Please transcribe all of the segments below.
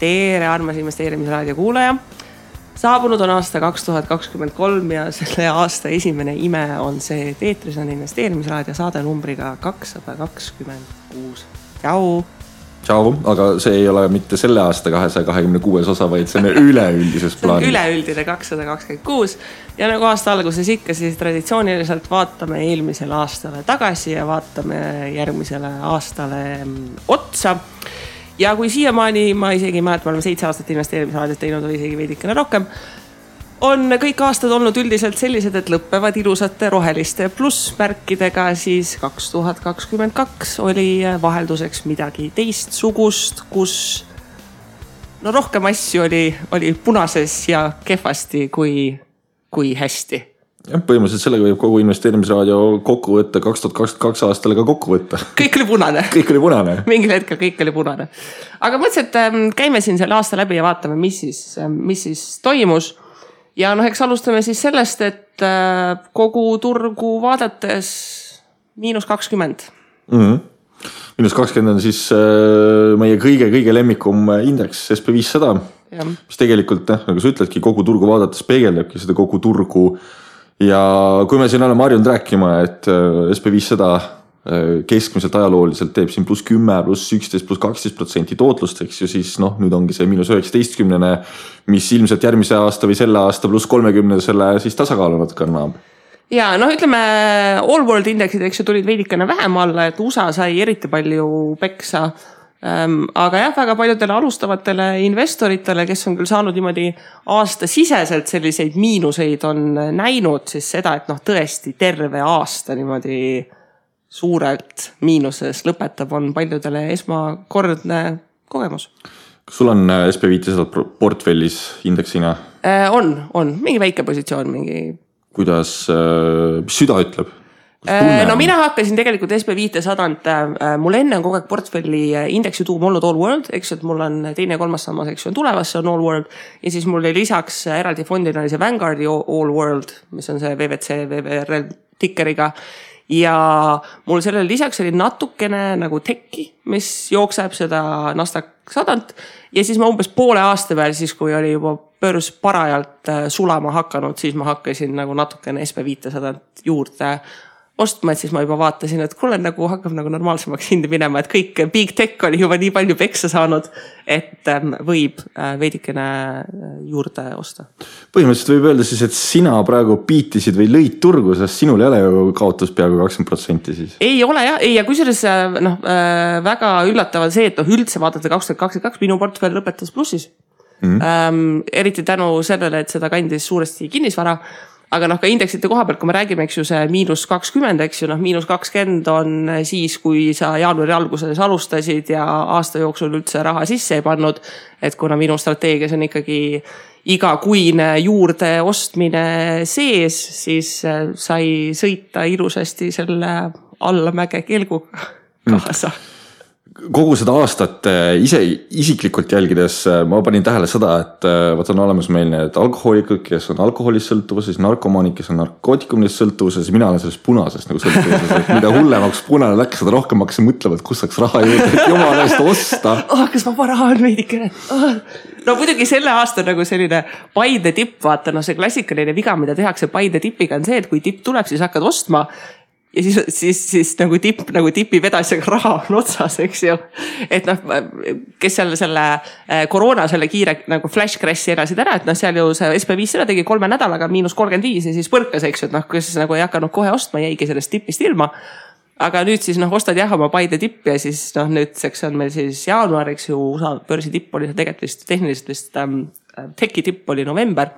Tere, armas investeerimisraadio kuulaja. Saabunud on aasta 2023 ja selle aasta esimene ime on see, et eetris on investeerimisraadio saade numbriga 226. Tšau! Tšau, aga see ei ole mitte selle aasta 226 osa, vaid see on üleüldises plaanis. See on üleüldine 226 ja nagu aasta alguses ikka, siis traditsiooniliselt vaatame eelmisele aastale tagasi ja vaatame järgmisele aastale otsa. Ja kui siiamaani, ma isegi mäleta, me oleme 7 aastat investeerimisraadiot teinud või isegi veidikene rohkem, on kõik aastad olnud üldiselt sellised, et lõppevad ilusate roheliste plussmärkidega, siis 2022 oli vahelduseks midagi teistsugust, kus rohkem asju oli punases ja kehvasti kui hästi. Ja, põhimõtteliselt sellega võib kogu investeerimisraadio kokku võtta 2022 aastale ka kokku võtta. Kõik oli punane. Kõik oli punane. Mingil hetkel kõik oli punane. Aga mõtlesin, et käime siin selle aasta läbi ja vaatame, mis siis toimus. Ja eks alustame siis sellest, et kogu turgu vaadates -20. -20 on siis meie kõige lemmikum indeks SP500, mis tegelikult, nagu sa ütledki, kogu turgu vaadates peegeldabki seda kogu turgu. Ja kui me siin oleme harjunud rääkima, et SP500 keskmiselt ajalooliselt teeb siin +10, +11, +12% tootlust, eks ju, siis nüüd ongi see -19, mis ilmselt järgmise aasta või selle aasta +30 selle siis tasakaalu natuke annab. Ja ütleme, all world indeksid, eks ju, tulid veidikene vähem alla, et USA sai eriti palju peksa. Aga jah, väga paljudele alustavatele investoritele, kes on küll saanud niimoodi aastasiseselt selliseid miinuseid, on näinud siis seda, et tõesti terve aasta niimoodi suurelt miinuses lõpetab, on paljudele esmakordne kogemus. Kas sul on SP500 portfellis indeksina? On. Mingi väike positsioon, mingi. Kuidas süda ütleb? Mina hakkasin tegelikult SP500, mul enne on kogu aeg portfelli indeksi tuum olnud All World, eks, et mul on teine ja kolmas sammas, eks, on tulemas, see on All World. Ja siis mul oli lisaks eraldi fondina oli see Vanguardi All World, mis on see VVC, VVRL tikkeriga. Ja mul sellele lisaks oli natukene nagu tekki, mis jookseb seda Nasdaq 100. Ja siis ma umbes poole aasta peal, siis kui oli juba börs parajalt sulama hakanud, siis ma hakkasin nagu natukene SP500 juurde ostma, et siis ma juba vaatasin, et kuule nagu hakkab nagu normaalsemaks hindi minema, et kõik big tech oli juba nii palju peksa saanud, et võib veidikene juurde osta. Põhimõtteliselt võib öelda siis, et sina praegu piitisid või lõid turgu, sest sinul ei ole ju kaotus peaaegu 20% siis. Ei ole jah, ja kusjuures väga üllatavad see, et üldse vaadata 2022 minu portfell lõpetas plussis. Eriti tänu sellele, et seda kandis suuresti kinnisvara. Aga ka indeksite koha pealt, kui me räägime, eks ju, see -20, eks ju, -20 on siis, kui sa jaanuari alguses alustasid ja aasta jooksul üldse raha sisse ei pannud, et kuna minu strateegias on ikkagi igakuine juurde ostmine sees, siis sai sõita ilusasti selle allamäge kelguga kaasa. Kogu seda aastat ise isiklikult jälgides ma panin tähele seda, et on olemas meil need alkohoolikud, kes on alkoholist sõltuvuses, narkomaanid, kes on narkootikumist sõltuvuses, mina olen sellest punasest nagu sõltuvuses, et mida hullemaks punane läks, seda rohkem hakkasin mõtlema, et kus saaks raha juurde, et jumala eest osta. Kas ma raha on veidikene? Muidugi selle aasta nagu selline Paide tipp, vaata, see klassikaline viga, mida tehakse Paide tipiga on see, et kui tipp tuleb, siis hakkad ostma. Ja siis nagu tipi vedasjaga raha on otsas, eks ju. Et kes selle koroona selle kiire nagu flash crash'i elasid ära, et seal ju see SP500 tegi 3 nädalaga -35 ja siis põrkas, eks ju, et kes nagu ei hakanud kohe ostma, jäigi sellest tipist ilma. Aga nüüd siis ostad jah oma Paide tipp ja siis nüüdseks on meil siis jaanuar, eks ju, USA börsi tipp oli tegelikult vist tehniliselt vist teki tipp oli november.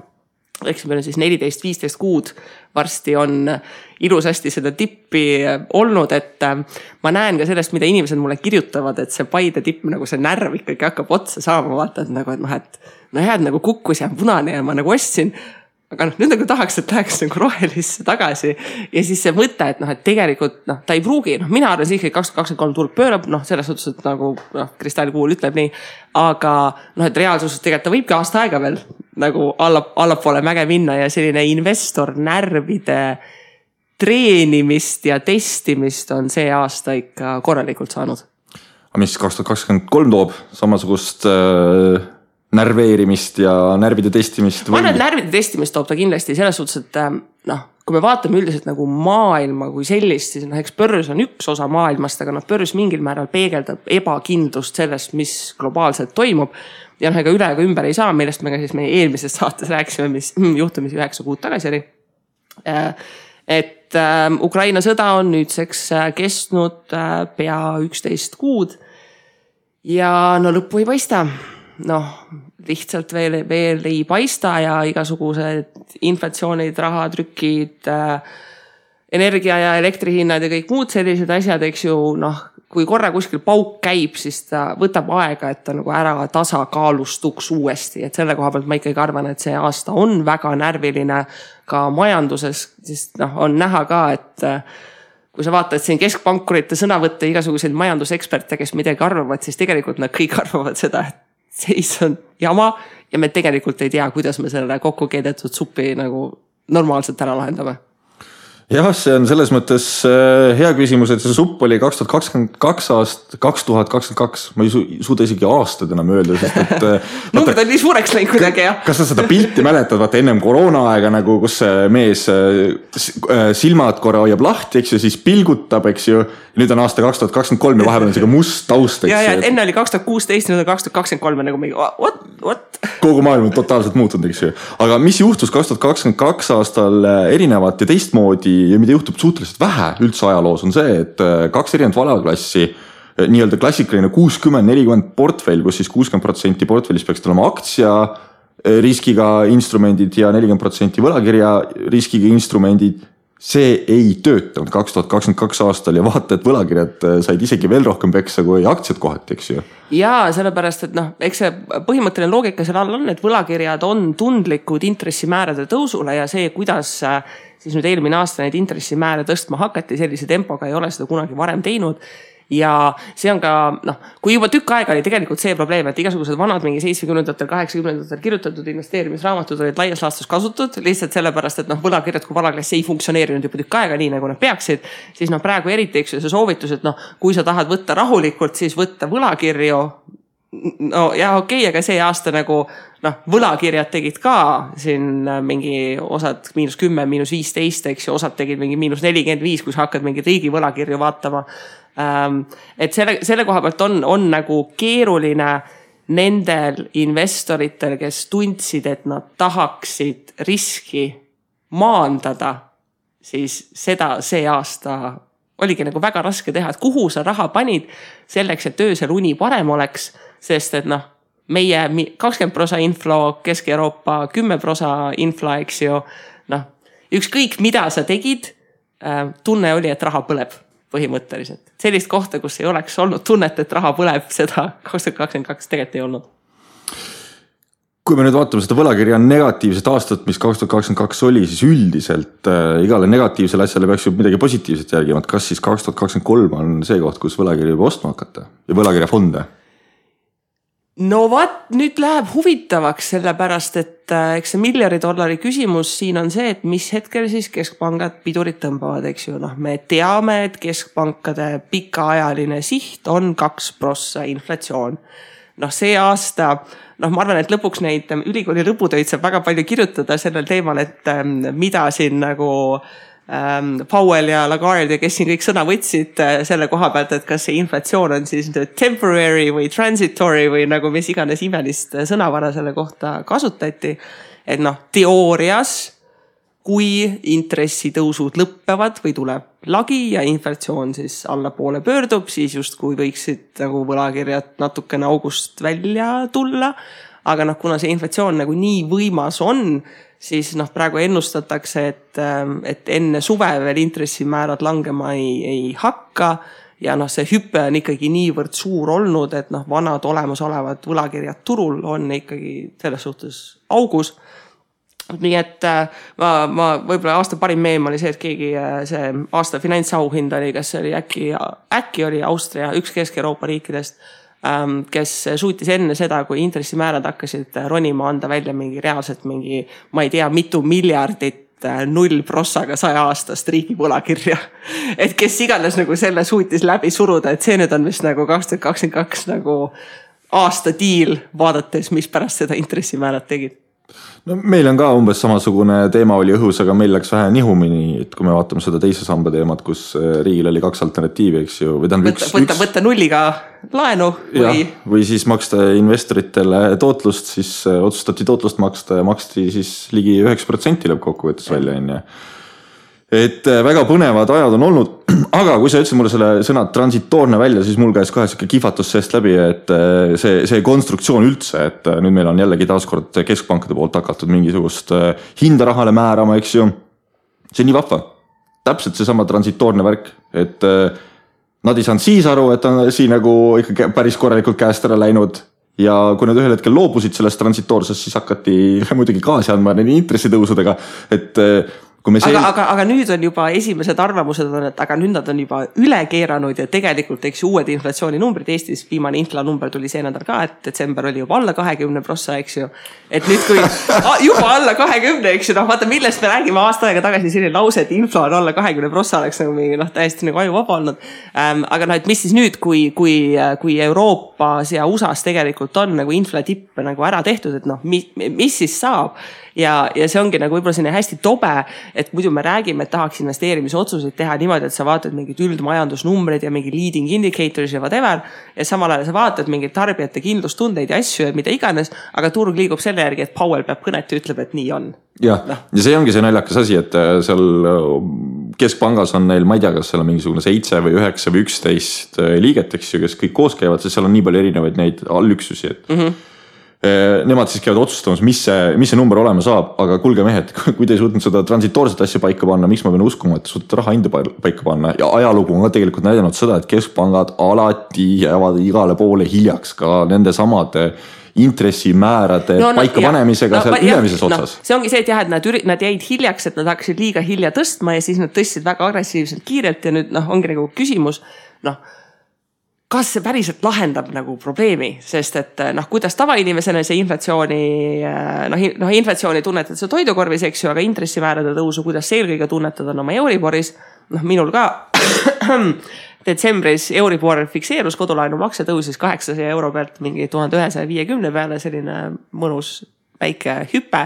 Eks meil on siis 14-15 kuud varsti on ilusasti seda tippi olnud, et ma näen ka sellest, mida inimesed mulle kirjutavad, et see Paide tipp nagu see närv ikkagi hakkab otsa saama, vaata, et nagu kukkus ja punane ja ma nagu ostsin. Aga nüüd nagu tahaks, et läheks nagu rohelisse tagasi ja siis see mõte, et tegelikult ta ei pruugi, mina arvan siiski 2023 turg pöörab, selles suhtes, et nagu kristallikuul ütleb nii, aga et reaalsuses tegelikult ta võibki aasta aega veel nagu allapoole mäge minna ja selline investor närvide treenimist ja testimist on see aasta ikka korralikult saanud. Mis 2023 toob samasugust närveerimist ja närvide testimist? Ma arvan, et närvide testimist toob ta kindlasti selles suhtes, et kui me vaatame üldiselt nagu maailma kui sellist, siis eks börs on üks osa maailmast, aga börs mingil määral peegeldab ebakindlust sellest, mis globaalselt toimub. Ja ega üle ega ümber ei saa, millest me ka siis meie eelmises saates rääkisime, mis juhtumisi 9 kuud tagasi oli. Et Ukraina sõda on nüüdseks kestnud pea 11 kuud ja lõppu ei paista. Lihtsalt veel ei paista ja igasugused inflatsioonid, rahatrükid, energia ja elektrihinnad ja kõik muud sellised asjad, eks ju, kui korra kuskil pauk käib, siis ta võtab aega, et ta nagu ära tasakaalustuks uuesti. Et selle koha pealt ma ikkagi arvan, et see aasta on väga närviline ka majanduses, sest on näha ka, et kui sa vaatad siin keskpankurite sõnavõtte, igasuguseid majanduseksperte, kes midagi arvavad, siis tegelikult nad kõik arvavad seda, et seis on jama ja me tegelikult ei tea, kuidas me selle kokku keedetud supi nagu normaalselt ära lahendame. Jah, see on selles mõttes hea küsimus, et see supp oli 2022. Ma ei suuda isegi aastad enam öelda, sest et numbrid on nii suureks läinud kuidagi, jah. Kas sa seda pilti mäletad, vaata ennem koroona aega nagu, kus see mees silmad korra hoiab lahti, eks ju, siis pilgutab, eks ju. Nüüd on aasta 2023 ja vahepeal on see must taust, eks ju. Ja enne oli 2016, nüüd on 2023 nagu mingi, what? Kogu maailm on totaalselt muutunud, eks ju. Aga mis juhtus 2022 aastal erinevat ja teistmoodi ja mida juhtub suhteliselt vähe üldse ajaloos on see, et 2 erinevat valaklassi, nii-öelda klassikaline 60-40 portfell, kus siis 60% portfellis peaks olema aktsia riskiga instrumendid ja 40% võlakirja riskiga instrumendid. See ei töötanud 2022 aastal ja vaata, et võlakirjad said isegi veel rohkem peksa kui aktsiad kohati, eks ju. Jaa, sellepärast, et eks see põhimõtteline loogika seal all on, et võlakirjad on tundlikud intressimäärade tõusule ja see, kuidas siis nüüd eelmine aasta neid intressimääre tõstma hakati, sellise tempoga ei ole seda kunagi varem teinud. Ja see on ka, kui juba tükk aega oli tegelikult see probleem, et igasugused vanad mingi 70-ndatel, 80-ndatel kirjutatud investeerimisraamatud olid laias laastus kasutud, lihtsalt sellepärast, et võlakirjad kui valaklass ei funktsioneerinud juba tükk aega nii, nagu nad peaksid, siis praegu eriti eks see soovitus, et kui sa tahad võtta rahulikult, siis võtta võlakirju. Okei, aga see aasta nagu võlakirjad tegid ka siin mingi osad -10, -15, eks ju, osad tegid mingi -45, kui sa hakkad mingi riigi võlakirju vaatama. Et selle koha pealt on nagu keeruline nendel investoritel, kes tundsid, et nad tahaksid riski maandada, siis seda see aasta oligi nagu väga raske teha, et kuhu sa raha panid selleks, et öösel uni parem oleks, sest et meie 20% inflo, Kesk-Euroopa 10% inflo, eks ju, ükskõik mida sa tegid, tunne oli, et raha põleb põhimõtteliselt. Sellist kohta, kus ei oleks olnud tunnet, et raha põleb, seda 2022 tegelikult ei olnud. Kui me nüüd vaatame seda võlakirja negatiivset aastat, mis 2022 oli, siis üldiselt igale negatiivsele asjale peaks ju midagi positiivset järgima. Kas siis 2023 on see koht, kus võlakirja juba ostma hakata ja võlakirja fonde? No nüüd läheb huvitavaks sellepärast, et eks see $1 küsimus siin on see, et mis hetkel siis keskpangad pidurid tõmbavad, eks ju. Me teame, et keskpankade pikaajaline siht on 2% inflatsioon. See aasta, ma arvan, et lõpuks neid ülikooli lõputöid saab väga palju kirjutada sellel teemal, et mida siin nagu Powell ja Lagarde ja kes siin kõik sõna võtsid selle koha pealt, et kas see inflatsioon on siis temporary või transitory või nagu mis iganes imelist sõnavara selle kohta kasutati. Et teoorias, kui intressitõusud lõppevad või tuleb lagi ja inflatsioon siis allapoole pöördub, siis justkui võiksid nagu võlakirjad natukene august välja tulla. Aga kuna see inflatsioon nagu nii võimas on, siis praegu ennustatakse, et enne suve veel intressimäärad langema ei hakka ja see hüpe on ikkagi niivõrd suur olnud, et vanad olemasolevad võlakirjad turul on ikkagi selles suhtes augus. Nii et ma võib-olla aasta parim meem oli see, et keegi see aasta finantsauhind oli, kas oli äkki oli Austria, üks Kesk-Euroopa riikidest, kes suutis enne seda, kui intressimäärad hakkasid ronima, anda välja mingi reaalselt mingi, ma ei tea, mitu miljardit 0% 100 aastast riigi võlakirja. Et kes iganes nagu selle suutis läbi suruda, et see nüüd on vist nagu 2022 nagu aasta diil vaadates, mis pärast seda intressimäärad tegid? No meil on ka umbes samasugune teema oli õhus, aga meil läks vähe nihumini, et kui me vaatame seda teise samba teemat, kus riigil oli 2 alternatiivi, eks ju. Võtta nulliga laenu või siis maksta investoritele tootlust, siis otsustati tootlust maksta ja maksti siis ligi 9% lõppkokkuvõttes välja. Et väga põnevad ajad on olnud, aga kui sa ütlesid mulle selle sõna transitoorne välja, siis mul käis kohe siuke kihvatus seest läbi, et see konstruktsioon üldse, et nüüd meil on jällegi taaskord keskpankade poolt hakatud mingisugust hinda rahale määrama, eks ju. See on nii vahva. Täpselt see sama transitoorne värk, et nad ei saanud siis aru, et on siin nagu ikka päris korralikult käest ära läinud ja kui nad ühel hetkel loobusid sellest transitoorsest, siis hakati muidugi gaasi andma nende intressitõusudega, et aga nüüd on juba esimesed arvamused on, et aga nüüd nad on juba üle keeranud ja tegelikult eks uued inflatsiooninumbrid Eestis, viimane inflanumber tuli see nädal ka, et detsember oli juba alla 20%, eks ju. Et nüüd kui juba alla 20%, eks ju, vaata millest me räägime aasta aega tagasi selline lause, et infla on alla 20% oleks nagu mingi täiesti nagu aju vaba olnud. Aga et mis siis nüüd, kui Euroopas ja USAs tegelikult on nagu inflatippe nagu ära tehtud, et mis siis saab? Ja see ongi nagu võib-olla selline hästi tobe, et muidu me räägime, et tahaks investeerimise otsuseid teha niimoodi, et sa vaatad mingid üldmajandusnumbreid ja mingi leading indicators ja whatever ja samal ajal sa vaatad mingid tarbijate kindlustundeid ja asju ja mida iganes, aga turg liigub selle järgi, et Powell peab kõnet ja ütleb, et nii on. Ja see ongi see naljakas asi, et seal keskpangas on neil, ma ei tea, kas seal on mingisugune 7 või 9 või 11 liiget, eks ju, kes kõik koos käivad, sest seal on nii palju erinevaid neid allüksusi, et nemad siis käivad otsustamas, mis see number olema saab, aga kuulge mehed, kui te ei suutnud seda transitoorset asja paika panna, miks ma pean uskuma, et suudate raha hinda paika panna ja ajalugu on ka tegelikult näidanud seda, et keskpangad alati jäävad igale poole hiljaks ka nende samade intressimäärade paikapanemisega seal ülemises otsas. See ongi see, et jah, et nad jäid hiljaks, et nad hakkasid liiga hilja tõstma ja siis nad tõstsid väga agressiivselt kiirelt ja nüüd ongi nagu küsimus, kas see päriselt lahendab nagu probleemi, sest et kuidas tavainimesena see inflatsiooni tunnetad see toidukorvis, eks ju, aga intressimäärade tõusu, kuidas see eelkõige tunnetad on oma Euriboris, minul ka detsembris Euribor fikseerus, kodulaenu makse tõusis 800 euro pealt mingi 1150 peale, selline mõnus väike hüpe.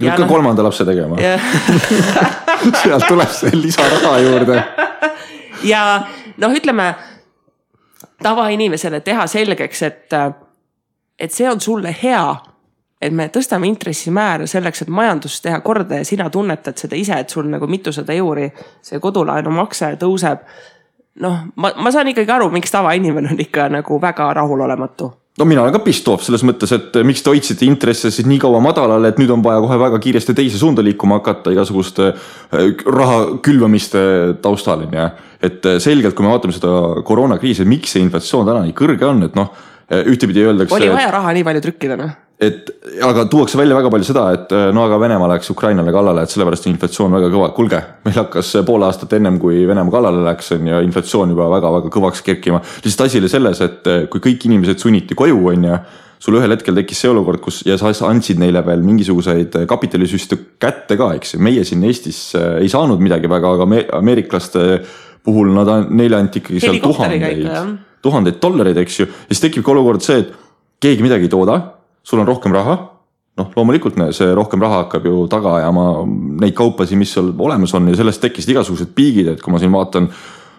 Ja ka 3. lapse tegema. Sealt tuleb see lisaraha juurde. Ja ütleme, tavainimesele teha selgeks, et see on sulle hea, et me tõstame intressimäära selleks, et majandust teha korda ja sina tunnetad seda ise, et sul nagu mitusada euri see kodulaenu makse tõuseb. Ma saan ikkagi aru, miks tavainimene on ikka nagu väga rahulolematu. Mina olen ka pistoov selles mõttes, et miks te hoidsite intresse siis nii kaua madalale, et nüüd on vaja kohe väga kiiresti teise suunda liikuma hakata igasuguste raha külvamiste taustal. Et selgelt, kui me vaatame seda koroonakriisi, miks see inflatsioon täna nii kõrge on, et ühtepidi öeldakse... Oli vaja raha nii palju trükkida, Aga tuuakse välja väga palju seda, et aga Venemaa läks Ukrainale kallale, et sellepärast inflatsioon väga kõva. Kulge, meil hakkas pool aastat ennem, kui Venemaa kallale läks ja inflatsioon juba väga-väga kõvaks kerkima. Lihtsalt asi oli selles, et kui kõik inimesed sunniti koju, sul ühel hetkel tekkis see olukord, kus ja sa andsid neile veel mingisuguseid kapitalisüste kätte ka, eks. Meie siin Eestis ei saanud midagi väga, aga ameeriklaste puhul neile anti ikkagi seal tuhandeid dollareid, eks ju. Ja siis tekib ka olukord see, et keegi midagi ei tooda, sul on rohkem raha, loomulikult see rohkem raha hakkab ju taga ajama neid kaupasi, mis seal olemas on ja sellest tekkisid igasugused piigid, et kui ma siin vaatan,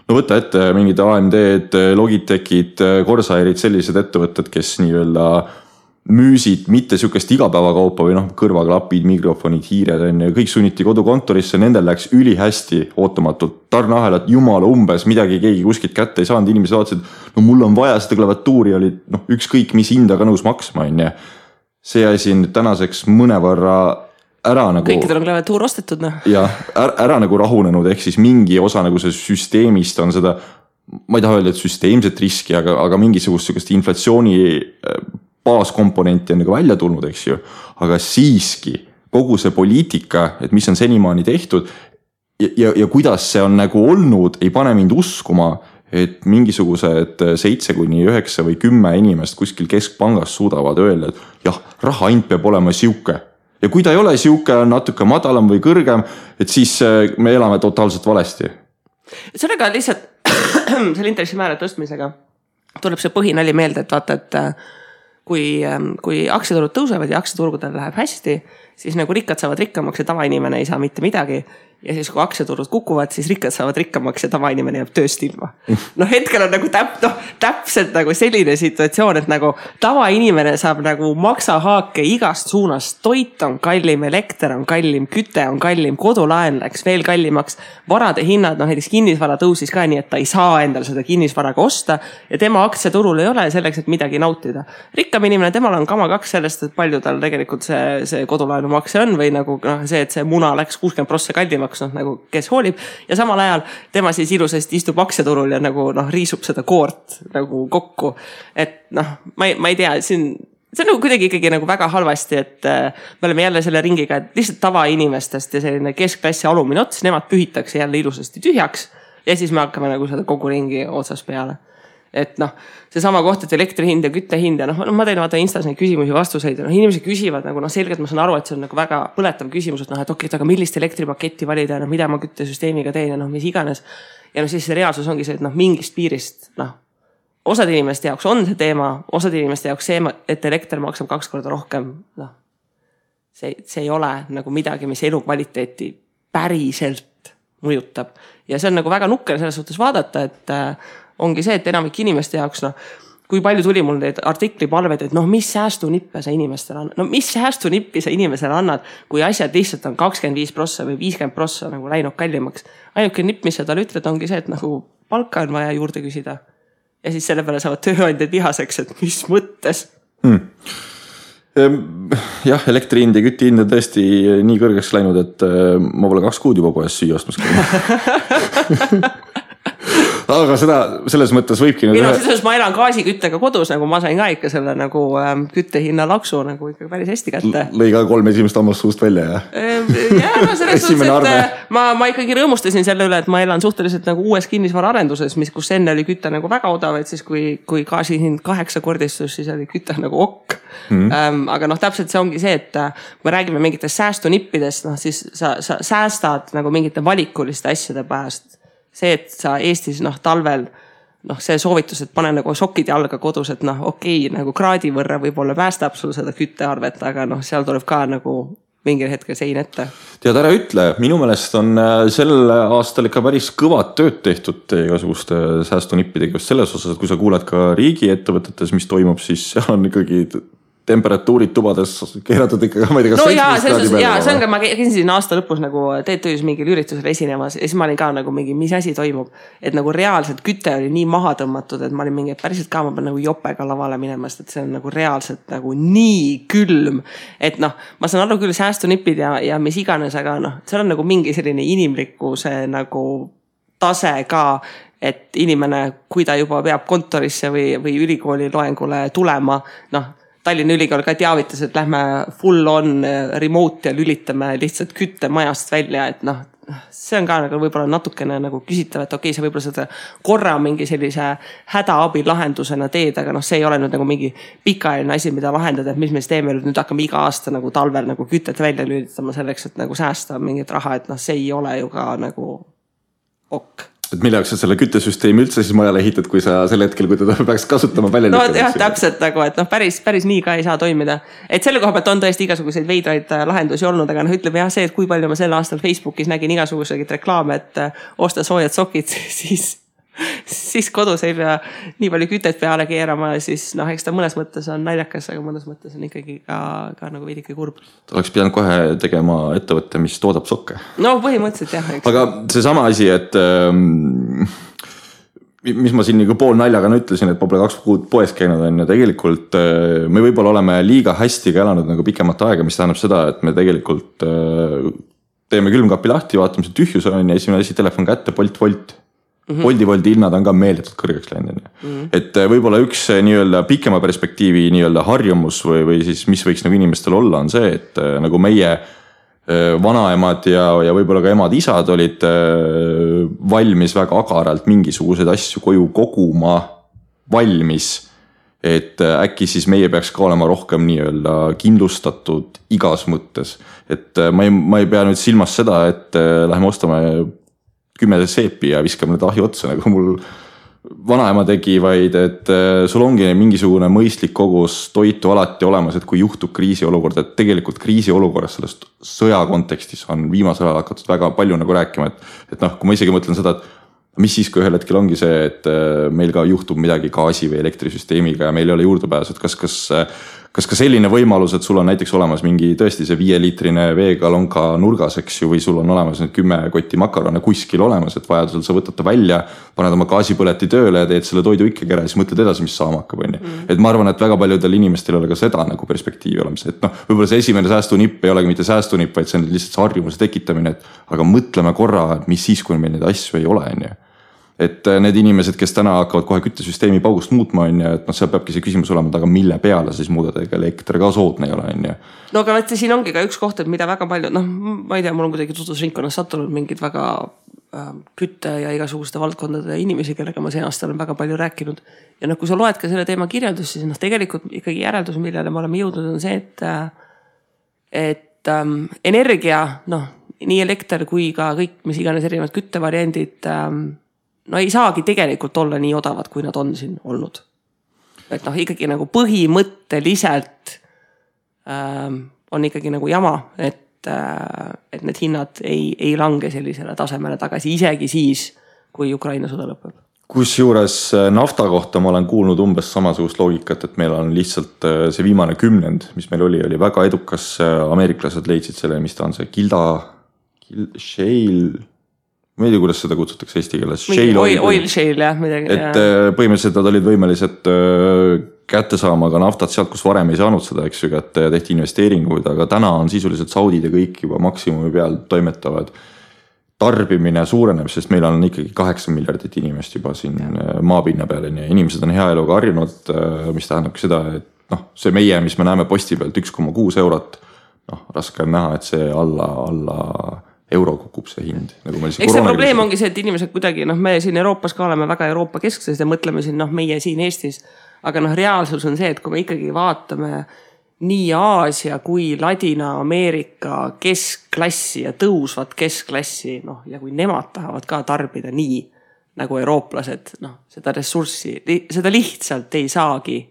võtta ette mingid AMD-d, Logitechid, Corsairid, sellised ettevõtted, kes nii-öelda müüsid mitte sükest igapäevakaupa või kõrvaklapid, mikrofonid, hiired ja kõik sunniti kodukontorisse, nendel läks ülihästi ootamatult tarneahelad, jumala umbes, midagi keegi kuskilt kätte ei saanud, inimesed vaatasid, mul on vaja seda klaviatuuri, oli ükskõik mis hinda ka nõus maksma, see asi nüüd tänaseks mõnevõrra ära nagu... Kõikidel on klaviatuur ostetud, Ja, ära nagu rahunenud, ehk siis mingi osa nagu see süsteemist on seda, ma ei taha öelda, et süsteemset riski, aga mingisugust inflatsiooni baaskomponenti on nagu välja tulnud, eks ju, aga siiski kogu see poliitika, et mis on senimaani tehtud ja kuidas see on nagu olnud, ei pane mind uskuma, et mingisugused 7 kuni 9 või 10 inimest kuskil keskpangas suudavad öelda, et jah, rahahind peab olema siuke. Ja kui ta ei ole siuke, on natuke madalam või kõrgem, et siis me elame totaalselt valesti. Sellega lihtsalt selle intressimäära tõstmisega tuleb see põhinali meelde, et vaata, et kui aktsiaturud tõusevad ja aktsiaturgudel läheb hästi, siis nagu rikkad saavad rikkamaks ja tavainimene ei saa mitte midagi. Ja siis kui aktsiaturud kukuvad, siis rikkad saavad rikkamaks ja tavainimene jääb tööst ilma. No hetkel on nagu täpselt nagu selline situatsioon, et nagu tavainimene saab nagu maksahaake igast suunast. Toit on kallim, elekter on kallim, küte on kallim, kodulaen läks veel kallimaks. Varade hinnad, näiteks kinnisvara tõusis ka nii, et ta ei saa endale seda kinnisvaraga osta ja tema aktsiaturul ei ole selleks, et midagi nautida. Rikkam inimene, temal on kama kaks sellest, et palju tal tegelikult see kodulaenu makse on või nagu see, et see muna läks 60% kallimaks. Nagu kes hoolib ja samal ajal tema siis ilusasti istub aktsiaturul ja nagu riisub seda koort nagu kokku. Et ma ei tea, see on nagu kuidagi ikkagi nagu väga halvasti, et me oleme jälle selle ringiga, et lihtsalt tavainimestest ja selline keskklass ja alumine ots, nemad pühitakse jälle ilusasti tühjaks ja siis me hakkame nagu seda kogu ringi otsas peale. Et see sama koht, et elektri hind ja kütte hind ja ma teen vaata Instas neid küsimusi vastuseid ja inimesed küsivad nagu selgelt ma saan aru, et see on nagu väga põletav küsimus, et et okei, aga millist elektripaketti valida ja mida ma küttesüsteemiga teen ja mis iganes. Ja siis see reaalsus ongi see, et mingist piirist, osad inimeste jaoks on see teema, osad inimeste jaoks see, et elekter maksab 2 korda rohkem, see ei ole nagu midagi, mis elukvaliteeti päriselt mõjutab. Ja see on nagu väga nukker selles suhtes vaadata, et ongi see, et enamik inimeste jaoks, kui palju tuli mul neid artiklipalveid, et mis säästunippe sa inimestele annad. Mis säästunippi sa inimesele annad, kui asjad lihtsalt on 25% või 50% nagu läinud kallimaks. Ainuke nipp, mis sa talle ütled, ongi see, et nagu palka on vaja juurde küsida. Ja siis selle peale saavad tööandjad vihaseks, et mis mõttes. Jah, elektri hind ja kütti hind on tõesti nii kõrgeks läinud, et ma pole 2 kuud juba poes süüa ostmas käinud. Aga seda selles mõttes võibki siis ma elan gaasiküttega kodus, nagu ma sain ka ikka selle nagu küttehinna laksu nagu ikka päris hästi kätte. Lõi ka 3 esimest ammast suust välja, jah? Selles suhtes, et ma ikkagi rõõmustasin selle üle, et ma elan suhteliselt nagu uues kinnisvara arenduses, kus enne oli kütte nagu väga odav, et siis kui gaasihind 8-kordistus, siis oli kütte nagu okk. Aga täpselt see ongi see, et kui me räägime mingitest säästunippidest, siis sa säästad nagu mingite valikuliste asjade pääst. See, et sa Eestis talvel, see soovitus, et pane nagu sokid jalga kodus, et okei, nagu kraadi võrra võib-olla päästab sul seda küttearvet, aga seal tuleb ka nagu mingil hetkel sein ette. Tead, ära ütle, minu meelest on sel aastal ikka päris kõvad tööd tehtud igasuguste säästunippidega just selles osas, et kui sa kuuled ka riigiettevõtetes, mis toimub, siis seal on ikkagi temperatuurid tubades keeratud ikka, ma ei tea, kas 17 kraadi peale. Jaa, see on ka, ma käisin aasta lõpus nagu TTÜs mingil üritusel esinemas ja siis ma olin ka nagu mingi, mis asi toimub. Et nagu reaalselt küte oli nii maha tõmmatud, et ma olin mingi, et päriselt ka ma pean nagu jopega lavale minemast, et see on nagu reaalselt nagu nii külm. Et ma saan aru küll säästunipid ja mis iganes, aga seal on nagu mingi selline inimlikkuse nagu tase ka, et inimene, kui ta juba peab kontorisse või ülikooli loengule tulema, Tallinna ülikool ka teavitas, et lähme full on remote ja lülitame lihtsalt kütte majast välja, et see on ka nagu võib-olla natukene nagu küsitav, et okei, see võib-olla seda korra mingi sellise hädaabi lahendusena teed, aga see ei ole nüüd nagu mingi pikaajaline asi, mida lahendada, et mis me teeme nüüd hakkame iga aasta nagu talvel nagu kütet välja lülitama selleks, et nagu säästa mingit raha, et see ei ole ju ka nagu ok. Et mille jaoks sa selle küttesüsteemi üldse siis majale ehitad, kui sa sel hetkel, kui teda peaks kasutama välja lükkama? Jah, täpselt nagu, et päris nii ka ei saa toimida. Et selle koha pealt on tõesti igasuguseid veidraid lahendusi olnud, aga ütleme jah see, et kui palju ma sel aastal Facebookis nägin igasuguseid reklaame, et osta soojad sokid, siis kodus ei pea nii palju kütet peale keerama, siis eks ta mõnes mõttes on naljakas, aga mõnes mõttes on ikkagi ka nagu veidike kurb. Ta oleks pidanud kohe tegema ettevõtte, mis toodab sokke. Põhimõtteliselt jah. Aga see sama asi, et mis ma siin nagu pool naljaga ütlesin, et ma pole 2 kuud poes käinud on ja tegelikult me võib-olla oleme liiga hästi ka elanud nagu pikemat aega, mis tähendab seda, et me tegelikult teeme külmkapi lahti, vaatame see tühjus on ja esimene asi telefon kätte, Bolt. Boldi hinnad on ka meeletult kõrgeks läinud. Et võib-olla üks nii-öelda pikema perspektiivi nii-öelda harjumus või siis mis võiks nagu inimestel olla on see, et nagu meie vanaemad ja võib-olla ka emad-isad olid valmis väga agaralt mingisuguseid asju koju koguma valmis, et äkki siis meie peaks ka olema rohkem nii-öelda kindlustatud igas mõttes. Et ma ei pea nüüd silmas seda, et läheme ostame 10 seepi ja viskame need ahju otsa, nagu mul vanaema tegi, vaid et sul ongi mingisugune mõistlik kogus toitu alati olemas, et kui juhtub kriisiolukord, et tegelikult kriisiolukorras sellest sõja kontekstis on viimasel ajal hakatud väga palju nagu rääkima, et noh, kui ma isegi mõtlen seda, et mis siis, kui ühel hetkel ongi see, et meil ka juhtub midagi gaasi või elektrisüsteemiga ja meil ei ole juurdepääsu, et kas ka selline võimalus, et sul on näiteks olemas mingi tõesti see 5-liitrine veegalonka nurgas, eks ju, või sul on olemas need 10 kotti makarone kuskil olemas, et vajadusel sa võtad ta välja, paned oma gaasipõleti tööle ja teed selle toidu ikkagi ära ja siis mõtled edasi, mis saama hakkab, on ju. Et ma arvan, et väga paljudel inimestel ei ole ka seda nagu perspektiivi olemas, et noh, võib-olla see esimene säästunipp ei olegi mitte säästunipp, vaid see on lihtsalt see harjumuse tekitamine, et aga mõtleme korra, et mis siis, kui meil neid asju ei ole, on ju. Et need inimesed, kes täna hakkavad kohe küttesüsteemi paugust muutma, on ju, et noh, seal peabki see küsimus olema, aga mille peale siis muudada, ega elekter ka soodne ei ole, on ju. No aga võtta, siin ongi ka üks koht, et mida väga palju, noh, ma ei tea, mul on kuidagi tutvusringkonnas sattunud mingid väga kütte ja igasuguste valdkondade inimesi, kellega ma see aasta olen väga palju rääkinud. Ja noh, kui sa loed ka selle teema kirjeldus, siis noh, tegelikult ikkagi järeldus, millele me oleme jõudnud, on see, et energia, noh, nii elekter kui ka kõik, mis iganes erinevad küttevariandid, no ei saagi tegelikult olla nii odavad, kui nad on siin olnud. Et noh, ikkagi nagu põhimõtteliselt on ikkagi nagu jama, et need hinnad ei lange sellisele tasemele tagasi, isegi siis, kui Ukraina sõda lõpeb. Kusjuures nafta kohta ma olen kuulnud umbes samasugust loogikat, et meil on lihtsalt see viimane kümnend, mis meil oli väga edukas. Ameeriklased leidsid selle, mis ta on see shale, ma ei tea, kuidas seda kutsutakse eesti keeles. Oil shale, jah, midagi. Et põhimõtteliselt nad olid võimelised kätte saama ka naftat sealt, kus varem ei saanud seda, eks ju, kätte ja tehti investeeringuid, aga täna on sisuliselt Saudid ja kõik juba maksimumi peal toimetavad. Tarbimine suureneb, sest meil on ikkagi 8 miljardit inimest juba siin maapinna peal ja inimesed on hea eluga harjunud, mis tähendabki seda, et noh, see meie, mis me näeme posti pealt 1,6 eurot, noh, raske on näha, et see alla euro kukub see hind. Nagu eks see probleem ongi see, et inimesed kuidagi, noh, me siin Euroopas ka oleme väga Euroopa kesksed ja mõtleme siin, noh, meie siin Eestis, aga noh, reaalsus on see, et kui me ikkagi vaatame nii Aasia kui Ladina-Ameerika keskklassi ja tõusvat keskklassi, noh, ja kui nemad tahavad ka tarbida nii nagu eurooplased, noh, seda ressurssi, seda lihtsalt ei saagi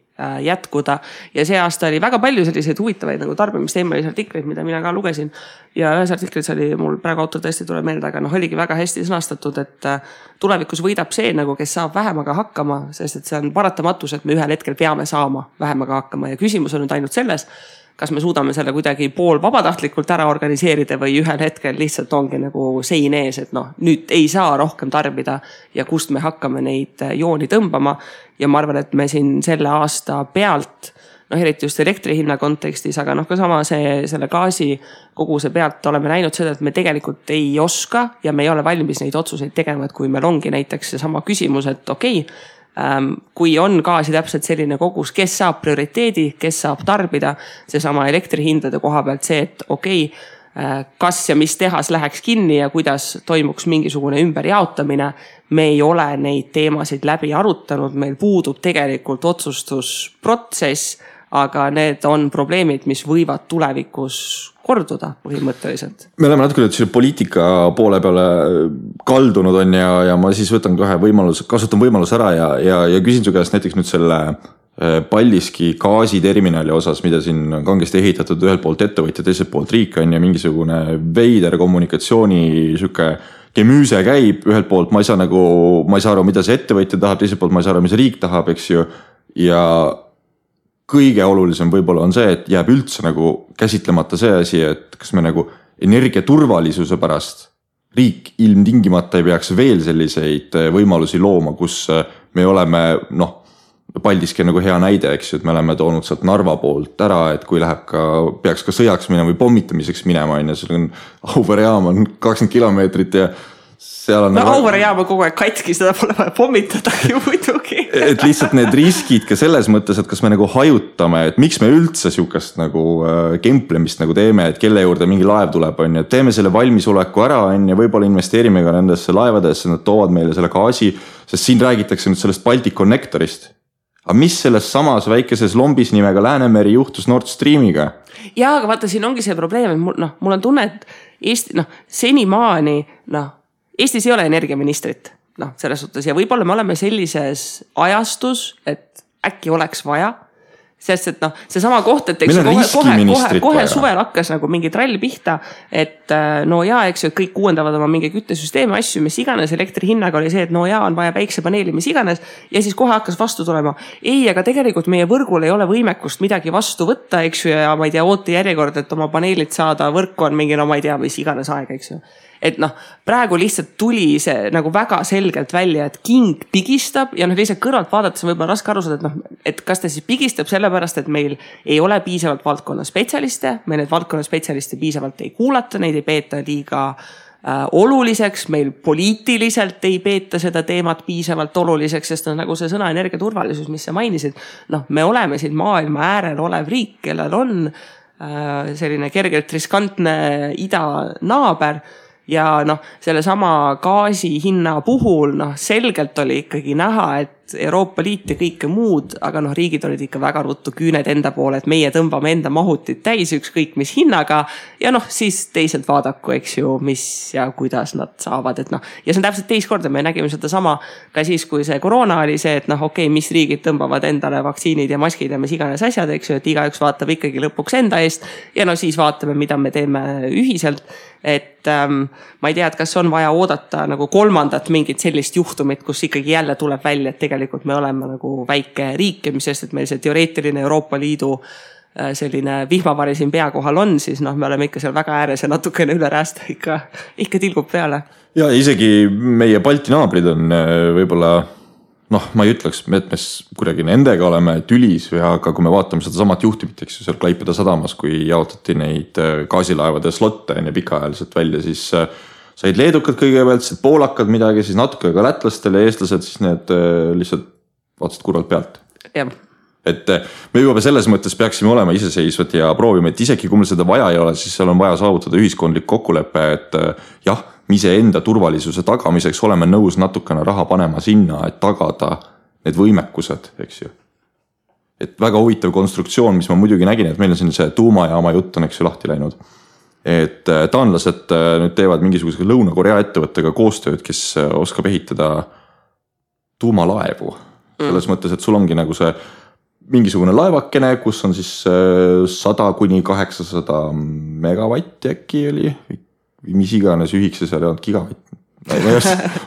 jätkuda ja see aasta oli väga palju selliseid huvitavaid nagu tarbimisteemalisi artikleid, mida mina ka lugesin ja ühes artiklis oli mul praegu autor tõesti tuleb meelde, aga noh, oligi väga hästi sõnastatud, et tulevikus võidab see nagu, kes saab vähemaga hakkama, sest et see on paratamatus, et me ühel hetkel peame saama vähemaga hakkama ja küsimus on nüüd ainult selles, kas me suudame selle kuidagi pool vabatahtlikult ära organiseerida või ühel hetkel lihtsalt ongi nagu sein ees, et noh, nüüd ei saa rohkem tarbida ja kust me hakkame neid jooni tõmbama. Ja ma arvan, et me siin selle aasta pealt, noh, eriti just elektri hinna kontekstis, aga noh, ka sama selle gaasi koguse pealt oleme näinud seda, et me tegelikult ei oska ja me ei ole valmis neid otsuseid tegema, et kui meil ongi näiteks see sama küsimus, et okei, kui on gaasi täpselt selline kogus, kes saab prioriteedi, kes saab tarbida, see sama elektrihindade koha pealt see, et okei, kas ja mis tehas läheks kinni ja kuidas toimuks mingisugune ümberjaotamine. Me ei ole neid teemasid läbi arutanud, meil puudub tegelikult otsustusprotsess, aga need on probleemid, mis võivad tulevikus korduda põhimõtteliselt. Me oleme natuke nüüd poliitika poole peale kaldunud on ja ma siis võtan kohe kasutan võimalus ära ja küsin su käest näiteks nüüd selle Paldiski gaasiterminali osas, mida siin on kangesti ehitatud ühelt poolt ettevõtja, teiselt poolt riik on ja mingisugune veider kommunikatsiooni süke kemüüse käib, ühelt poolt ma ei saa aru, mida see ettevõtja tahab, teiselt poolt ma ei saa aru, mis riik tahab, eks ju, ja kõige olulisem võib-olla on see, et jääb üldse nagu käsitlemata see asi, et kas me nagu energiaturvalisuse pärast riik ilmtingimata ei peaks veel selliseid võimalusi looma, kus me oleme, noh, Paldiski on nagu hea näide, eks ju, et me oleme toonud sealt Narva poolt ära, et kui peaks ka sõjaks minema või pommitamiseks minema, ja seal on Auvere jaam on 20 kilomeetrit ja seal on... No Auvere jaam on kogu aeg katki, seda pole vaja pommitada ju muidugi. Et lihtsalt need riskid ka selles mõttes, et kas me nagu hajutame, et miks me üldse sihukest nagu kemplemist nagu teeme, et kelle juurde mingi laev tuleb, on ja teeme selle valmisoleku ära, on ja võib-olla investeerime ka nendesse laevadesse, nad toovad meile selle gaasi, sest siin räägitakse nüüd sellest Baltic Connectorist. Aga mis selles samas väikeses lombis nimega Läänemeri juhtus Nord Streamiga? Jaa, aga vaata, siin ongi see probleem, et mul on tunne, et Eesti, senimaani, Eestis ei ole energiaministrit. noh, selles suhtes ja võib-olla me oleme sellises ajastus, et äkki oleks vaja. Sest, et noh, see sama koht, et kohe suvel hakkas nagu mingi trall pihta, et no jaa, eks ju, et kõik uuendavad oma mingi küttesüsteemi asju, mis iganes, elektri hinnaga oli see, et no jaa, on vaja päiksepaneeli, mis iganes, ja siis kohe hakkas vastu tulema. Ei, aga tegelikult meie võrgul ei ole võimekust midagi vastu võtta, eks ju, ja ma ei tea, oote järjekord, et oma paneelid saada, võrku on mingi, no ma ei tea, mis iganes aeg, eks ju. Et noh, praegu lihtsalt tuli see nagu väga selgelt välja, et king pigistab ja noh, lihtsalt kõrvalt vaadates on võib-olla raske aru saada, et noh, et kas ta siis pigistab sellepärast, et meil ei ole piisavalt valdkonna spetsialiste, me need valdkonna spetsialiste piisavalt ei kuulata, neid ei peeta liiga oluliseks, meil poliitiliselt ei peeta seda teemat piisavalt oluliseks, sest on nagu see sõna energiaturvalisus, mis sa mainisid, noh, me oleme siin maailma äärel olev riik, kellel on selline kergelt riskantne idanaaber. Ja noh, selle sama gaasi hinna puhul noh, selgelt oli ikkagi näha, et Euroopa Liit ja kõike muud, aga noh, riigid olid ikka väga ruttu küüned enda poole, et meie tõmbame enda mahutit täis ükskõik mis hinnaga ja noh, siis teised vaadaku, eks ju, mis ja kuidas nad saavad, et noh, ja see on täpselt teist korda, me nägime seda sama ka siis, kui see koroona oli see, et noh, okei, mis riigid tõmbavad endale vaktsiinid ja maskid ja mis iganes asjad, eks ju, et igaüks vaatab ikkagi lõpuks enda eest ja no siis vaatame, mida me teeme ühiselt. Et ma ei tea, et kas on vaja oodata nagu kolmandat mingit sellist juhtumit, kus ikkagi jälle tuleb välja, et tegelikult me oleme nagu väike riik ja mis sest, et meil see teoreetiline Euroopa Liidu selline vihmavari siin pea kohal on, siis noh, me oleme ikka seal väga ääres ja natukene üle räästa ikka tilgub peale. Ja isegi meie Balti naabrid on võib-olla noh, ma ei ütleks, et me kuidagi nendega oleme tülis, aga kui me vaatame seda samat juhtimit, eks ju, seal Klaipeda sadamas, kui jaotati neid gaasilaevade slotte ja pikaajaliselt välja, siis said leedukad kõigepealt, siis poolakad midagi, siis natuke ka lätlastele ja eestlased, siis need lihtsalt vaatasid kurvalt pealt. Jah. Et me juba selles mõttes peaksime olema iseseisvad ja proovime, et isegi kui meil seda vaja ei ole, siis seal on vaja saavutada ühiskondlik kokkulepe, et jah, me ise enda turvalisuse tagamiseks oleme nõus natukene raha panema sinna, et tagada need võimekused, eks ju. Et väga huvitav konstruktsioon, mis ma muidugi nägin, et meil on see tuumajaama jutt on, eks ju, lahti läinud. Et taanlased nüüd teevad mingisuguse Lõuna-Korea ettevõttega koostööd, kes oskab ehitada tuumalaevu. Selles mõttes, et sul ongi nagu see mingisugune laevakene, kus on siis 100–800 megavatti äkki oli, mis iganes ühikse seal ei olnud gigavatt.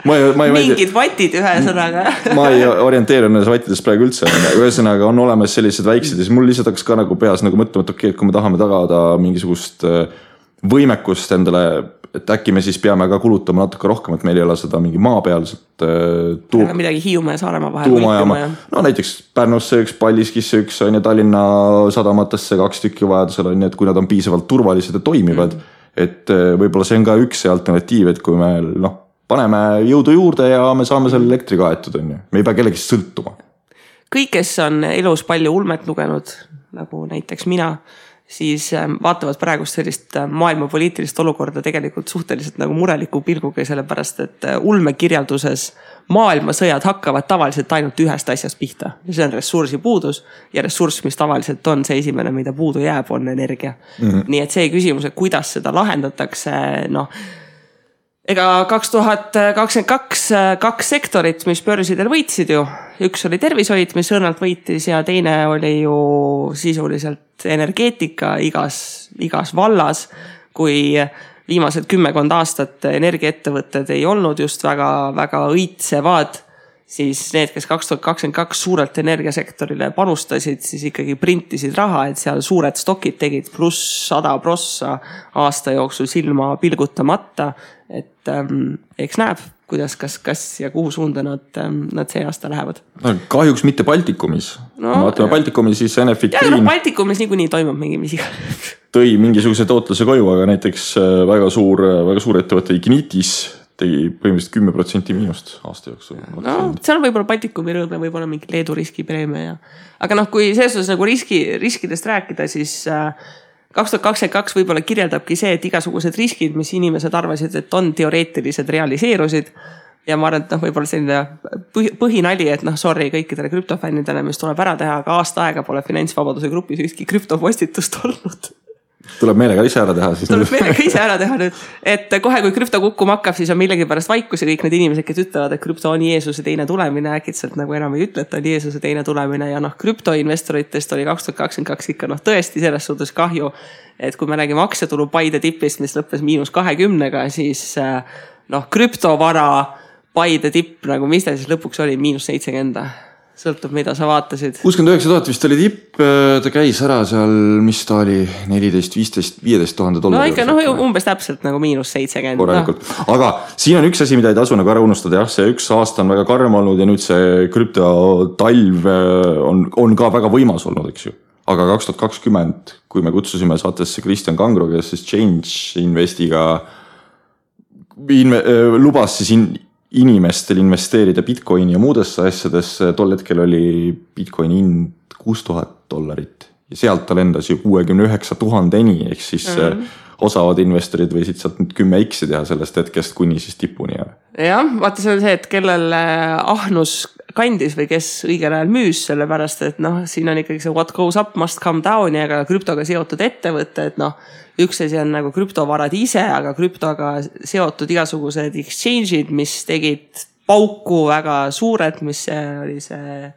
Mingid vatid ühe sõnaga. Ma ei orienteeru nendes vattidest praegu üldse. Ühesõnaga on olemas sellised väiksed ja siis mul lihtsalt hakkas ka nagu peas nagu mõtlema, et okei, et kui me tahame tagada mingisugust võimekust endale, et äkki me siis peame ka kulutama natuke rohkem, et meil ei ole seda mingi maapealset midagi Hiiumaa ja Saaremaa vahel. Tuumajaama. No näiteks Pärnusse üks, Paldiskisse üks on ja Tallinna sadamatesse 2 tükki vajadusel on, et kui nad on piisavalt turvalised ja toimivad, et võib-olla see on ka üks alternatiiv, et kui me paneme jõudu juurde ja me saame selle elektri kaetud, on ju. Me ei pea kellegi sõltuma. Kõik, kes on elus palju ulmet lugenud, nagu näiteks mina, siis vaatavad praegust sellist maailma poliitilist olukorda tegelikult suhteliselt nagu mureliku pilguga, sellepärast, et ulmekirjalduses maailmasõjad hakkavad tavaliselt ainult ühest asjast pihta. See on ressursi puudus ja ressurss, mis tavaliselt on see esimene, mida puudu jääb, on energia. Nii et see küsimus, et kuidas seda lahendatakse, ega 2022 2 sektorit, mis börsidel võitsid ju. Üks oli tervishoid, mis õrnalt võitis ja teine oli ju sisuliselt energeetika igas vallas, kui viimased 10 aastat energiaettevõtted ei olnud just väga õitsevad, siis need, kes 2022 suurelt energiasektorile panustasid, siis ikkagi printisid raha, et seal suured stokid tegid pluss 100% aasta jooksul silma pilgutamata, et eks näeb, kuidas, kas ja kuhu suunda nad see aasta lähevad. Kahjuks mitte Baltikumis. Vaatame Baltikumis, siis Enefit Green. Ja Baltikumis niikuinii toimub mingi mis iga. Tõi mingisuguse tootluse koju, aga näiteks väga suur ettevõte Ignitis tegi põhimõtteliselt 10% miinust aasta jooksul. No, seal on võib-olla Baltikumi rõõme, võib-olla mingi Leedu riskipreemia. Aga kui selles nagu riskidest rääkida, siis 2022 võib-olla kirjeldabki see, et igasugused riskid, mis inimesed arvasid, et on teoreetilised, realiseerusid. Ja ma arvan, et võib-olla selline põhinali, et sorry kõikidele krüptofännidele, mis tuleb ära teha, aga aasta aega pole finantsvabaduse grupis ükski krüptopostitust olnud. tuleb meelega ise ära teha siis. Tuleb meelega ise ära teha nüüd, et kohe kui krüpto kukkuma hakkab, siis on millegipärast vaikus ja kõik need inimesed, kes ütlevad, et krüpto on Jeesuse teine tulemine, äkitselt nagu enam ei ütle, et on Jeesuse teine tulemine ja krüptoinvestoritest oli 2022 ikka tõesti selles suhtes kahju, et kui me räägime aktsiatulu Paide tipist, mis lõppes -20-ga, siis krüptovara Paide tipp, nagu mis ta siis lõpuks oli, -70. Sõltub, mida sa vaatasid. 69 000 vist oli tipp, ta käis ära seal, mis ta oli, 14, 15, 15 000 $. No ikka, umbes täpselt nagu -70. Korralikult. Aga siin on üks asi, mida ei tasu nagu ära unustada. Jah, see üks aasta on väga karm olnud ja nüüd see krüptotalv on ka väga võimas olnud, eks ju. Aga 2020, kui me kutsusime saatesse Kristjan Kangro, kes siis Change Investiga lubas siis inimestel investeerida Bitcoini ja muudesse asjadesse, tol hetkel oli Bitcoini hind $6,000 ja sealt ta lendas ju 69 000-ni, ehk siis osavad investorid võisid sealt nüüd 10x teha sellest hetkest kuni siis tipuni. Jah, vaata see on see, et kellel ahnus kandis või kes õigel ajal müüs, sellepärast et siin on ikkagi see what goes up must come down ja ka krüptoga seotud ettevõte, et üks asi on nagu krüptovarad ise, aga krüptoga seotud igasugused exchange'id, mis tegid pauku väga suured, mis oli see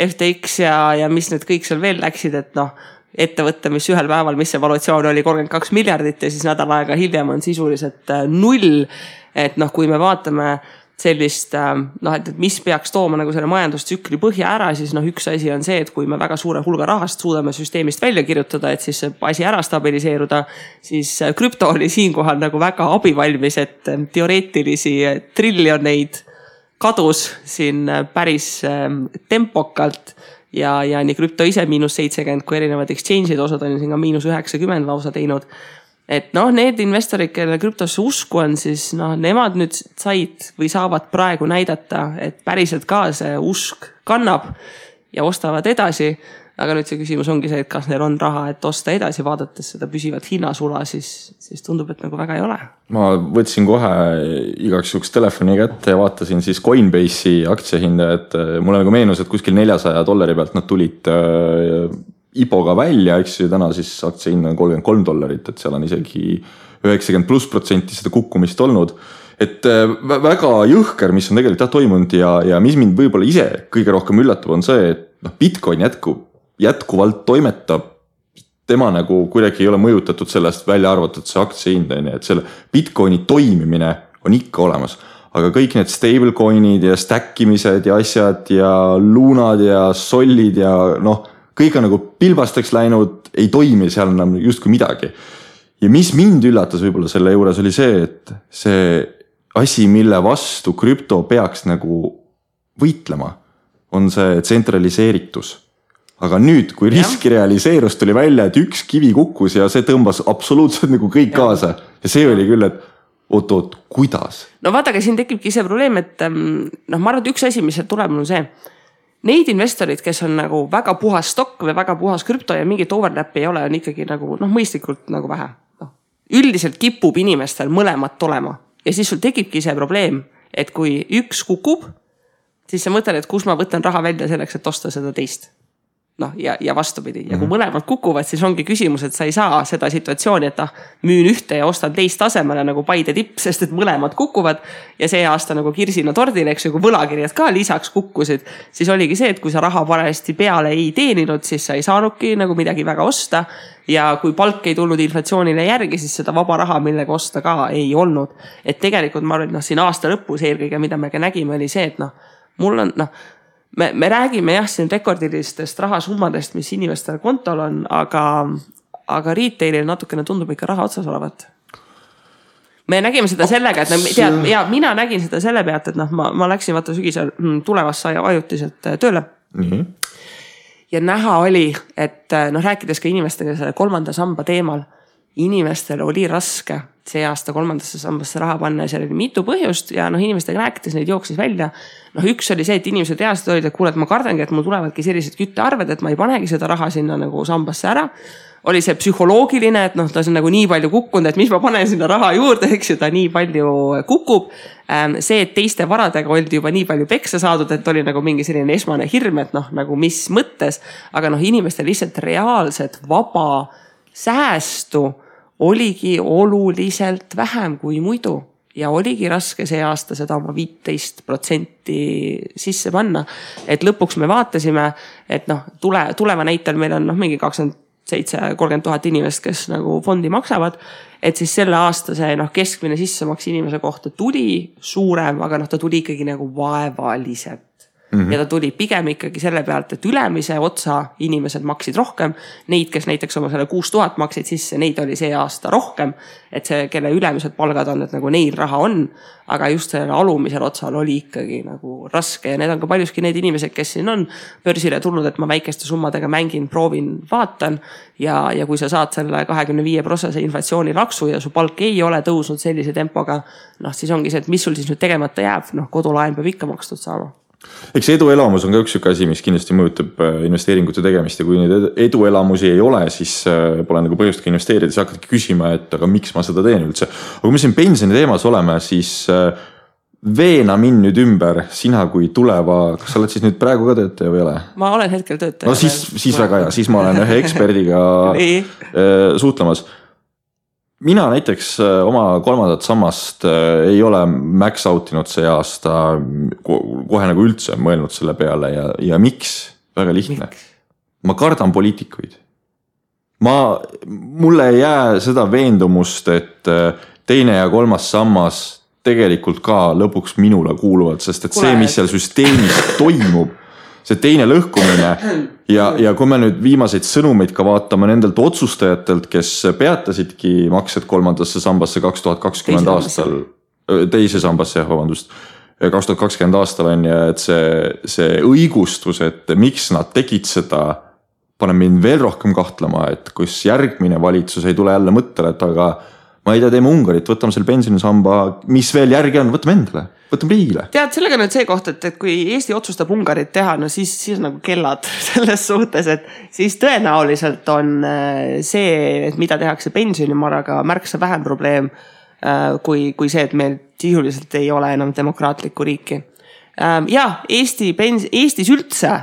FTX ja mis need kõik seal veel läksid, et ettevõtte, mis ühel päeval, mis see valuatsioon oli 32 miljardit ja siis nädal aega hiljem on sisuliselt 0. Et kui me vaatame sellist, et mis peaks tooma nagu selle majandustsükli põhja ära, siis üks asi on see, et kui me väga suure hulga rahast suudame süsteemist välja kirjutada, et siis see asi ära stabiliseeruda, siis krüpto oli siinkohal nagu väga abivalmis, et teoreetilisi triljoneid kadus siin päris tempokalt ja nii krüpto ise -70, kui erinevad exchange'id, osad on siin ka -90 lausa teinud. Et need investorid, kelle krüptosse usku on, siis nemad nüüd said või saavad praegu näidata, et päriselt ka see usk kannab ja ostavad edasi. Aga nüüd see küsimus ongi see, et kas neil on raha, et osta edasi, vaadates seda püsivat hinnasula, siis tundub, et nagu väga ei ole. Ma võtsin kohe igaks juhuks telefoni kätte ja vaatasin siis Coinbase'i aktsiahinda, et mulle nagu meenus, et kuskil $400 pealt nad tulid IPO-ga välja, eks ju, täna siis aktsiahind on $33, et seal on isegi 90+% seda kukkumist olnud. Et väga jõhker, mis on tegelikult toimunud ja mis mind võib-olla ise kõige rohkem üllatab on see, et Bitcoin jätkuvalt toimetab, tema nagu kuidagi ei ole mõjutatud sellest välja arvatud see aktsiahind, et selle Bitcoini toimimine on ikka olemas. Aga kõik need stablecoinid ja stackimised ja asjad ja luunad ja sollid ja kõik on nagu pilbasteks läinud, ei toimi seal enam justkui midagi. Ja mis mind üllatas võib-olla selle juures oli see, et see asi, mille vastu krüpto peaks nagu võitlema, on see tsentraliseeritus. Aga nüüd, kui riski realiseerus, tuli välja, et üks kivi kukkus ja see tõmbas absoluutselt nagu kõik kaasa. Ja see oli küll, et oot, kuidas? Vaata, aga siin tekibki see probleem, et ma arvan, et üks asi, mis tuleb on see, neid investorid, kes on nagu väga puhas stokk või väga puhas krüpto ja mingit overlapi ei ole, on ikkagi nagu mõistlikult nagu vähe. Üldiselt kipub inimestel mõlemat olema ja siis sul tekibki see probleem, et kui üks kukub, siis sa mõtled, et kus ma võtan raha välja selleks, et osta seda teist. Ja vastupidi. Ja kui mõlemad kukuvad, siis ongi küsimus, et sa ei saa seda situatsiooni, et müün ühte ja ostan teist tasemele nagu Paide tipp, sest et mõlemad kukuvad ja see aasta nagu kirsina tordil, eks ju, kui võlakirjad ka lisaks kukkusid, siis oligi see, et kui sa raha parajasti peale ei teeninud, siis sa ei saanudki nagu midagi väga osta ja kui palk ei tulnud inflatsioonile järgi, siis seda vaba raha, millega osta ka ei olnud. Et tegelikult ma arvan, siin aasta lõpus eelkõige, mida me ka nägime, oli see, et mul on, me räägime siin rekordilistest rahasummadest, mis inimestel kontol on, aga retailil natukene tundub ikka raha otsas olevat. Me nägime seda sellega, et mina nägin seda selle pealt, et ma läksin vaata sügisel tulevasse ajutiselt tööle. Ja näha oli, et rääkides ka inimestega selle kolmanda samba teemal, inimestel oli raske see aasta kolmandasse sambasse raha panna ja seal oli mitu põhjust ja inimestega rääkides neid jooksis välja. Üks oli see, et inimesed reaalselt olid, et kuule, et ma kardangi, et mul tulevadki sellised küttearved, et ma ei panegi seda raha sinna nagu sambasse ära. Oli see psühholoogiline, et ta on nagu nii palju kukkunud, et mis ma panen sinna raha juurde, eks ju, ta nii palju kukub. See, et teiste varadega oldi juba nii palju peksa saadud, et oli nagu mingi selline esmane hirm, et nagu mis mõttes, aga inimestel lihtsalt reaalselt vaba säästu oligi oluliselt vähem kui muidu ja oligi raske see aasta seda oma 15% sisse panna. Et lõpuks me vaatasime, et tuleva näitel meil on mingi 27-30 000 inimest, kes nagu fondi maksavad. Et siis selle aasta see keskmine sissemaks inimese kohta tuli suurem, aga ta tuli ikkagi nagu vaevaliselt. Ja ta tuli pigem ikkagi selle pealt, et ülemise otsa inimesed maksid rohkem. Neid, kes näiteks oma selle 6000 maksid sisse, neid oli see aasta rohkem. Et see, kelle ülemised palgad on, et nagu neil raha on, aga just selle alumisel otsal oli ikkagi nagu raske. Ja need on ka paljuski need inimesed, kes siin on börsile tulnud, et ma väikeste summadega mängin, proovin, vaatan. Ja kui sa saad selle 25% inflatsiooni laksu ja su palk ei ole tõusnud sellise tempoga, siis ongi see, et mis sul siis nüüd tegemata jääb, kodulaen peab ikka makstud saama. Eks eduelamus on ka üks asi, mis kindlasti mõjutab investeeringute tegemist ja kui neid eduelamusi ei ole, siis pole nagu põhjust ka investeerida, siis hakkadki küsima, et aga miks ma seda teen üldse. Aga kui me siin pensioni teemas oleme, siis veena mind nüüd ümber, sina kui tuleva, kas sa oled siis nüüd praegu ka töötaja või ole? Ma olen hetkel töötaja. No siis väga hea, siis ma olen ühe eksperdiga suhtlemas. Mina näiteks oma 3. sammast ei ole max outinud see aasta kohe nagu üldse mõelnud selle peale ja miks? Väga lihtne. Ma kardan poliitikuid. Mulle ei jää seda veendumust, et 2. ja 3. sammas tegelikult ka lõpuks minule kuuluvad, sest et see, mis seal süsteemis toimub, see teine lõhkumine ja kui me nüüd viimaseid sõnumeid ka vaatame nendelt otsustajatelt, kes peatasidki maksed 3. sambasse 2020 aastal, teise sambasse, 2020 aastal on ja et see õigustus, et miks nad tegid seda, paneb mind veel rohkem kahtlema, et kus järgmine valitsus ei tule jälle mõttele, et aga ma ei tea, teeme Ungarit, võtame selle pensionisamba, mis veel järgi on, võtame endale. Võtame riigile. Tead, sellega nüüd see koht, et kui Eesti otsustab Ungarit teha, siis nagu kellad selles suhtes, et siis tõenäoliselt on see, et mida tehakse pensionimaraga märksa vähem probleem kui see, et meil sisuliselt ei ole enam demokraatlikku riiki. Ja Eestis üldse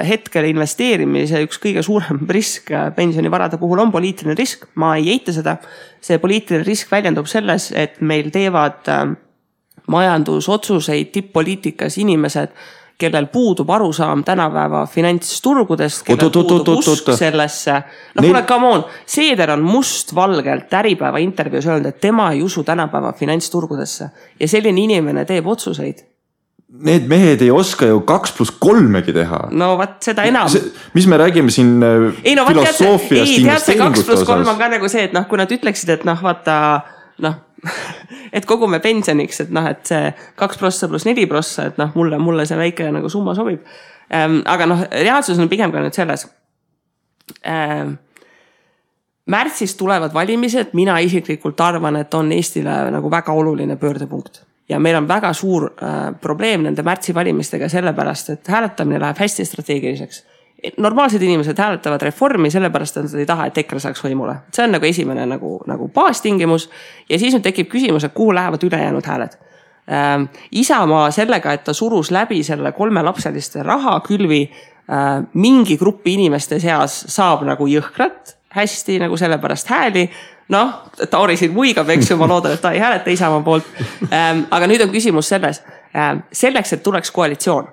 hetkel investeerimise üks kõige suurem risk pensionivarade puhul on poliitiline risk. Ma ei eita seda. See poliitiline risk väljendub selles, et meil teevad majandusotsuseid tipp-poliitikas inimesed, kellel puudub arusaam tänapäeva finantsturgudest, kellel puudub usk sellesse. Kuule, come on, Seeder on mustvalgelt Äripäeva intervjuus öelnud, et tema ei usu tänapäeva finantsturgudesse ja selline inimene teeb otsuseid. Need mehed ei oska ju 2+3 teha. No vaat seda enam. Mis me räägime siin filosoofiast investeeringute osas? 2+3 on ka nagu see, et kui nad ütleksid, et vaata, et kogume pensioniks, et see 2% + 4%, et mulle see väike nagu summa sobib. Aga reaalsus on pigem ka nüüd selles. Märtsis tulevad valimised, mina isiklikult arvan, et on Eestile nagu väga oluline pöördepunkt. Ja meil on väga suur probleem nende märtsi valimistega sellepärast, et hääletamine läheb hästi strateegiliseks. Normaalsed inimesed hääletavad reformi sellepärast, et nad ei taha, et EKRE saaks võimule. See on nagu esimene nagu baastingimus ja siis nüüd tekib küsimus, et kuhu lähevad ülejäänud hääled. Isamaa sellega, et ta surus läbi selle 3-lapseliste rahakülvi mingi gruppi inimeste seas saab nagu jõhkrat hästi nagu sellepärast hääli. Tauri siin muigab, eks ju, ma loodan, et ta ei hääleta Isamaa poolt. Aga nüüd on küsimus selles. Selleks, et tuleks koalitsioon.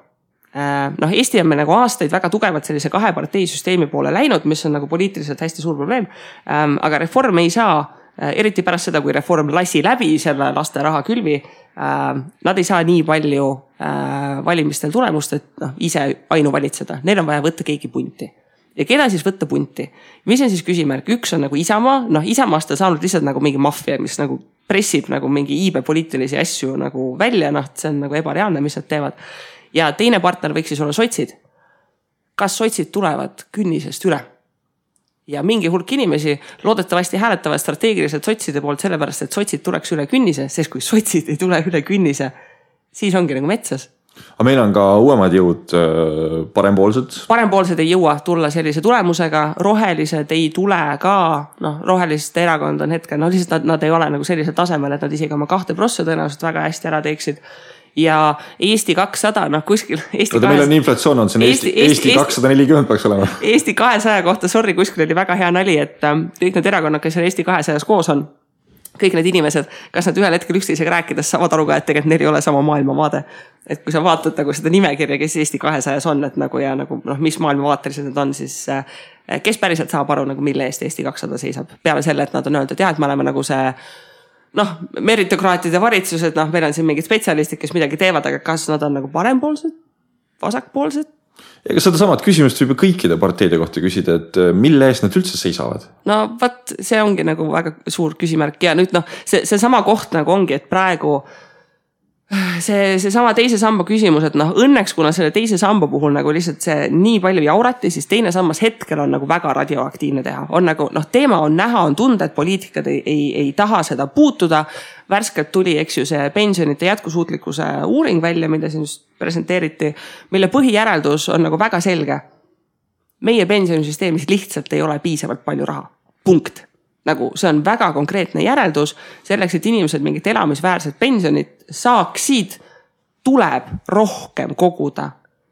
Eesti on meil nagu aastaid väga tugevat sellise 2-parteisüsteemi poole läinud, mis on nagu poliitiliselt hästi suur probleem. Aga reform ei saa, eriti pärast seda, kui reform lasi läbi selle laste rahakülvi, nad ei saa nii palju valimistel tulemust, et ise ainuvalitseda. Neil on vaja võtta keegi punti. Ja keda siis võtta punti? Mis on siis küsimärk? Üks on nagu Isamaa. Isamaast on saanud lihtsalt nagu mingi maffia, mis nagu pressib nagu mingi iibe poliitilisi asju nagu välja. See on nagu ebareaalne, mis nad teevad. Ja teine partner võiks siis olla sotsid. Kas sotsid tulevad künnisest üle? Ja mingi hulk inimesi loodetavasti hääletavad strateegiliselt sotside poolt sellepärast, et sotsid tuleks üle künnise, sest kui sotsid ei tule üle künnise, siis ongi nagu metsas. Aga meil on ka uuemad jõud parempoolsed. Parempoolsed ei jõua tulla sellise tulemusega, rohelised ei tule ka, roheliste erakond on hetkel, lihtsalt nad ei ole nagu sellisel tasemel, et nad isegi oma 2% tõenäoliselt väga hästi ära teeksid. ja Eesti 200, noh kuskil meil on inflatsioon on, see on Eesti 240 peaks olema. Eesti 200 kohta, sorry, kuskil oli väga hea nali, et kõik need erakonnad, kes Eesti 200 koos on, kõik need inimesed, kas nad ühel hetkel üksteisega rääkides saavad aru ka, et tegelikult neil ei ole sama maailmavaade. Et kui sa vaatad nagu seda nimekirja, kes Eesti 200 on, et nagu ja nagu mis maailmavaatelised need on, siis kes päriselt saab aru nagu mille eest Eesti 200 seisab. Peale selle, et nad on öeldud, et me oleme nagu see meritokraatide valitsused, meil on siin mingid spetsialistid, kes midagi teevad, aga kas nad on nagu parempoolsed, vasakpoolsed? Ja kas seda samad küsimust võib kõikide parteide kohta küsida, et mille eest nad üldse seisavad? No vaat, see ongi nagu väga suur küsimärk ja nüüd see sama koht nagu ongi, et praegu see sama teise samba küsimus, et õnneks kuna selle teise samba puhul nagu lihtsalt see nii palju jaurati, siis teine sammas hetkel on nagu väga radioaktiivne teha. On nagu, teema on näha, on tunda, et poliitikad ei taha seda puutuda. Värskelt tuli, eks ju, see pensionite jätkusuutlikkuse uuring välja, mida siin just presenteeriti, mille põhijäreldus on nagu väga selge. Meie pensionisüsteemis lihtsalt ei ole piisavalt palju raha. Punkt. Nagu see on väga konkreetne järeldus, selleks, et inimesed mingit elamisväärset pensionit saaksid, tuleb rohkem koguda.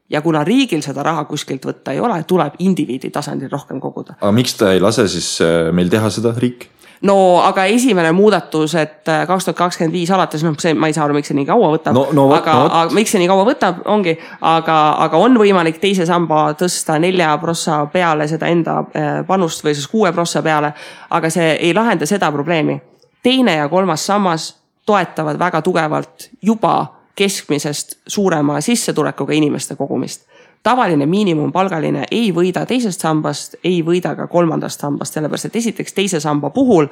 Ja kuna riigil seda raha kuskilt võtta ei ole, tuleb indiviidi tasandil rohkem koguda. Aga miks ta ei lase siis meil teha seda riik? No aga esimene muudatus, et 2025 alates, ma ei saa aru, miks see nii kaua võtab, aga miks see nii kaua võtab, ongi, aga on võimalik teise samba tõsta 4% peale seda enda panust või siis 6% peale, aga see ei lahenda seda probleemi. Teine ja kolmas sammas toetavad väga tugevalt juba keskmisest suurema sissetulekuga inimeste kogumist. Tavaline miinimumpalgaline ei võida teisest sambast, ei võida ka kolmandast sambast, sellepärast et esiteks teise samba puhul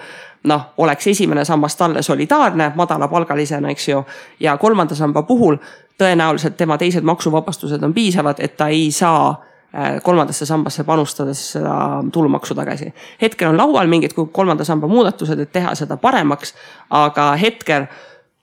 oleks esimene sambast talle solidaarne, madalapalgalisena, eks ju, ja kolmanda samba puhul tõenäoliselt tema teised maksuvabastused on piisavad, et ta ei saa kolmandasse sambasse panustades seda tulumaksu tagasi. Hetkel on laual mingid kolmanda samba muudatused, et teha seda paremaks, aga hetkel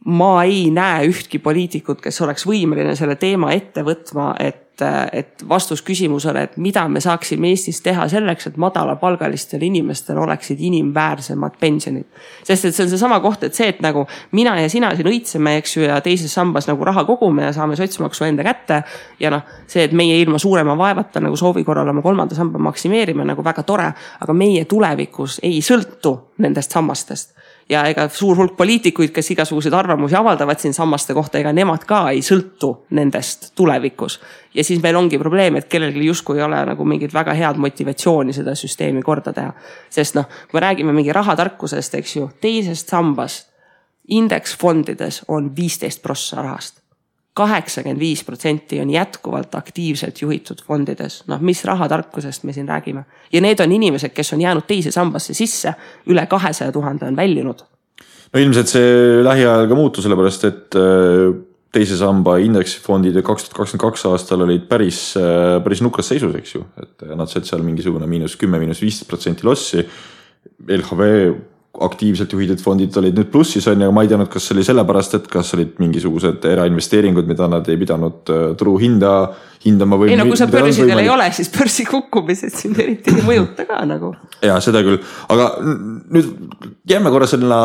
ma ei näe ühtki poliitikut, kes oleks võimeline selle teema ette võtma, et vastus küsimusele, et mida me saaksime Eestis teha selleks, et madalapalgalistel inimestel oleksid inimväärsemad pensionid. Sest et see on see sama koht, et see, et nagu mina ja sina siin õitseme, eks ju, ja teises sambas nagu raha kogume ja saame sotsmaksu enda kätte ja see, et meie ilma suurema vaevata nagu soovi korral oma kolmanda samba maksimeerime nagu väga tore, aga meie tulevikus ei sõltu nendest sammastest. Ja ega suur hulk poliitikuid, kes igasuguseid arvamusi avaldavad siin sammaste kohta, ega nemad ka ei sõltu nendest tulevikus. Ja siis meil ongi probleem, et kellelgi justkui ei ole nagu mingid väga head motivatsiooni seda süsteemi korda teha. Sest kui me räägime mingi rahatarkusest, eks ju, teisest sambast indeksfondides on 15% rahast. 85% on jätkuvalt aktiivselt juhitud fondides. Mis rahatarkusest me siin räägime? Ja need on inimesed, kes on jäänud teise sambasse sisse, üle 200 000 on väljunud. No ilmselt see lähiajal ka muutu, sellepärast, et teise samba indeksifondid 2022 aastal olid päris nukras seisus, eks ju. Et nad said seal mingisugune -10–15% lossi. LHV aktiivselt juhitud fondid olid nüüd plussis on ja ma ei teadnud, kas oli sellepärast, et kas olid mingisugused erainvesteeringud, mida nad ei pidanud turu hindama või... Ei, kui sa börsidel ei ole, siis börsi kukkumised siin eriti ei mõjuta ka nagu. Ja seda küll, aga nüüd jääme korra selle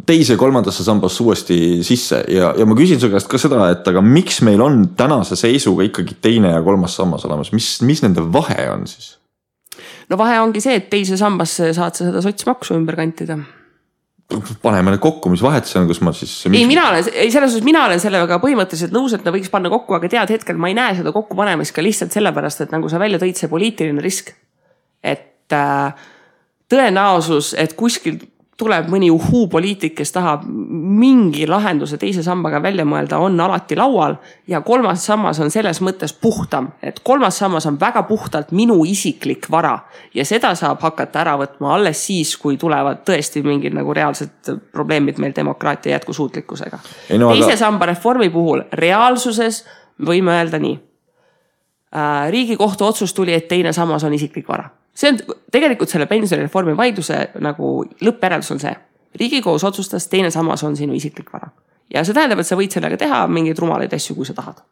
teise kolmandasse sambasse uuesti sisse ja ma küsin su käest ka seda, et aga miks meil on tänase seisuga ikkagi teine ja kolmas sammas olemas, mis nende vahe on siis? No vahe ongi see, et teise sambasse saad sa seda sotsmaksu ümber kantida. Paneme need kokku, mis vahet see on, kus ma siis... Mina olen sellega põhimõtteliselt nõus, et ta võiks panna kokku, aga tead hetkel ma ei näe seda kokku panemist ka lihtsalt sellepärast, et nagu sa välja tõid see poliitiline risk. Et tõenäosus, et kuskil tuleb mõni poliitik, kes tahab mingi lahenduse teise sambaga välja mõelda, on alati laual ja kolmas sammas on selles mõttes puhtam, et kolmas sammas on väga puhtalt minu isiklik vara ja seda saab hakata ära võtma alles siis, kui tulevad tõesti mingid nagu reaalsed probleemid meil demokraatia jätkusuutlikkusega. Teise samba reformi puhul reaalsuses võime öelda nii. Riigikohtu otsus tuli, et teine sammas on isiklik vara. See on tegelikult selle pensionireformi vaidluse nagu lõppjäreldus on see. Riigikohus otsustas, teine sammas on sinu isiklik vara. Ja see tähendab, et sa võid sellega teha mingeid rumalaid asju, kui sa tahad.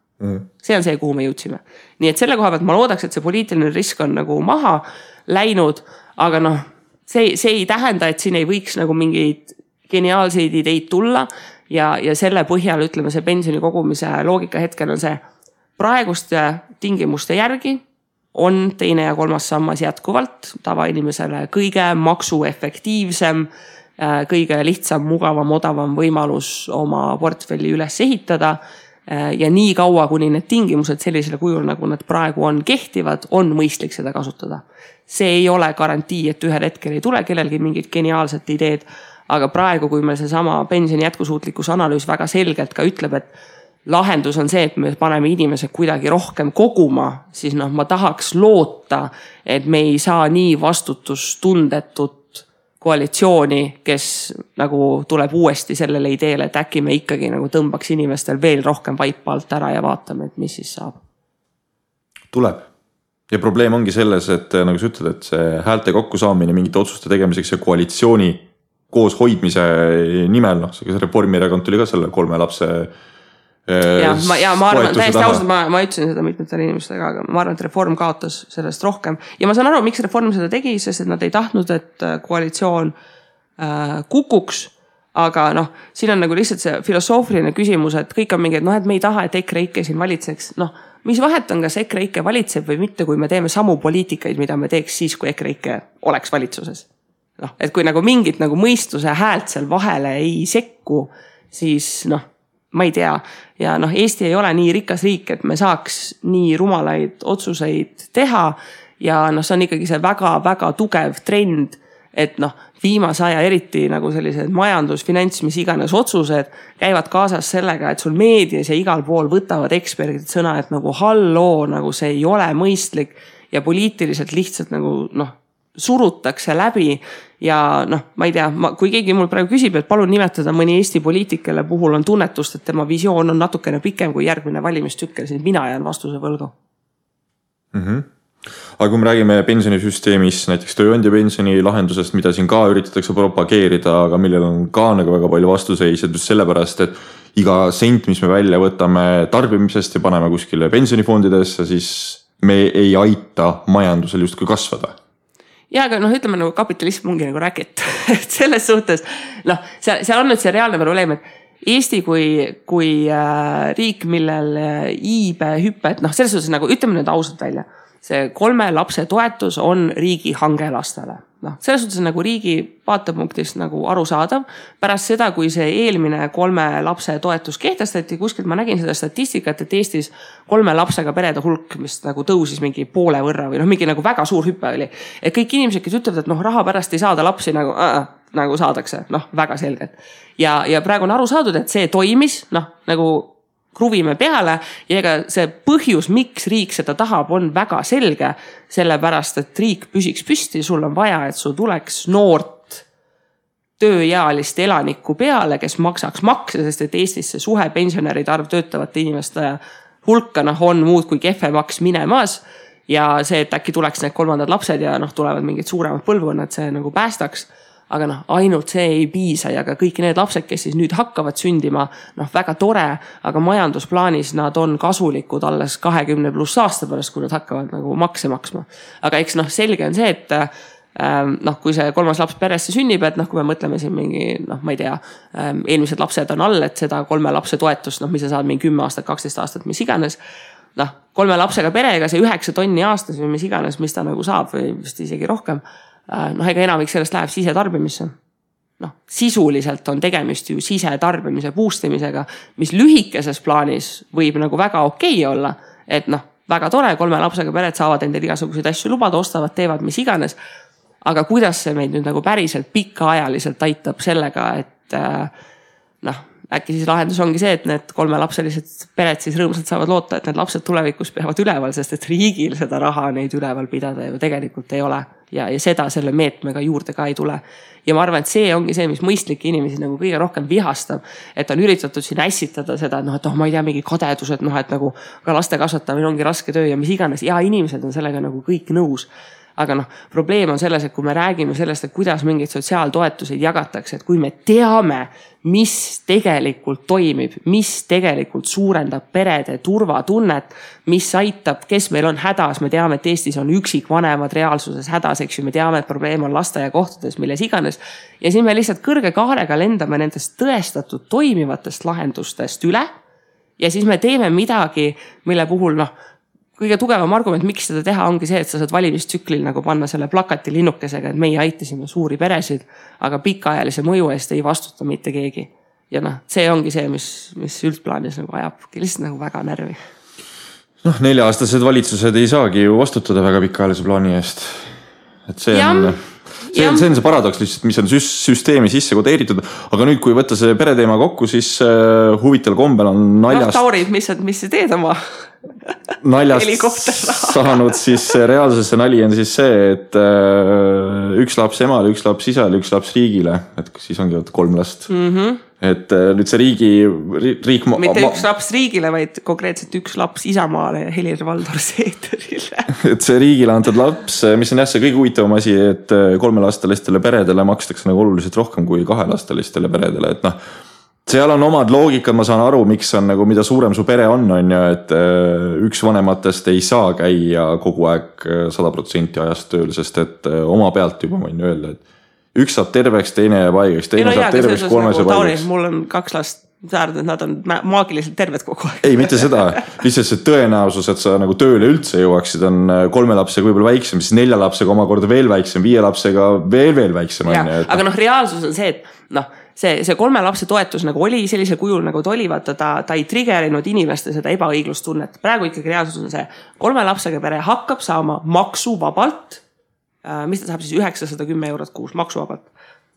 See on see, kuhu me jõudsime. Nii et selle koha pealt ma loodaks, et see poliitiline risk on nagu maha läinud, aga see ei tähenda, et siin ei võiks nagu mingeid geniaalseid ideid tulla ja selle põhjal ütleme see pensioni kogumise loogika hetkel on see praeguste tingimuste järgi on teine ja kolmas sammas jätkuvalt tavainimesele kõige maksuefektiivsem, kõige lihtsam, mugavam, odavam võimalus oma portfelli üles ehitada ja nii kaua, kuni need tingimused sellisele kujul, nagu nad praegu on kehtivad, on mõistlik seda kasutada. See ei ole garantii, et ühel hetkel ei tule kellelgi mingid geniaalsed ideed, aga praegu, kui meil see sama pensioni jätkusuutlikkuse analüüs väga selgelt ka ütleb, et lahendus on see, et me paneme inimesed kuidagi rohkem koguma, siis ma tahaks loota, et me ei saa nii vastutustundetut koalitsiooni, kes nagu tuleb uuesti sellele ideele, et äkki me ikkagi nagu tõmbaks inimestel veel rohkem vaipa alt ära ja vaatame, et mis siis saab. Tuleb. Ja probleem ongi selles, et nagu sa ütled, et see häälte kokkusaamine mingite otsuste tegemiseks ja koalitsiooni koos hoidmise nimel, see Reformierakond tuli ka selle 3 lapse ma arvan, täiesti ausalt, ma ütlesin seda mitmetele inimestega, aga ma arvan, et Reform kaotas sellest rohkem. Ja ma saan aru, miks Reform seda tegi, sest et nad ei tahtnud, et koalitsioon kukuks, aga siin on nagu lihtsalt see filosoofiline küsimus, et kõik on mingi, et me ei taha, et EKREIKE siin valitseks. Mis vahet on, kas EKREIKE valitseb või mitte, kui me teeme samu poliitikaid, mida me teeks siis, kui EKREIKE oleks valitsuses. Et kui nagu mingit nagu mõistuse häält seal vahele ei sekku, siis ma ei tea. Ja Eesti ei ole nii rikas riik, et me saaks nii rumalaid otsuseid teha ja see on ikkagi see väga-väga tugev trend, et viimase aja eriti nagu sellised majandus, finants, mis iganes otsused käivad kaasas sellega, et sul meedias ja igal pool võtavad eksperdid sõna, et nagu halloo, nagu see ei ole mõistlik ja poliitiliselt lihtsalt nagu surutakse läbi ja ma ei tea, kui keegi mul praegu küsib, et palun nimetada mõni Eesti poliitikele puhul on tunnetust, et tema visioon on natukene pikem kui järgmine valimistükkel, siis mina jään vastuse võlgu. Aga kui me räägime pensionisüsteemis, näiteks tööandja pensioni lahendusest, mida siin ka üritatakse propageerida, aga millel on ka nagu väga palju vastuseised just sellepärast, et iga sent, mis me välja võtame tarbimisest ja paneme kuskile pensionifondidesse, siis me ei aita majandusel justkui kasvada. Ja aga ütleme nagu kapitalism ongi nagu räkit. Et selles suhtes, seal on nüüd see reaalne probleem, et Eesti kui riik, millel iibe hüpped, selles suhtes nagu ütleme nüüd ausalt välja, see 3 lapse toetus on riigi hange lastele. Selles suhtes nagu riigi vaatepunktist nagu arusaadav. Pärast seda, kui see eelmine 3 lapse toetus kehtestati, kuskilt ma nägin seda statistikat, et Eestis 3 lapsega perede hulk, mis nagu tõusis mingi poole võrra või mingi nagu väga suur hüppe oli. Et kõik inimesed, kes ütlevad, et raha pärast ei saada lapsi nagu saadakse, väga selgelt. Ja praegu on aru saadud, et see toimis, nagu kruvime peale ja ega see põhjus, miks riik seda tahab, on väga selge, sellepärast, et riik püsiks püsti, sul on vaja, et sul tuleks noort tööealist elanikku peale, kes maksaks makse, sest et Eestis see suhe pensionäride arv töötavate inimeste hulka on muud kui kehvemaks minemas ja see, et äkki tuleks need 3. lapsed ja tulevad mingid suuremad põlvkonnad, see nagu päästaks. Aga ainult see ei piisa ja ka kõik need lapsed, kes siis nüüd hakkavad sündima, väga tore, aga majandusplaanis nad on kasulikud alles 20+ aasta pärast, kui nad hakkavad nagu makse maksma. Aga eks selge on see, et kui see 3. laps peresse sünnib, et kui me mõtleme siin mingi, ma ei tea, eelmised lapsed on all, et seda 3 lapse toetust, mis sa saad mingi 10 aastat, 12 aastat, mis iganes, 3 lapsega perega see 9 tonni aastas või mis iganes, mis ta nagu saab või vist isegi rohkem, ega enamik sellest läheb sisetarbimisse. Sisuliselt on tegemist ju sisetarbimise boostimisega, mis lühikeses plaanis võib nagu väga okei olla, et väga tore, 3 lapsega pered saavad endale igasuguseid asju lubada, ostavad, teevad mis iganes, aga kuidas see meid nüüd nagu päriselt pikaajaliselt aitab sellega, et äkki siis lahendus ongi see, et need 3-lapselised pered siis rõõmsalt saavad loota, et need lapsed tulevikus peavad üleval, sest et riigil seda raha neid üleval pidada ju tegelikult ei ole ja seda selle meetmega juurde ka ei tule. Ja ma arvan, et see ongi see, mis mõistlikke inimesi nagu kõige rohkem vihastab, et on üritatud siin ässitada seda, et ma ei tea, mingi kadedus, et nagu ka laste kasvatamine ongi raske töö ja mis iganes ja inimesed on sellega nagu kõik nõus. aga noh, probleem on selles, et kui me räägime sellest, et kuidas mingeid sotsiaaltoetuseid jagatakse, et kui me teame, mis tegelikult toimib, mis tegelikult suurendab perede turvatunnet, mis aitab, kes meil on hädas, me teame, et Eestis on üksikvanemad reaalsuses hädas, eks ju, me teame, et probleem on lasteaiakohtades, milles iganes. Ja siis me lihtsalt kõrge kaarega lendame nendest tõestatud toimivatest lahendustest üle ja siis me teeme midagi, mille puhul noh, kõige tugevam argument, miks seda teha, ongi see, et sa saad valimistsüklil nagu panna selle plakati linnukesega, et meie aitasime suuri peresid, aga pikaajalise mõju eest ei vastuta mitte keegi. Ja noh, see ongi see, mis üldplaanis nagu ajabki lihtsalt nagu väga närvi. Noh, 4-aastased valitsused ei saagi ju vastutada väga pikaajalise plaani eest. Et see on see paradoks lihtsalt, mis on süsteemi sisse kodeeritud, aga nüüd, kui võtta see pereteema kokku, siis huvitaval kombel on naljast... No, Tauri, mis sa teed oma naljast saanud siis reaalsesse nali on siis see, et üks laps emale, üks laps isale, üks laps riigile, et siis ongi 3 last. Et nüüd see riik... Mitte üks laps riigile, vaid konkreetselt üks laps Isamaale ja Helir-Valdor Seederile. Et see riigile antud laps, mis on jah see kõige huvitavam asi, et 3-lastelistele peredele makstakse nagu oluliselt rohkem kui 2-lastelistele peredele, et noh, seal on omad loogikad, ma saan aru, miks on nagu, mida suurem su pere on ju, et üks vanematest ei saa käia kogu aeg 100% ajast tööl, sest et oma pealt juba võin öelda, et üks saab terveks, teine jääb haigeks, teine saab terveks, 3 saab haigeks. Mul on 2 last, nad on maagiliselt terved kogu aeg. Ei, mitte seda. Lihtsalt see tõenäosus, et sa nagu tööle üldse jõuaksid, on 3 lapsega võib-olla väiksem, siis 4 lapsega omakorda veel väiksem, 5 lapsega veel väiksem. Aga noh, reaalsus on see, et noh, see 3 lapse toetus nagu oli sellisel kujul nagu ta oli, vaata ta ei triggerinud inimeste seda ebaõiglustunnet. Praegu ikkagi reaalsus on see 3 lapsega pere hakkab saama maksuvabalt, mis ta saab siis 910 eurot kuus maksuvabalt.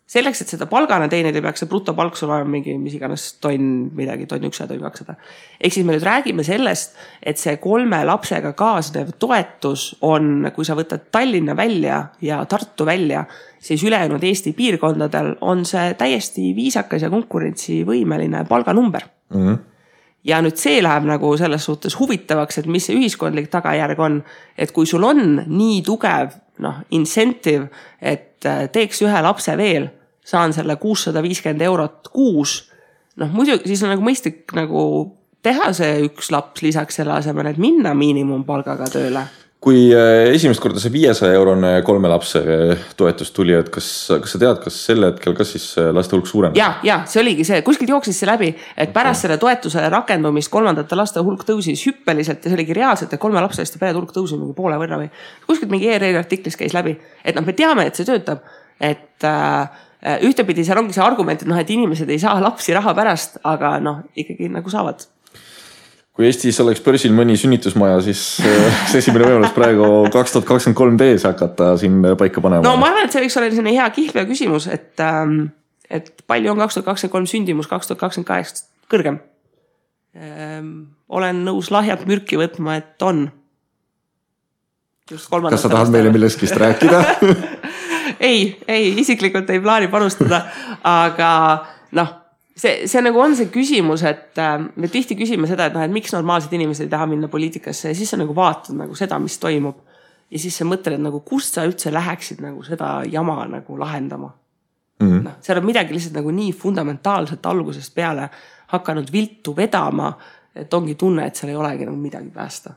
Selleks, et seda palgana teenida, peaks see brutopalk sul olema mingi, mis iganes tonn 100, tonn 200. Ehk siis me nüüd räägime sellest, et see 3 lapsega kaasnev toetus on, kui sa võtad Tallinna välja ja Tartu välja, siis ülejäänud Eesti piirkondadel on see täiesti viisakas ja konkurentsivõimeline palganumber. Ja nüüd see läheb nagu selles suhtes huvitavaks, et mis see ühiskondlik tagajärg on, et kui sul on nii tugev incentive, et teeks 1 lapse veel, saan selle 650 eurot kuus, muidu siis on nagu mõistlik nagu teha see 1 laps lisaks selle asemel, et minna miinimumpalgaga tööle. Kui esimest korda see 500 eurone 3 lapse toetus tuli, et kas sa tead, kas selle hetkel, kas siis laste hulk suurem? Ja, see oligi see, kuskilt jooksis see läbi, et pärast selle toetuse rakendumist 3. laste hulk tõusis hüppeliselt ja see oligi reaalselt, et 3 lapseliste perede hulk tõusis mingi poole võrra või kuskilt mingi ERR artiklis käis läbi, et me teame, et see töötab, et ühtepidi seal ongi see argument, et inimesed ei saa lapsi raha pärast, aga ikkagi nagu saavad. Kui Eestis oleks börsil mõni sünnitusmaja, siis see esimene võimalus praegu 2023 hakata siin paika panema. No ma arvan, et see võiks olla selline hea kihlvea küsimus, et palju on 2023 sündimus 2028 kõrgem. Olen nõus lahjat mürki võtma, et on. Kas sa tahad meile milleskist rääkida? ei, isiklikult ei plaani panustada, aga see nagu on see küsimus, et me tihti küsime seda, et miks normaalsed inimesed ei taha minna poliitikasse ja siis sa nagu vaatad nagu seda, mis toimub. Ja siis sa mõtled, nagu kust sa üldse läheksid nagu seda jama nagu lahendama. Seal on midagi lihtsalt nagu nii fundamentaalselt algusest peale hakanud viltu vedama, et ongi tunne, et seal ei olegi nagu midagi päästa.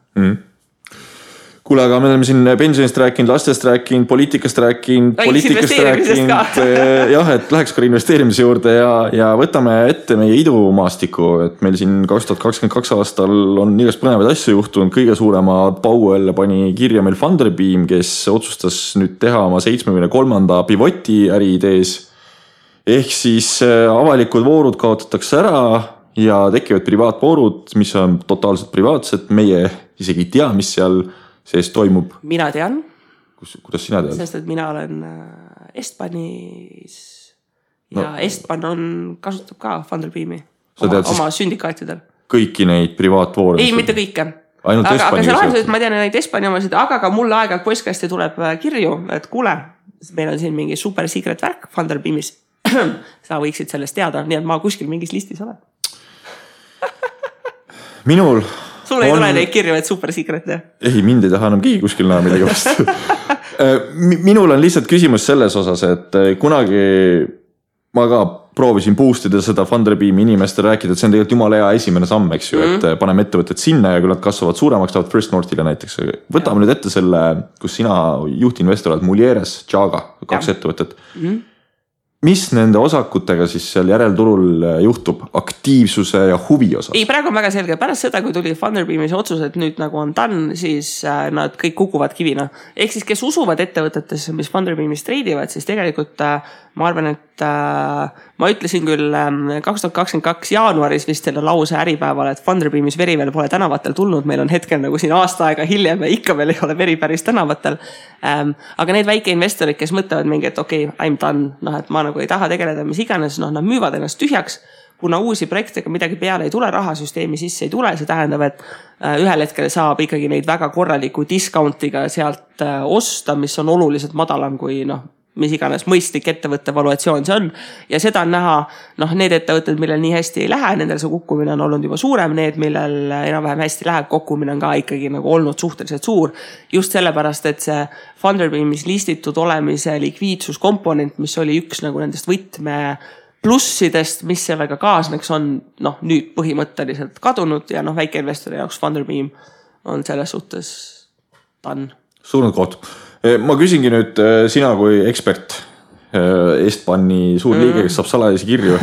Kuule, aga me oleme siin pensionist rääkinud, lastest rääkinud, poliitikast rääkinud, jah, et läheks ka investeerimise juurde ja võtame ette meie idumaastiku, et meil siin 2022 aastal on igast põnevaid asju juhtunud, kõige suurema pau jälle pani kirja meil Funderbeam, kes otsustas nüüd teha oma 73. pivoti äriidees. Ehk siis avalikud voorud kaotatakse ära ja tekivad privaatvoorud, mis on totaalselt privaatsed, meie isegi ei tea, mis seal sees toimub. Mina tean. Kuidas sina tead? Sest, et mina olen Estbanis ja Estban kasutab ka Funderbeami oma sündikaatidel. Kõiki neid privaatvoore? Ei, mitte kõike. Ainult aga see lahendus, et ma tean neid Estbani omasid, aga ka mulle aega postkasti tuleb kirju, et kuule, meil on siin mingi super secret värk Funderbeamis. Sa võiksid sellest teada, nii et ma kuskil mingis listis olen. Minul Sul ei tule neid kirju, et super secret, jah? Ei, mind ei taha enam keegi kuskil näha midagi vastu. minul on lihtsalt küsimus selles osas, et kunagi ma ka proovisin boostida seda Funderbeami inimestele rääkida, et see on tegelikult jumala hea esimene samm, eks ju, et paneme ettevõtted sinna ja kui nad kasvavad suuremaks, tahavad First Northile näiteks. Võtame nüüd ette selle, kus sina juhtinvestor oled, Mulieres, Jaga, 2 ettevõtet. Mis nende osakutega siis seal järelturul juhtub aktiivsuse ja huvi osas? Ei, praegu on väga selge. Pärast seda, kui tuli Funderbeamis otsus, et nüüd nagu on done, siis nad kõik kukuvad kivina. Ehk siis, kes usuvad ettevõtetesse, mis Funderbeamis treidivad, siis tegelikult ma arvan, et ma ütlesin küll 2022 jaanuaris vist selle lause äripäeval, et Funderbeamis veri veel pole tänavatel tulnud. Meil on hetkel nagu siin aasta aega hiljem ja ikka veel ei ole veri päris tänavatel. Aga need väike investorid, kes mõtlevad mingi, et okei, I'm done, et ma nagu ei taha tegeleda mis iganes, nad müüvad ennast tühjaks, kuna uusi projektidega midagi peale ei tule, rahasüsteemi sisse ei tule, see tähendab, et ühel hetkel saab ikkagi neid väga korraliku discountiga sealt osta, mis on oluliselt madalam kui mis iganes mõistlik ettevõtte valuatsioon see on. Ja seda on näha, need ettevõtted, millel nii hästi ei lähe, nendel see kukkumine on olnud juba suurem, need, millel enam-vähem hästi läheb, kukkumine on ka ikkagi nagu olnud suhteliselt suur. Just sellepärast, et see Funderbeamis listitud olemise likviidsuskomponent, mis oli üks nagu nendest võtme plussidest, mis sellega kaasneks on nüüd põhimõtteliselt kadunud ja väikeinvestori jaoks Funderbeam on selles suhtes done. Suurnud koht. Ma küsingi nüüd sina kui ekspert, Estbani suur liige, kes saab salajasi kirju.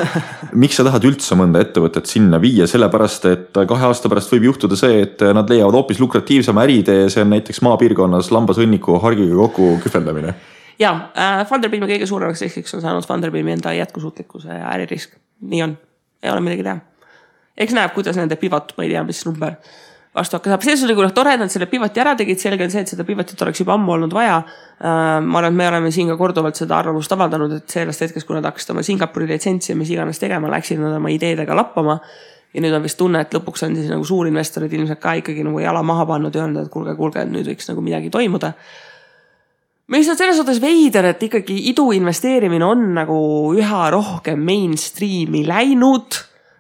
Miks sa tahad üldse mõnda ettevõtet sinna viia? Sellepärast, et 2 aasta pärast võib juhtuda see, et nad leiavad hoopis lukratiivsema äritee, see on näiteks maapiirkonnas lambasõnniku hargiga kokku kühveldamine. Ja, Funderbeami kõige suuremaks riskiks on saanud Funderbeami enda jätkusuutlikkuse ja äririsk. Nii on. Ei ole midagi teha. Eks näeb, kuidas nende pivot, ma ei tea, mis number vastu hakka saab. See oli tore, et nad selle pivoti ära tegid. Selge on see, et seda pivotit oleks juba ammu olnud vaja. Ma arvan, et me oleme siin ka korduvalt seda arvamust avaldanud, et sellest hetkest, kui nad hakkasid oma Singapuri litsentsi ja mis iganes tegema, läksid nad oma ideedega lappama. Ja nüüd on vist tunne, et lõpuks on siis nagu suurinvestorid ilmselt ka ikkagi nagu jala maha pannud ja öelnud, et kuulge, et nüüd võiks nagu midagi toimuda. Mis on selles suhtes veider, et ikkagi idu investeerimine on nagu üha rohkem mainstreami läinud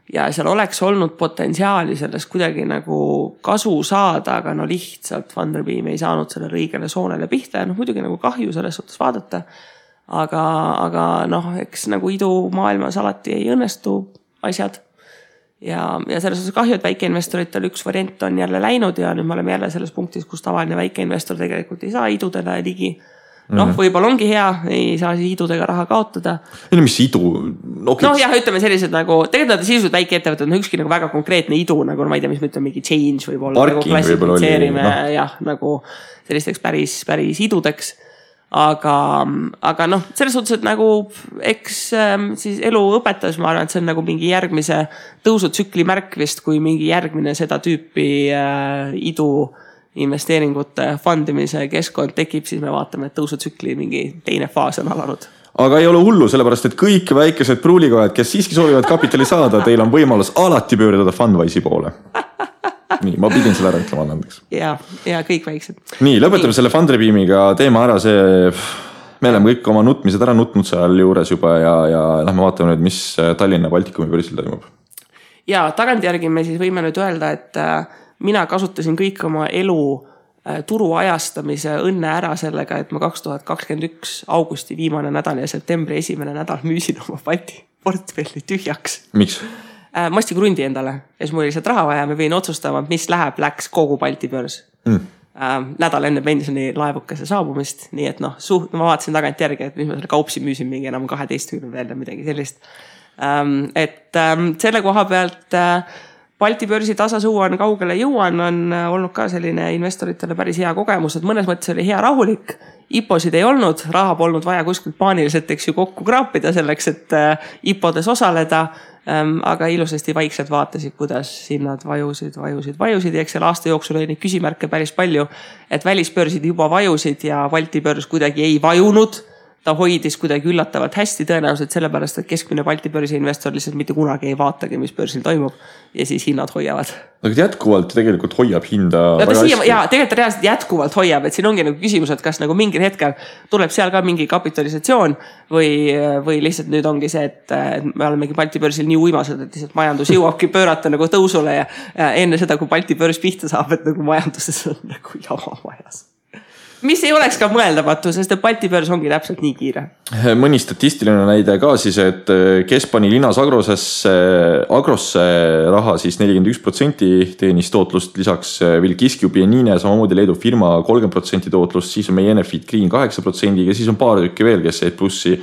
ja seal oleks olnud potentsiaali sellest kuidagi nagu kasu saada, aga lihtsalt Funderbeam ei saanud selle õigele soonele pihta ja muidugi nagu kahju selles suhtes vaadata. Aga eks nagu idu maailmas alati ei õnnestu asjad. Ja selles suhtes kahju, et väikeinvestoritel üks variant on jälle läinud ja nüüd me oleme jälle selles punktis, kus tavaline väikeinvestor tegelikult ei saa idudele ligi. Võib-olla ongi hea, ei saa siis idudega raha kaotada. Mis idu? Jah, ütleme sellised nagu, tegelikult sisuliselt väike ettevõtted on ükski nagu väga konkreetne idu, nagu ma ei tea, mis me ütleme, mingi change võib olla. Parking nagu võib-olla oli. Jah, nagu sellisteks päris idudeks. Aga selles suhtes, et nagu eks siis elu õpetas, ma arvan, et see on nagu mingi järgmise tõusutsükli märk vist, kui mingi järgmine seda tüüpi idu investeeringute fundimise keskkond tekib, siis me vaatame, et tõusutsükli mingi teine faas on alanud. Aga ei ole hullu, sellepärast, et kõik väikesed pruulikojad, kes siiski soovivad kapitali saada, teil on võimalus alati pöördada Fundwise'i poole. Nii, ma pidin selle ära ütlema andeks. Ja kõik väiksed. Nii, lõpetame selle Funderbeamiga teema ära, me oleme kõik oma nutmised ära nutnud seal juures juba ja lähme vaatame nüüd, mis Tallinna Baltikumi börsil toimub. Ja tagantjärgi me siis võime nüüd öelda, et mina kasutasin kõik oma elu turu ajastamise õnne ära sellega, et ma 2021 augusti viimane nädal ja septembri esimene nädal müüsin oma Balti portfelli tühjaks. Miks? Ma ostsin krundi endale ja siis mul oli lihtsalt raha vaja, me võin otsustama, mis läks kogu Balti börs. Nädal enne pensioni laevukese saabumist, nii et ma vaatasin tagantjärgi, et mis ma selle kaupsi müüsin mingi enam 12 veel midagi sellist. Et selle koha pealt Balti börsi tasasuu on kaugele jõuan, on olnud ka selline investoritele päris hea kogemus, et mõnes mõttes oli hea rahulik. IPOsid ei olnud, raha polnud vaja kuskilt paaniliselt kokku kraapida selleks, et IPOdes osaleda, aga ilusasti vaikselt vaatasid, kuidas hinnad vajusid ja eks selle aasta jooksul oli neid küsimärke päris palju, et välisbörsid juba vajusid ja Balti börs kuidagi ei vajunud. Ta hoidis kuidagi üllatavalt hästi tõenäoliselt sellepärast, et keskmine Balti börsi investor lihtsalt mitte kunagi ei vaatagi, mis börsil toimub ja siis hinnad hoiavad. Aga jätkuvalt tegelikult hoiab hinda väga hästi. Ja tegelikult reaalselt jätkuvalt hoiab, et siin ongi nagu küsimus, et kas nagu mingil hetkel tuleb seal ka mingi kapitalisatsioon või lihtsalt nüüd ongi see, et me olemegi Balti börsil nii uimased, et lihtsalt majandus jõuabki pöörata nagu tõusule ja enne seda, kui Balti börs pihta saab, et nagu majanduses on nagu jama majas. mis ei oleks ka mõeldamatu, sest Balti börs ongi täpselt nii kiire. Mõni statistiline näide ka siis, et kes pani linnas Agrosse raha siis 41% teenis tootlust, lisaks Vilkiskjubi ja Niine, samamoodi Leedu firma 30% tootlust, siis on meie Enefit Green 8% ja siis on paar tükki veel, kes jäid plussi,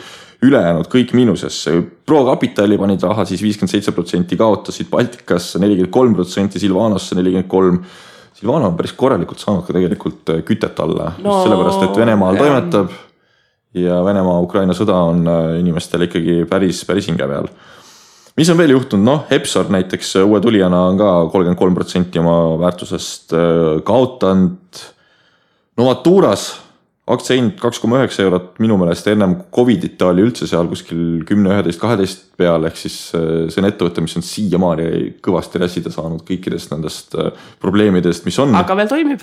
ülejäänud kõik miinusesse. ProCapitali panid raha siis 57%, kaotasid Baltikasse 43%, Silvanosse 43%. Silvano on päris korralikult saanud ka tegelikult kütet alla, just sellepärast, et Venemaal toimetab ja Venemaa-Ukraina sõda on inimestel ikkagi päris hinge peal. Mis on veel juhtunud? Epsor näiteks uue tulijana on ka 33% oma väärtusest kaotanud. Novaturas aktsia hind 2,9 eurot, minu meelest ennem Covidita oli üldse seal kuskil 10, 11, 12 peal, ehk siis see on ettevõte, mis on siiamaani kõvasti räsida saanud kõikidest nendest probleemidest, mis on. Aga veel toimib.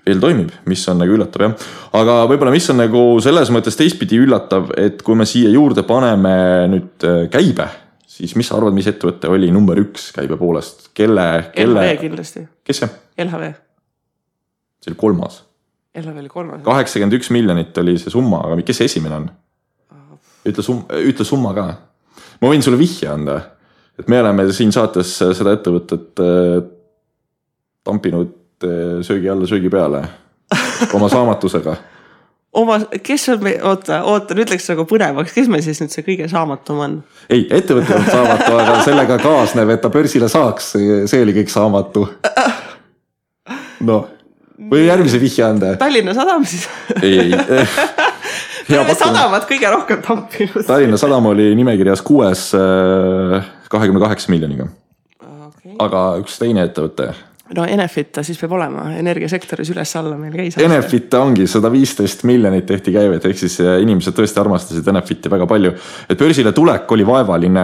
Veel toimib, mis on nagu üllatav, jah. Aga võib-olla mis on nagu selles mõttes teistpidi üllatav, et kui me siia juurde paneme nüüd käibe, siis mis sa arvad, mis ettevõte oli number 1 käibe poolest? LHV kindlasti. Kes see? LHV. See oli 3. LHV oli 3. 81 miljonit oli see summa, aga kes see esimene on? Ütle summa ka. Ma võin sulle vihje anda, et me oleme siin saates seda ettevõtet tampinud söögi alla söögi peale oma saamatusega. Kes on me, oota, nüüd läks nagu põnevaks, kes me siis nüüd see kõige saamatum on? Ei, ettevõte on saamatu, aga sellega kaasneb, et ta börsile saaks, see oli kõik saamatu. Või järgmise vihje anda? Tallinna Sadam siis? Ei. Tallinna Sadam on kõige rohkem tampinud. Tallinna Sadam oli nimekirjas 6 28 miljoniga. Okay. Aga üks teine ettevõte. Enefit ta siis peab olema, energiasektoris üles-alla meil käis. Enefit ongi 115 miljonit tehti käivet, ehk siis inimesed tõesti armastasid Enefiti väga palju. Et börsile tulek oli vaevaline,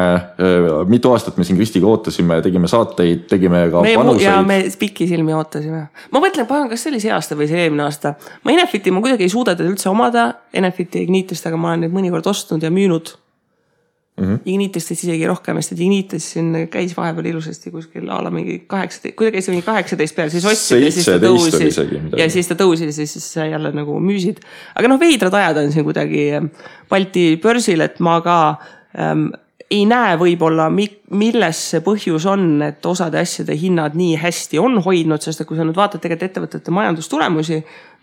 mitu aastat me siin Kristiga ootasime, tegime saateid, tegime ka panuseid. Ja me pikki silmi ootasime. Ma mõtlen, kas see oli see aasta või see eelmine aasta. Ma Enefiti ma kuidagi ei suuda üldse omada, Enefiti Ignitist, aga ma olen neid mõnikord ostnud ja müünud. Ignitist isegi rohkem, sest Ignitis siin käis vahepeal ilusasti kuskil ala mingi 18, kui ta käis mingi 18 peal, siis ostsid ja siis ta tõusis ja siis ta tõusis ja siis jälle nagu müüsid. Aga veidrad ajad on siin kuidagi Balti börsil, et ma ka ei näe võib-olla, milles see põhjus on, et osade asjade hinnad nii hästi on hoidnud, sest kui sa nüüd vaatad tegelikult ettevõtete majandustulemusi,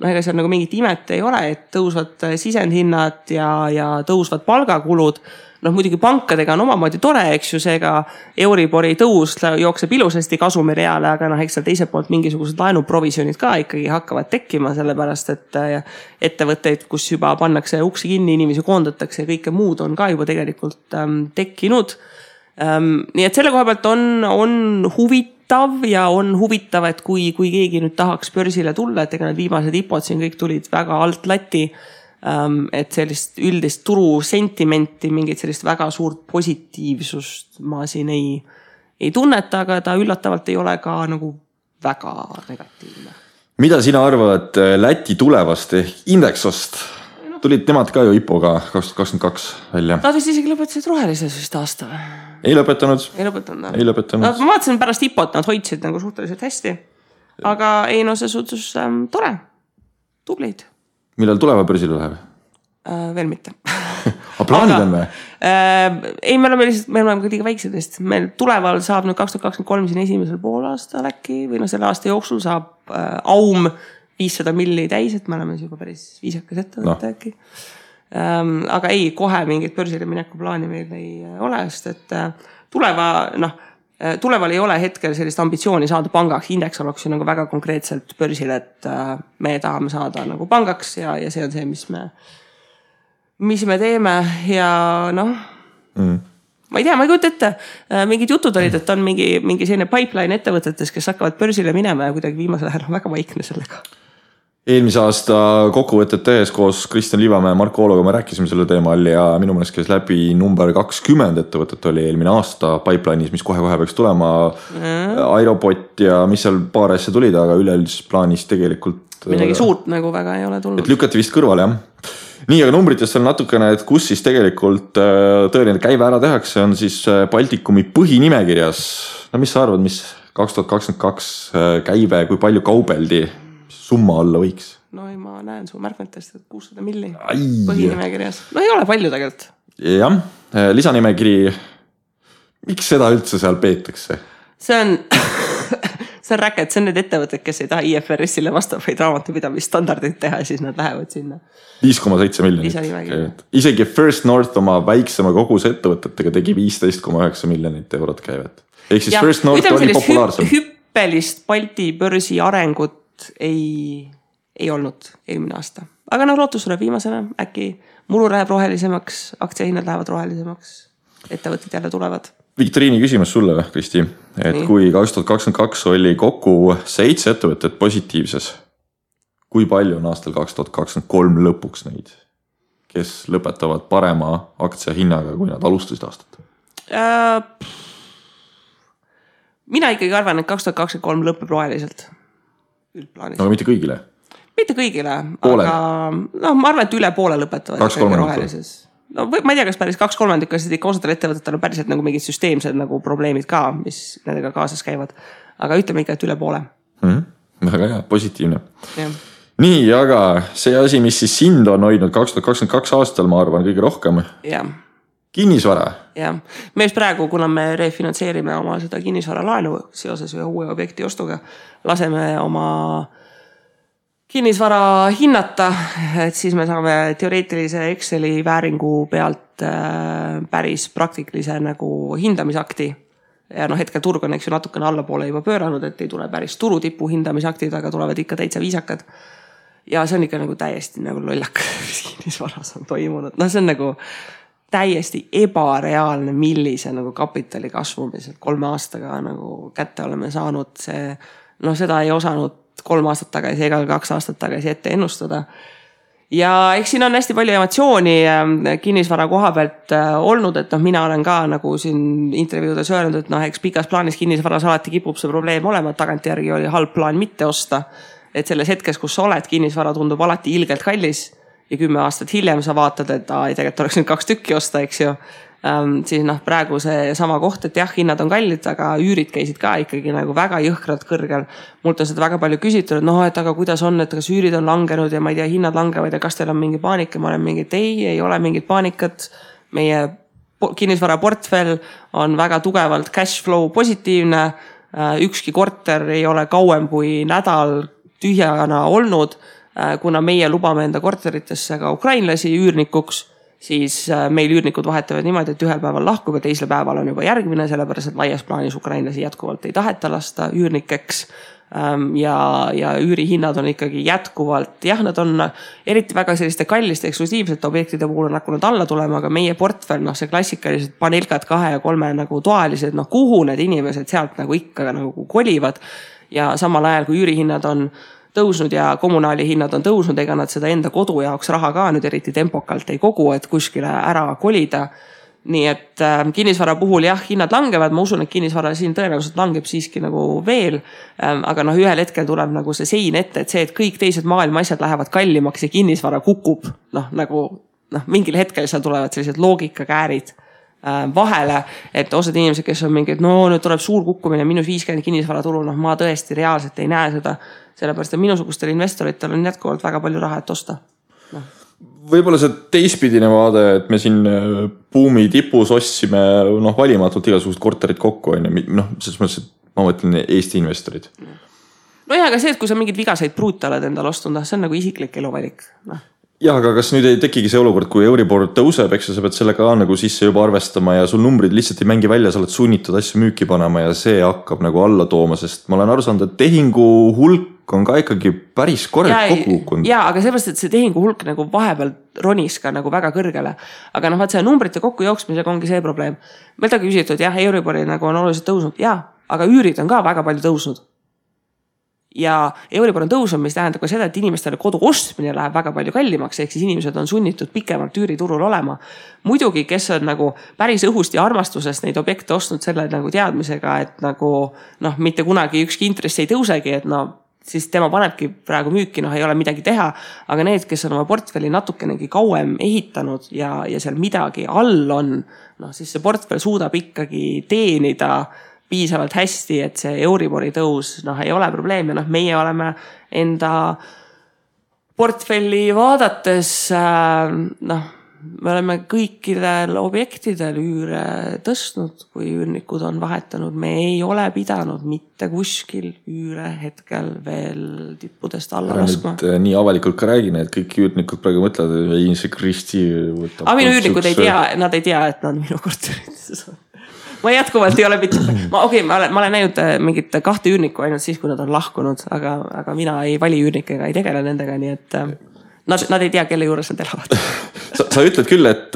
ega seal nagu mingit imet ei ole, et tõusvad sisendhinnad ja tõusvad palgakulud. Muidugi pankadega on omamoodi tore, eks ju, seega Euribori tõus jookseb ilusasti kasumireale, aga eks seal teiselt poolt mingisugused laenuprovisionid ka ikkagi hakkavad tekkima, sellepärast et ettevõtteid, kus juba pannakse uksi kinni, inimesi koondatakse ja kõike muud on ka juba tegelikult tekkinud. Nii et selle koha pealt on huvitav ja on huvitav, et kui keegi nüüd tahaks börsile tulla, et ega need viimased IPOd siin kõik tulid väga alt lati, et sellist üldist turu sentimenti, mingit sellist väga suurt positiivsust ma siin ei tunneta, aga ta üllatavalt ei ole ka nagu väga negatiivne. Mida sina arvad Läti tulevast Indexost? Tulid nemad ka ju IPO-ga 2022 välja. Nad vist isegi lõpetasid rohelises vist aasta. Ei lõpetanud. Ei lõpetanud. Ma vaatasin pärast IPO-t, nad hoidsid nagu suhteliselt hästi. Aga see suhtus tore. Tubleid. Millal tuleva börsile läheb? Veel mitte. Aga plaanid on või? Ei, me oleme ka liiga väiksedest. Meil tuleval saab nüüd 2023 siin esimesel poolaastal äkki, või selle aasta jooksul saab Aum 500 milli täis, et me oleme juba päris viisakas ettevõtte äkki. Aga ei, kohe mingit börsile mineku plaani meil ei ole, sest et tuleval ei ole hetkel sellist ambitsiooni saada pangaks. Index oleks ju nagu väga konkreetselt börsil, et me tahame saada nagu pangaks ja see on see, mis me teeme ja ma ei tea, ma ei kujuta ette. Mingid jutud olid, et on mingi selline pipeline ettevõtetes, kes hakkavad börsile minema ja kuidagi viimasel ajal väga vaikne sellega. Eelmise aasta kokkuvõtet tehes koos Kristjan Liivamäe ja Marko Oologa me rääkisime selle teemal ja minu meelest käis läbi number 20 ettevõtet oli eelmine aasta pipeline'is, mis kohe peaks tulema. Aerobot ja mis seal paar asja tulid, aga üleüldises plaanis tegelikult midagi suurt nagu väga ei ole tulnud. Et lükati vist kõrvale, jah. Nii, aga numbritest on natukene, et kus siis tegelikult tõeline käive ära tehakse, on siis Baltikumi põhinimekirjas. No mis sa arvad, mis 2022 käive, kui palju kaubeldi? summa olla võiks? No ei, ma näen su märkmetest, et 600 milli põhinimekirjas. No ei ole palju tegelikult. Jah, lisanimekiri, miks seda üldse seal peetakse? See on räket, see on need ettevõtted, kes ei taha IFRS-ile vastavaid raamatupidamisstandardeid teha, siis nad lähevad sinna. 5,7 miljonit. Isegi First North oma väiksema koguse ettevõtetega tegi 15,9 miljonit eurot käivet. Ehk siis First North oli populaarsem. Hüppelist Balti börsi arengut ei olnud eelmine aasta. Aga lootus tuleb viimasena, äkki muru läheb rohelisemaks, aktsiahinnad lähevad rohelisemaks, ettevõtted jälle tulevad. Viktoriini küsimus sulle, Kristi, et nii. Kui 2022 oli kokku 7 ettevõtet positiivses, kui palju on aastal 2023 lõpuks neid, kes lõpetavad parema aktsiahinnaga, kui nad alustasid aastat? Mina ikkagi arvan, et 2023 lõpeb roheliselt. Aga mitte kõigile? Mitte kõigile, aga ma arvan, et üle poole lõpetavad rohelises. No ma ei tea, kas päris 2/3, sest ikka osadel ettevõtetel on päriselt nagu mingid süsteemsed nagu probleemid ka, mis nendega kaasas käivad. Aga ütleme ikka, et üle poole. Väga hea, positiivne. Ja. Nii, aga see asi, mis siis sind on hoidnud 2022 aastal, ma arvan, kõige rohkem. Ja. Kinnisvara. Ja. Me just praegu, kuna me refinantseerime oma seda kinnisvara laenu seoses ühe uue objekti ostuga, laseme oma kinnisvara hinnata, et siis me saame teoreetilise Exceli vääringu pealt päris praktilise nagu hindamisakti. Ja hetkel turg on natukene allapoole juba pööranud, et ei tule päris turutipu hindamisaktid, aga tulevad ikka täitsa viisakad. Ja see on ikka nagu täiesti nagu lollak, mis kinnisvaras on toimunud. No see on nagu täiesti ebareaalne, millise nagu kapitali kasvumiselt 3 aastaga nagu kätte oleme saanud. Seda ei osanud 3 aastat tagasi ega 2 aastat tagasi ette ennustada. Ja eks siin on hästi palju emotsiooni kinnisvara koha pealt olnud, et mina olen ka nagu siin intervjuudes öelnud, et eks pikas plaanis kinnisvaras alati kipub see probleem olema, et tagantjärgi oli halb plaan mitte osta. Et selles hetkes, kus sa oled, kinnisvara tundub alati ilgelt kallis ja 10 aastat hiljem sa vaatad, et tegelikult oleks nüüd 2 tükki osta, eks ju. Siis praegu see sama koht, et jah, hinnad on kallid, aga üürid käisid ka ikkagi nagu väga jõhkralt kõrgel. Mult on seda väga palju küsitud, et aga kuidas on, et kas üürid on langenud ja ma ei tea, hinnad langevad ja kas teil on mingi paanika, ma olen mingi, et ei ole mingit paanikat. Meie kinnisvara portfell on väga tugevalt cash flow positiivne. Ükski korter ei ole kauem kui nädal tühjana olnud, kuna meie lubame enda korteritesse ka ukrainlasi üürnikuks, siis meil üürnikud vahetavad niimoodi, et ühel päeval lahkub ja teisel päeval on juba järgmine, sellepärast et laias plaanis ukrainlasi jätkuvalt ei taheta lasta üürnikeks. Ja üürihinnad on ikkagi jätkuvalt, jah, nad on eriti väga selliste kalliste eksklusiivsete objektide puhul on hakanud alla tulema, aga meie portfell, see klassikalised panelkad 2 ja 3 nagu toalised, kuhu need inimesed sealt nagu ikka nagu kolivad ja samal ajal kui üürihinnad on tõusnud ja kommunaali hinnad on tõusnud, ega nad seda enda kodu jaoks raha ka nüüd eriti tempokalt ei kogu, et kuskile ära kolida. Nii et kinnisvara puhul jah, hinnad langevad, ma usun, et kinnisvara siin tõenäoliselt langeb siiski nagu veel, aga ühel hetkel tuleb nagu see sein ette, et see, et kõik teised maailma asjad lähevad kallimaks ja kinnisvara kukub, mingil hetkel seal tulevad sellised loogikakäärid vahele, et osad inimesed, kes on mingid, nüüd tuleb suur kukkumine, -50 kinnisvara turul, ma tõesti reaalselt ei näe seda, sellepärast, et minusugustel investoritel on jätkuvalt väga palju raha, et osta. Võib-olla see teistpidine vaade, et me siin buumi tipus ostsime valimatult igasugused korterid kokku, selles mõttes, et ma mõtlen Eesti investorid. Aga see, et kui sa mingid vigaseid pruute oled endal ostunud, see on nagu isiklik eluvalik. Jah, aga kas nüüd ei tekigi see olukord, kui Euribor tõuseb, eks sa pead selle ka nagu sisse juba arvestama ja sul numbrid lihtsalt ei mängi välja, sa oled sunnitud asju müüki panema ja see hakkab nagu alla tooma, sest ma olen aru saanud, et tehingu hulk on ka ikkagi päris korralt kokku kukkunud. Jaa, aga seepärast, et see tehingu hulk nagu vahepeal ronis ka nagu väga kõrgele. Aga vaat see numbrite kokku jooksmisega ongi see probleem. Meil ta küsitud, jah, Euribori nagu on oluliselt tõusnud, jaa, aga üürid on ka väga palju tõusnud. Ja Euribor on tõusnud, mis tähendab ka seda, et inimestele kodu ostmine läheb väga palju kallimaks, ehk siis inimesed on sunnitud pikemalt üüriturul olema. Muidugi, kes on nagu päris õhust ja armastusest neid objekte ostnud selle nagu teadmisega, et nagu mitte kunagi ükski intress ei tõusegi, et siis tema panebki praegu müüki, ei ole midagi teha, aga need, kes on oma portfelli natukenegi kauem ehitanud ja seal midagi all on, siis see portfell suudab ikkagi teenida piisavalt hästi, et see Euribori tõus ei ole probleem ja meie oleme enda portfelli vaadates, me oleme kõikidel objektidel üüre tõstnud, kui üürnikud on vahetanud. Me ei ole pidanud mitte kuskil üüre hetkel veel tippudest alla laskma. Nii avalikult ka räägin, et kõik üürnikud praegu mõtlevad, et see Kristi võtab. Aga minu üürnikud ei tea, nad ei tea, et nad minu korterites on. Ma jätkuvalt ei ole ma olen näinud mingit 2 üürnikku ainult siis, kui nad on lahkunud, aga mina ei vali üürnikega, ei tegele nendega, nii et nad ei tea, kelle juures nad elavad. Sa ütled küll, et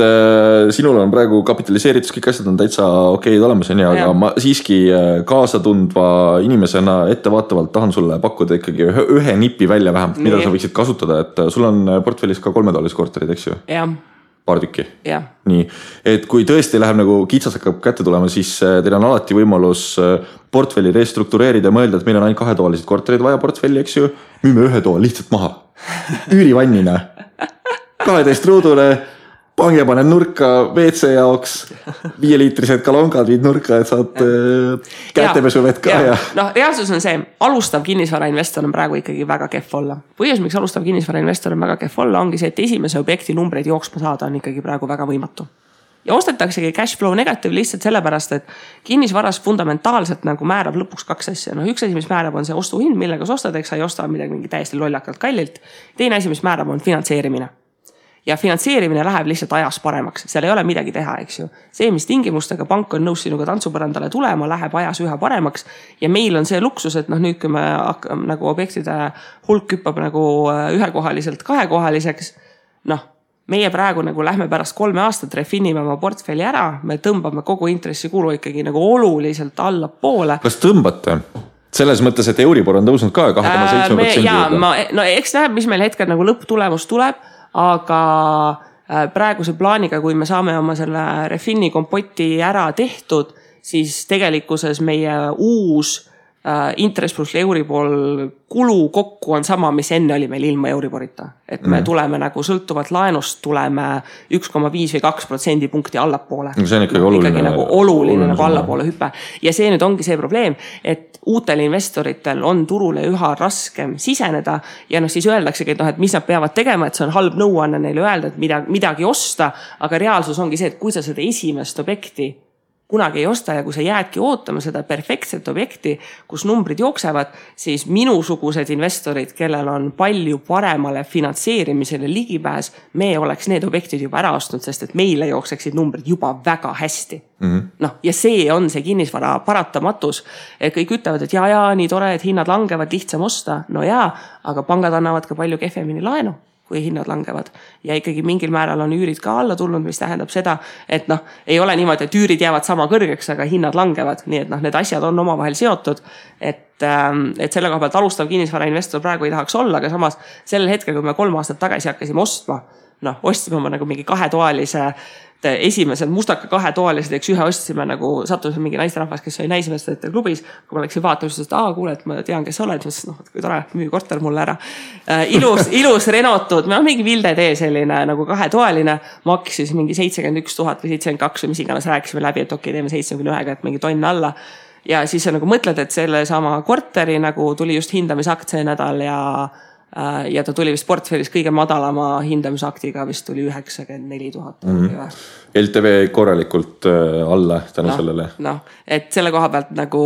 sinul on praegu kapitaliseeritus, kõik asjad on täitsa okeid olemas, aga ma siiski kaasa tundva inimesena ettevaatavalt tahan sulle pakkuda ikkagi ühe nipi välja vähemalt, mida sa võiksid kasutada, et sul on portfellis ka 3-toalised korterid, eks ju? Jah. Paar tükki. Yeah. Nii, et kui tõesti läheb nagu kitsas hakkab kätte tulema, siis teil on alati võimalus portfelli restruktureerida ja mõelda, et meil on ainult 2-toalised korterid vaja portfelli, eks ju. Müüme 1 toa lihtsalt maha. Üürivannina. 12 ruudule, pange panen nurka WC jaoks, 5-liitrised kalongad viid nurka, et saad kätepesuvett ka. No, reaalsus on see, alustav kinnisvarainvestor on praegu ikkagi väga kehv olla. Põhjus, miks alustav kinnisvarainvestor on väga kehv olla, ongi see, et esimese objekti numbreid jooksma saada on ikkagi praegu väga võimatu. Ja ostetaksegi cash flow negative lihtsalt sellepärast, et kinnisvaras fundamentaalselt nagu määrab lõpuks 2 asja. Üks asi, mis määrab, on see ostuhind, millega sa ostad, eks sa ei osta midagi mingi täiesti lollakalt kallilt. Teine asi, mis määrab, on finantseerimine. Ja finantseerimine läheb lihtsalt ajas paremaks. Seal ei ole midagi teha, eks ju. See, mis tingimustega pank on nõus sinuga tantsupõrandale tulema, läheb ajas üha paremaks. Ja meil on see luksus, et nüüd, kui me nagu objektide hulk hüppab nagu 1-kohaliselt 2-kohaliseks, meie praegu nagu lähme pärast 3 aastat refinime oma portfelli ära, me tõmbame kogu intressikulu ikkagi nagu oluliselt alla poole. Kas tõmbate? Selles mõttes, et Euribor on tõusnud ka 2,7%. No eks näeb, mis meil hetkel nagu lõpptulemus tuleb, aga praeguse plaaniga, kui me saame oma selle refini kompoti ära tehtud, siis tegelikkuses meie uus interest pluss Euribor kulu kokku on sama, mis enne oli meil ilma Euriborita. Et me tuleme nagu sõltuvalt laenust, tuleme 1,5 või 2% punkti allapoole. See on ikkagi oluline. Ikkagi nagu oluline nagu allapoole hüppe. Ja see nüüd ongi see probleem, et uutel investoritel on turule üha raskem siseneda ja siis öeldaksegi, et mis nad peavad tegema, et see on halb nõuanne neile öelda, et midagi osta, aga reaalsus ongi see, et kui sa seda esimest objekti kunagi ei osta ja kui sa jäädki ootama seda perfektset objekti, kus numbrid jooksevad, siis minusugused investorid, kellel on palju paremale finantseerimisele ligipääs, me oleks need objektid juba ära ostnud, sest et meile jookseksid numbrid juba väga hästi. Ja see on see kinnisvara paratamatus. Kõik ütlevad, et nii tore, et hinnad langevad, lihtsam osta. No aga pangad annavad ka palju kehvemini laenu, kui hinnad langevad. Ja ikkagi mingil määral on üürid ka alla tulnud, mis tähendab seda, et ei ole niimoodi, et üürid jäävad sama kõrgeks, aga hinnad langevad. Nii et need asjad on omavahel seotud, et selle koha pealt alustav kinnisvarainvestor praegu ei tahaks olla, aga samas sellel hetkel, kui me 3 aastat tagasi hakkasime ostma, ostsime oma nagu mingi 2-toalise esimesed mustaka 2-toalised, eks ühe ostsime nagu sattusime mingi naisterahvas, kes oli naismestajate klubis. Kui ma läksin vaatama, siis kuule, et ma tean, kes sa oled. Kui tore, müü korter mulle ära. Ilus renotud, mingi Vilde tee selline nagu 2-toaline, maksis mingi 71 000 või 72 või mis iganes rääkisime läbi, et okei, teeme 71-ga, et mingi tonn alla. Ja siis sa nagu mõtled, et selle sama korteri nagu tuli just hindamisaktsee nädal ja ta tuli vist portfellis kõige madalama hindamisaktiga, vist tuli 94 000. LTV korralikult alla tänu sellele. Et selle koha pealt nagu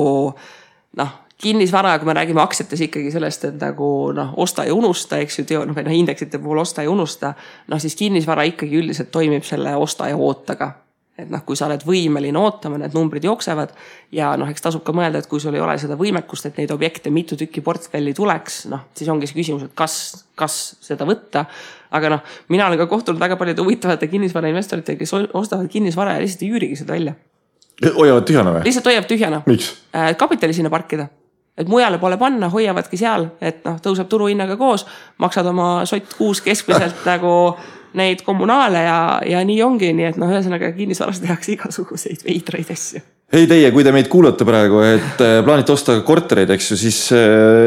kinnisvara, kui me räägime aktsiates ikkagi sellest, et nagu osta ja unusta, eks ju, indeksite puhul osta ja unusta, siis kinnisvara ikkagi üldiselt toimib selle osta ja ootaga. Et kui sa oled võimeline ootama, need numbrid jooksevad ja eks tasub ka mõelda, et kui sul ei ole seda võimekust, et neid objekte mitu tükki portfelli tuleks, siis ongi see küsimus, et kas seda võtta. Aga mina olen ka kohtunud väga palju huvitavate kinnisvarainvestorite, kes ostavad kinnisvara ja lihtsalt ei üürigi seda välja. Hoiavad tühjana või? Lihtsalt hoiavad tühjana. Miks? Kapitali sinna parkida. Et mujale pole panna, hoiavadki seal, et tõuseb turuhinnaga koos, maksad oma sott kuus keskmiselt nagu neid kommunaale ja nii ongi, nii et ühesõnaga kinnisvaras tehakse igasuguseid veidraid asju. Hei teie, kui te meid kuulate praegu, et plaanite osta kortereid, eks ju, siis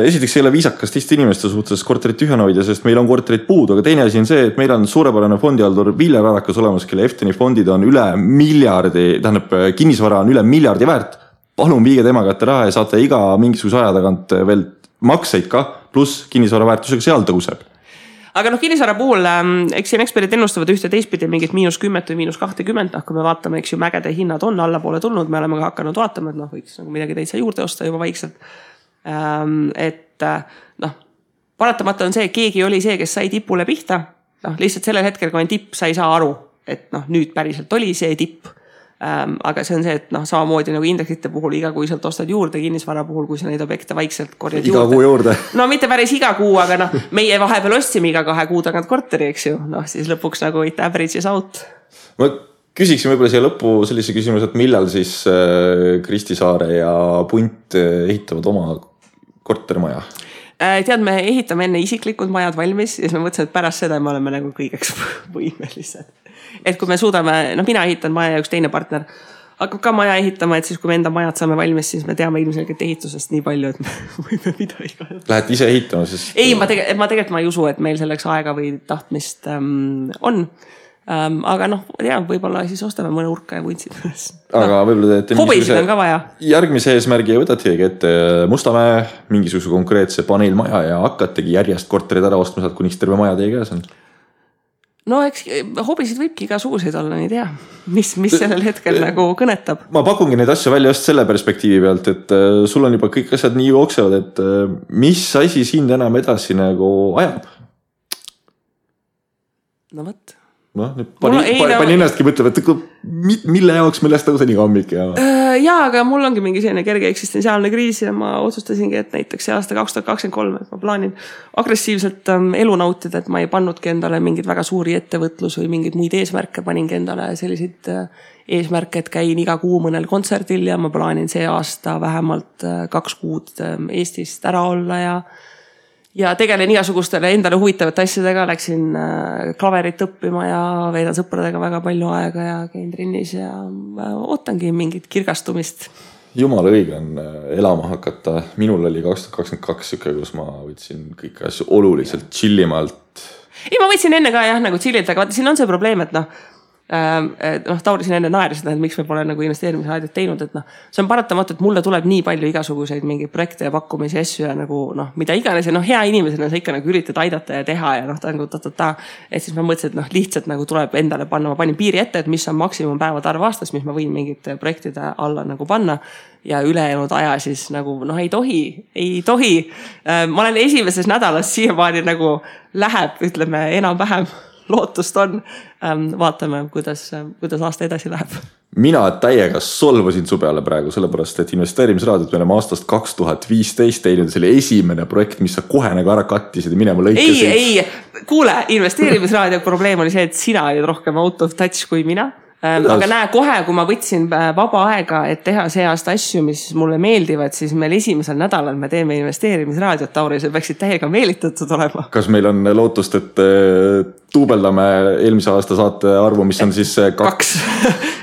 esiteks ei ole viisakas teiste inimeste suhtes korterit tühjana hoida, sest meil on korterid puudu, aga teine asi on see, et meil on suurepärane fondihaldur Viljar Arakas olemas, kelle Efteni fondid on üle miljardi, tähendab kinnisvara on üle miljardi väärt. Palun viige tema kätte raha ja saate iga mingisuguse aja tagant veel makseid ka, pluss kinnisvara väärtusega seal tõuseb. Aga kinnisvara puhul, eks siin eksperdid ennustavad ühte teistpidi mingit -10 või -20, kui me vaatame, eks ju, mägede hinnad on allapoole tulnud, me oleme ka hakanud vaatama, et võiks nagu midagi täitsa juurde osta juba vaikselt. Et paratamata on see, keegi oli see, kes sai tipule pihta, lihtsalt sellel hetkel, kui on tipp, sa ei saa aru, et nüüd päriselt oli see tipp. Aga see on see, et samamoodi nagu indeksite puhul igakuiselt ostad juurde, kinnisvara puhul, kui sa neid objekte vaikselt korjad iga kuu juurde. No mitte päris iga kuu, aga meie vahepeal ostsime iga 2 kuu tagant korteri, eks ju. Siis lõpuks nagu it averages out. Ma küsiksin võib-olla siia lõppu sellise küsimus, et millal siis Kristi Saare ja Punt ehitavad oma kortermaja? Tead, me ehitame enne isiklikud majad valmis ja siis me mõtlesime, et pärast seda me oleme nagu kõigeks võimelised. Et kui me suudame, mina ehitan maja ja üks teine partner hakkab ka maja ehitama, et siis kui me enda majad saame valmis, siis me teame ilmselgelt ehitusest nii palju, et me võime midagi ka. Lähete ise ehitama siis? Ei, ma tegelikult ei usu, et meil selleks aega või tahtmist on. Aga võib-olla siis ostame mõne urka ja vuntsid. Aga võib-olla teete hobisid on ka vaja. Järgmise eesmärgi võtategi ette Mustamäe mingisuguse konkreetse paneelmaja ja hakkategi järjest korterid ära ostma saad, kuniks terve maja teie käes on. No eks hobisid võibki igasuguseid olla, nii tea, mis sellel hetkel nagu kõnetab. Ma pakungi neid asju välja just selle perspektiivi pealt, et sul on juba kõik asjad nii jooksevad, et mis asi sind enam edasi nagu ajab? No võt. Pani ennastki mõtlema, et mille jaoks millest tõusa nii hommik ja... Jaa, aga mul ongi mingi selline kerge eksistentsiaalne kriis ja ma otsustasingi, et näiteks see aasta 2023, et ma plaanin agressiivselt elu nautida, et ma ei pannudki endale mingid väga suuri ettevõtlus või mingid muid eesmärke, paningi endale selliseid eesmärke, et käin iga kuu mõnel kontserdil ja ma plaanin see aasta vähemalt 2 kuud Eestist ära olla ja tegelen igasugustele endale huvitavate asjadega, läksin klaverit õppima ja veedan sõpradega väga palju aega ja käin trennis ja ootangi mingit kirgastumist. Jumala õige on elama hakata. Minul oli 2022 süke, kus ma võtsin kõik asju oluliselt chillimalt. Ei, ma võtsin enne ka nagu chillilt, aga vaata, siin on see probleem, et Tauri siin enne naeris seda, et miks me pole nagu investeerimisraadiot teinud, et see on paratamatu, et mulle tuleb nii palju igasuguseid mingeid projekte ja pakkumisi asju ja nagu mida iganes ja hea inimesena sa ikka nagu üritad aidata ja teha ja ta nagu et siis ma mõtlesin, et lihtsalt nagu tuleb endale panna, ma panin piiri ette, et mis on maksimum päevade arv aastas, mis ma võin mingite projektide alla nagu panna ja ülejäänud aja siis nagu ei tohi. Ma olen esimeses nädalas siiamaani nagu läheb, ütleme enam-vähem lootust on. Vaatame, kuidas aasta edasi läheb. Mina täiega solvasin su peale praegu, sellepärast, et investeerimisraadiot me oleme aastast 2015 teinud selle esimene projekt, mis sa kohe nagu ära kattisid ja minema lõikasid. Ei, kuule, investeerimisraadio probleem oli see, et sina olid rohkem out of touch kui mina. Aga näe, kohe, kui ma võtsin vaba aega, et teha see aasta asju, mis mulle meeldivad, siis meil esimesel nädalal me teeme investeerimisraadiot, Tauri, see peaksid täiega meelitatud olema. Kas meil on lootust, et tuubeldame eelmise aasta saate arvu, mis on siis 2?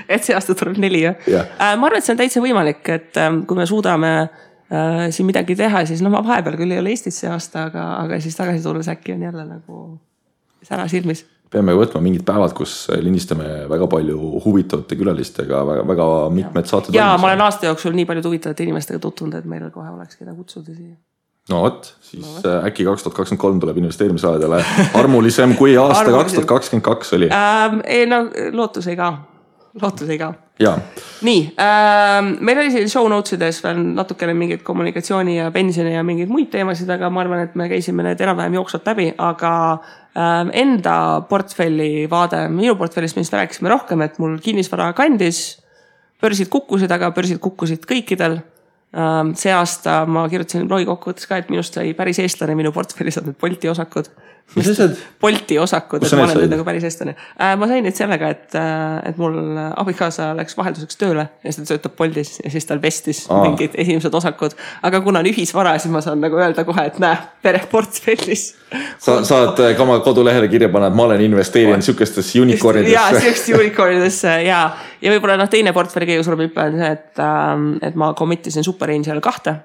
Et see aasta tuleb 4, jah? Ma arvan, et see on täitsa võimalik, et kui me suudame siin midagi teha, siis ma vahepeal küll ei ole Eestis see aasta, aga siis tagasi tulles äkki on jälle nagu sära silmis. Peame võtma mingid päevad, kus lindistame väga palju huvitavate külalistega, väga mitmed saated. Ja ma olen aasta jooksul nii palju huvitavate inimestega tutvunud, et meil kohe oleks keda kutsuda siia. No võt, siis äkki 2023 tuleb investeerimisraadiale armulisem kui aasta 2022 oli. Lootus ei ka. Ja. Nii, meil oli siin show notesides veel natukene mingid kommunikatsiooni ja pensioni ja mingid muid teemasid, aga ma arvan, et me käisime need enam-vähem jooksvalt läbi, aga enda portfelli vaade, minu portfellist millest rääkisime rohkem, et mul kinnisvara kandis, börsid kukkusid, aga börsid kukkusid kõikidel. See aasta ma kirjutasin blogi kokkuvõttes ka, et minust sai päris eestlane, minu portfellis on need Bolti osakud. Mis asjad? Bolti osakud, et ma olen nüüd nagu päris eestlane. Ma sain nüüd sellega, et mul abikaasa läks vahelduseks tööle ja seda töötab Boltis ja siis tal vestis mingid esimesed osakud. Aga kuna on ühisvara, siis ma saan nagu öelda kohe, et näe, pere portfellis. Saad ka oma kodulehele kirja panna, et ma olen investeerinud sükestes unicornidesse. Jaa, sükestes unicornidesse, jaa. Ja võib-olla teine portfelli kõige suurem hüppe on see, et ma committisin Superangel 2.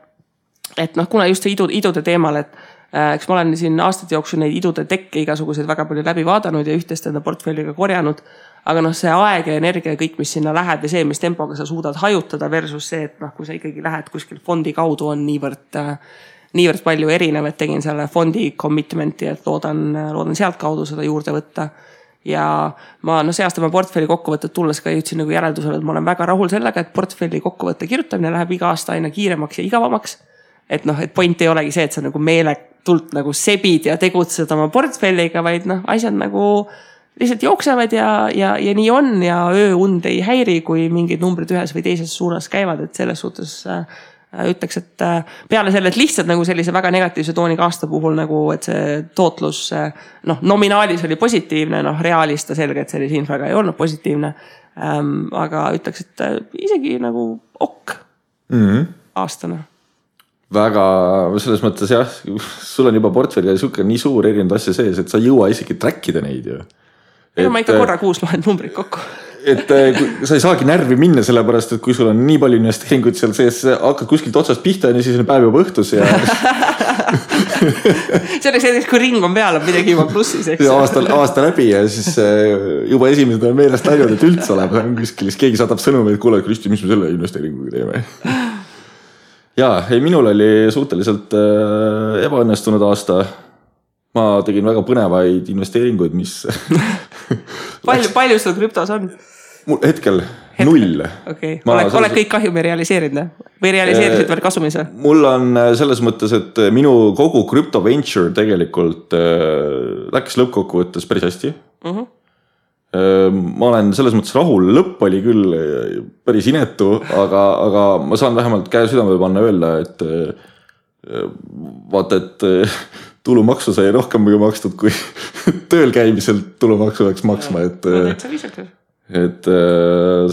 Et kuna just see idude teemal, et eks ma olen siin aastate jooksul neid idude tekke igasuguseid väga palju läbi vaadanud ja ühtest enda portfelliga korjanud. Aga see aeg ja energia ja kõik, mis sinna läheb ja see, mis tempoga sa suudad hajutada versus see, et kui sa ikkagi lähed kuskil fondi kaudu on niivõrd niivõrd palju erinev, et tegin selle fondi commitmenti, et loodan sealt kaudu seda juurde võtta. Ja ma see aasta ma portfelli kokkuvõtted tulles ka jõudsin nagu järeldusele, et ma olen väga rahul sellega, et portfelli kokkuvõtte kirjutamine läheb iga aasta aina kiiremaks ja igavamaks. Et et point ei olegi see, et sa nagu meeletult nagu sebid ja tegutsed oma portfelliga, vaid asjad nagu lihtsalt jooksevad ja nii on ja ööund ei häiri, kui mingid numbrid ühes või teises suunas käivad, et selles suhtes ütleks, et peale selle, et lihtsalt nagu sellise väga negatiivse tooniga aasta puhul nagu, et see tootlus nominaalis oli positiivne, reaalis ta selge, et sellise infraga ei olnud positiivne, aga ütleks, et isegi nagu aastana. Väga, selles mõttes jah, sul on juba portfelli ja nii suur erinevad asja sees, et sa ei jõua isegi trackida neid ju. Ma ikka korra kuus loen numbrid kokku. Et sa ei saagi närvi minna sellepärast, et kui sul on nii palju investeeringuid seal sees, hakkad kuskilt otsast pihta ja siis on päev juba õhtus ja selleks hetkeks, kui ring on peal, on midagi juba plussis, eks. Aasta läbi ja siis juba esimesed on meelest läinud, et üldse oleb kuskil, keegi saadab sõnumi, et kuule, Kristi, mis me selle investeeringuga teeme? Jaa, minul oli suhteliselt ebaõnnestunud aasta. Ma tegin väga põnevaid investeeringuid, mis palju sul krüptos on? Mul hetkel 0. Okay. Oled kõik kahjumi realiseerinud või realiseerisid veel kasumis? Mul on selles mõttes, et minu kogu crypto venture tegelikult läks lõppkokkuvõttes päris hästi. Ma olen selles mõttes rahul, lõpp oli küll päris inetu, aga ma saan vähemalt käe südame panna öelda, et vaata, et tulumaksu sai rohkem makstud, kui tööl käimiselt tulumaksu läks maksma, et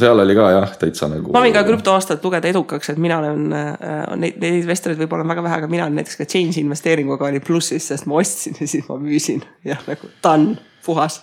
seal oli ka jah, täitsa nagu. Ma võin ka krüptoaastat lugeda edukaks, et mina olen, neid investorid võib-olla on väga vähe, aga mina olen näiteks ka change investeeringuga oli plussis, sest ma ostsin ja siis ma müüsin ja nagu done, puhas.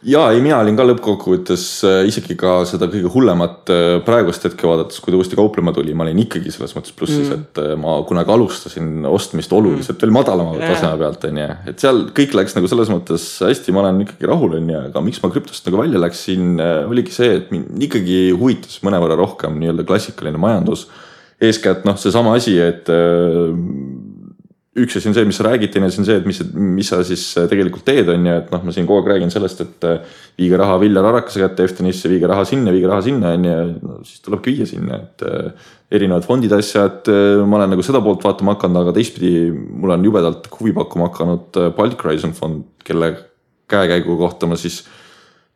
Jaa, mina olin ka lõppkokkuvõttes isegi ka seda kõige hullemat praegust hetke vaadates, kui ta uuesti kauplema tuli, ma olin ikkagi selles mõttes plussis, et ma kunagi alustasin ostmist oluliselt veel madalama taseme pealt, et seal kõik läks nagu selles mõttes hästi, ma olen ikkagi rahul, aga miks ma krüptost nagu välja läksin, oligi see, et mind ikkagi huvitas mõnevõrra rohkem nii-öelda klassikaline majandus. Eeskätt see sama asi, et üks asi on see, mis sa räägid, teine asi on see, et mis sa siis tegelikult teed on ja et ma siin kogu aeg räägin sellest, et viige raha Viljar Arakase kätte Eftenisse, viige raha sinna on ja siis tulebki viia sinna, et erinevad fondid asjad, ma olen nagu seda poolt vaatama hakanud, aga teistpidi mul on jubedalt huvi pakkuma hakanud Baltic Horizon fond, kelle käekäigu kohta ma siis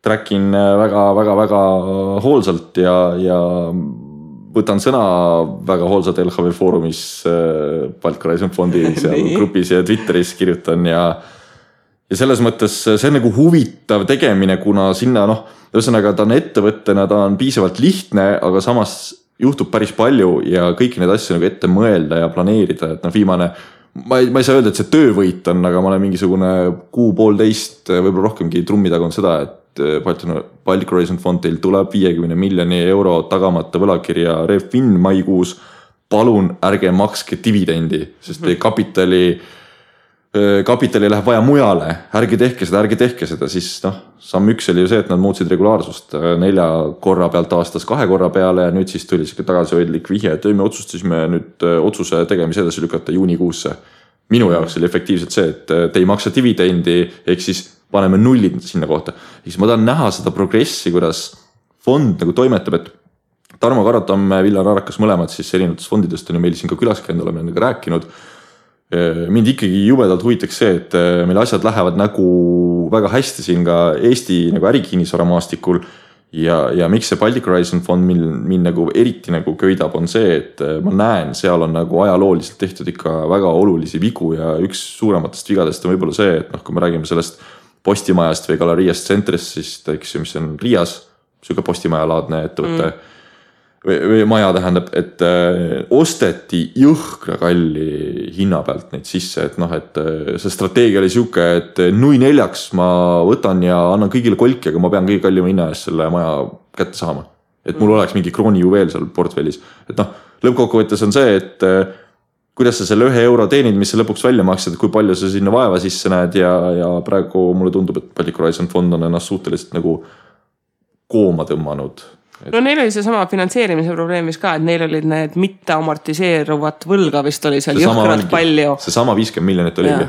trackin väga hoolsalt ja võtan sõna väga hoolsalt LHV foorumis Baltic Horizon fondi seal grupis ja Twitteris kirjutan ja selles mõttes see on nagu huvitav tegemine, kuna sinna ühesõnaga ta on ettevõttena, ta on piisavalt lihtne, aga samas juhtub päris palju ja kõiki need asju nagu ette mõelda ja planeerida, et viimane, ma ei saa öelda, et see töövõit on, aga ma olen mingisugune 6,5, võib-olla rohkemgi trummi taga on seda, et Baltic Horizon fond teil tuleb 50 miljoni euro tagamata võlakirja Refin maikuus, palun ärge makske dividendi, sest teie kapitali läheb vaja mujale, ärge tehke seda, siis samm üks oli ju see, et nad muutsid regulaarsust 4 korra pealt aastas 2 korra peale ja nüüd siis tuli siuke tagasihoidlik vihje, et me otsustasime nüüd otsuse tegemise edasi lükata juunikuusse. Minu jaoks oli efektiivselt see, et te ei maksa dividendi, ehk siis paneme nullid sinna kohta. Siis ma tahan näha seda progressi, kuidas fond nagu toimetab, et Tarmo Karatam, Viljar Arakas mõlemad siis erinevatest fondidest on ju meil siin ka külas käinud, oleme nendega rääkinud. Mind ikkagi jubedalt huvitaks see, et meil asjad lähevad nagu väga hästi siin ka Eesti nagu ärikinnisvara maastikul ja miks see Baltic Horizon fond mind nagu eriti nagu köidab on see, et ma näen, seal on nagu ajalooliselt tehtud ikka väga olulisi vigu ja üks suurematest vigadest on võib-olla see, et kui me räägime sellest Postimajast või Galeriast Centrist, siis eks mis on Riias, siuke postimajalaadne ettevõte või maja tähendab, et osteti jõhkra kalli hinna pealt neid sisse, et see strateegia oli siuke, et 0,4 ma võtan ja annan kõigile kolki, aga ma pean kõige kallima hinna eest selle maja kätte saama. Et mul oleks mingi krooni juveel seal portfellis. Et lõppkokkuvõttes on see, et kuidas sa selle 1 euro teenid, mis sa lõpuks välja maksad, kui palju sa sinna vaeva sisse näed ja praegu mulle tundub, et Baltic Horizon fond on ennast suhteliselt nagu kooma tõmmanud. No neil oli see sama finantseerimise probleemis ka, et neil olid need mitte amortiseeruvat võlga vist oli seal jõhkralt palju. See sama 50 miljonit oligi,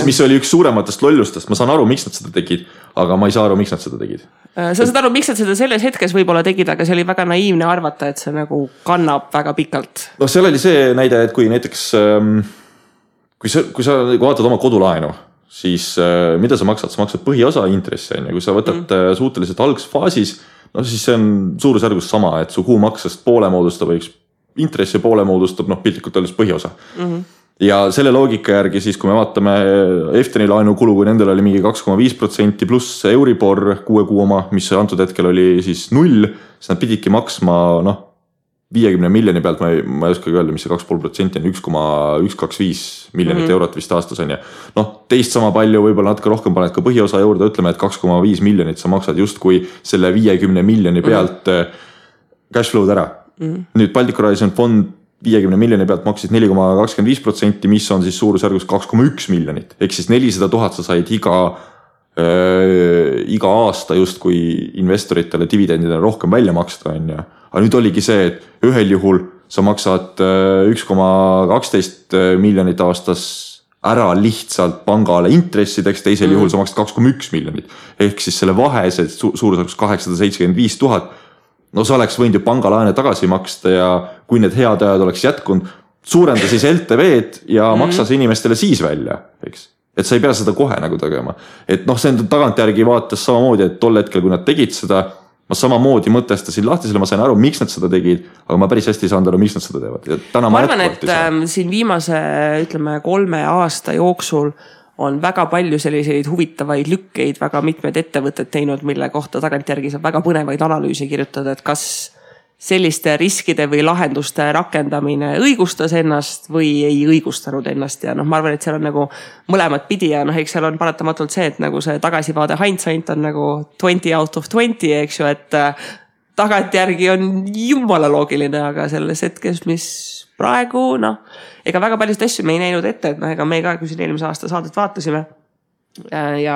mis oli üks suurematest lollustest. Ma saan aru, miks nad seda tegid, aga ma ei saa aru, miks nad seda tegid. Sa saad aru, miks nad seda selles hetkes võib-olla tegid, aga see oli väga naiivne arvata, et see nagu kannab väga pikalt. No seal oli see näide, et kui näiteks, kui sa vaatad oma kodulaenu, siis mida sa maksad? Sa maksad põhiosa intressi, ja kui sa võtad suhteliselt algsfaasis, no siis see on suurusjärgus sama, et su kuumaksest poole moodustab, intressi poole moodustab, piltlikult öeldes põhiosa. Ja selle loogika järgi siis, kui me vaatame Efteni laenukulu, kui nendel oli mingi 2,5% pluss Euribor 6 kuu oma, mis antud hetkel oli siis 0, siis nad pididki maksma 50 miljoni pealt, ma ei oska öelda, mis see 2,5% on, 1,125 miljonit eurot vist aastas on ja teist sama palju, võib-olla natuke rohkem paned ka põhiosa juurde, ütleme, et 2,5 miljonit sa maksad just kui selle 50 miljoni pealt cash flow'd ära. Nüüd Baltic Horizon fond 50 miljoni pealt maksid 4,25%, mis on siis suurusjärgus 2,1 miljonit. Ehk siis 400 000 sa said iga aasta just kui investoritele dividendidele rohkem välja maksta on ja. Aga nüüd oligi see, et ühel juhul sa maksad 1,12 miljonit aastas ära lihtsalt pangale intressideks, teisel juhul sa maksad 2,1 miljonit. Ehk siis selle vahe, see suurusjärgus 875 000, no sa oleks võinud ju pangalaene tagasi maksta ja kui need head ajad oleks jätkunud, suurenda siis LTV-d ja maksa see inimestele siis välja, eks. Et sa ei pea seda kohe nagu tegema. Et see on tagantjärgi vaates samamoodi, et tol hetkel, kui nad tegid seda, ma samamoodi mõtestasin lahti selle, ma sain aru, miks nad seda tegid, aga ma päris hästi ei saanud aru, miks nad seda teevad. Ja ma arvan, et siin viimase, ütleme, 3 aasta jooksul on väga palju selliseid huvitavaid lükkeid, väga mitmed ettevõtted teinud, mille kohta tagantjärgi saab väga põnevaid analüüse kirjutada, et kas selliste riskide või lahenduste rakendamine õigustas ennast või ei õigustanud ennast ja ma arvan, et seal on nagu mõlemad pidi ja eks seal on paratamatult see, et nagu see tagasivaade hindsight on nagu 20 out of 20, eks ju, et tagantjärgi on jumala loogiline, aga selles hetkes, mis praegu, ega väga paljust asju me ei näinud ette, et ega me ka, kui siin eelmise aasta saadet vaatasime ja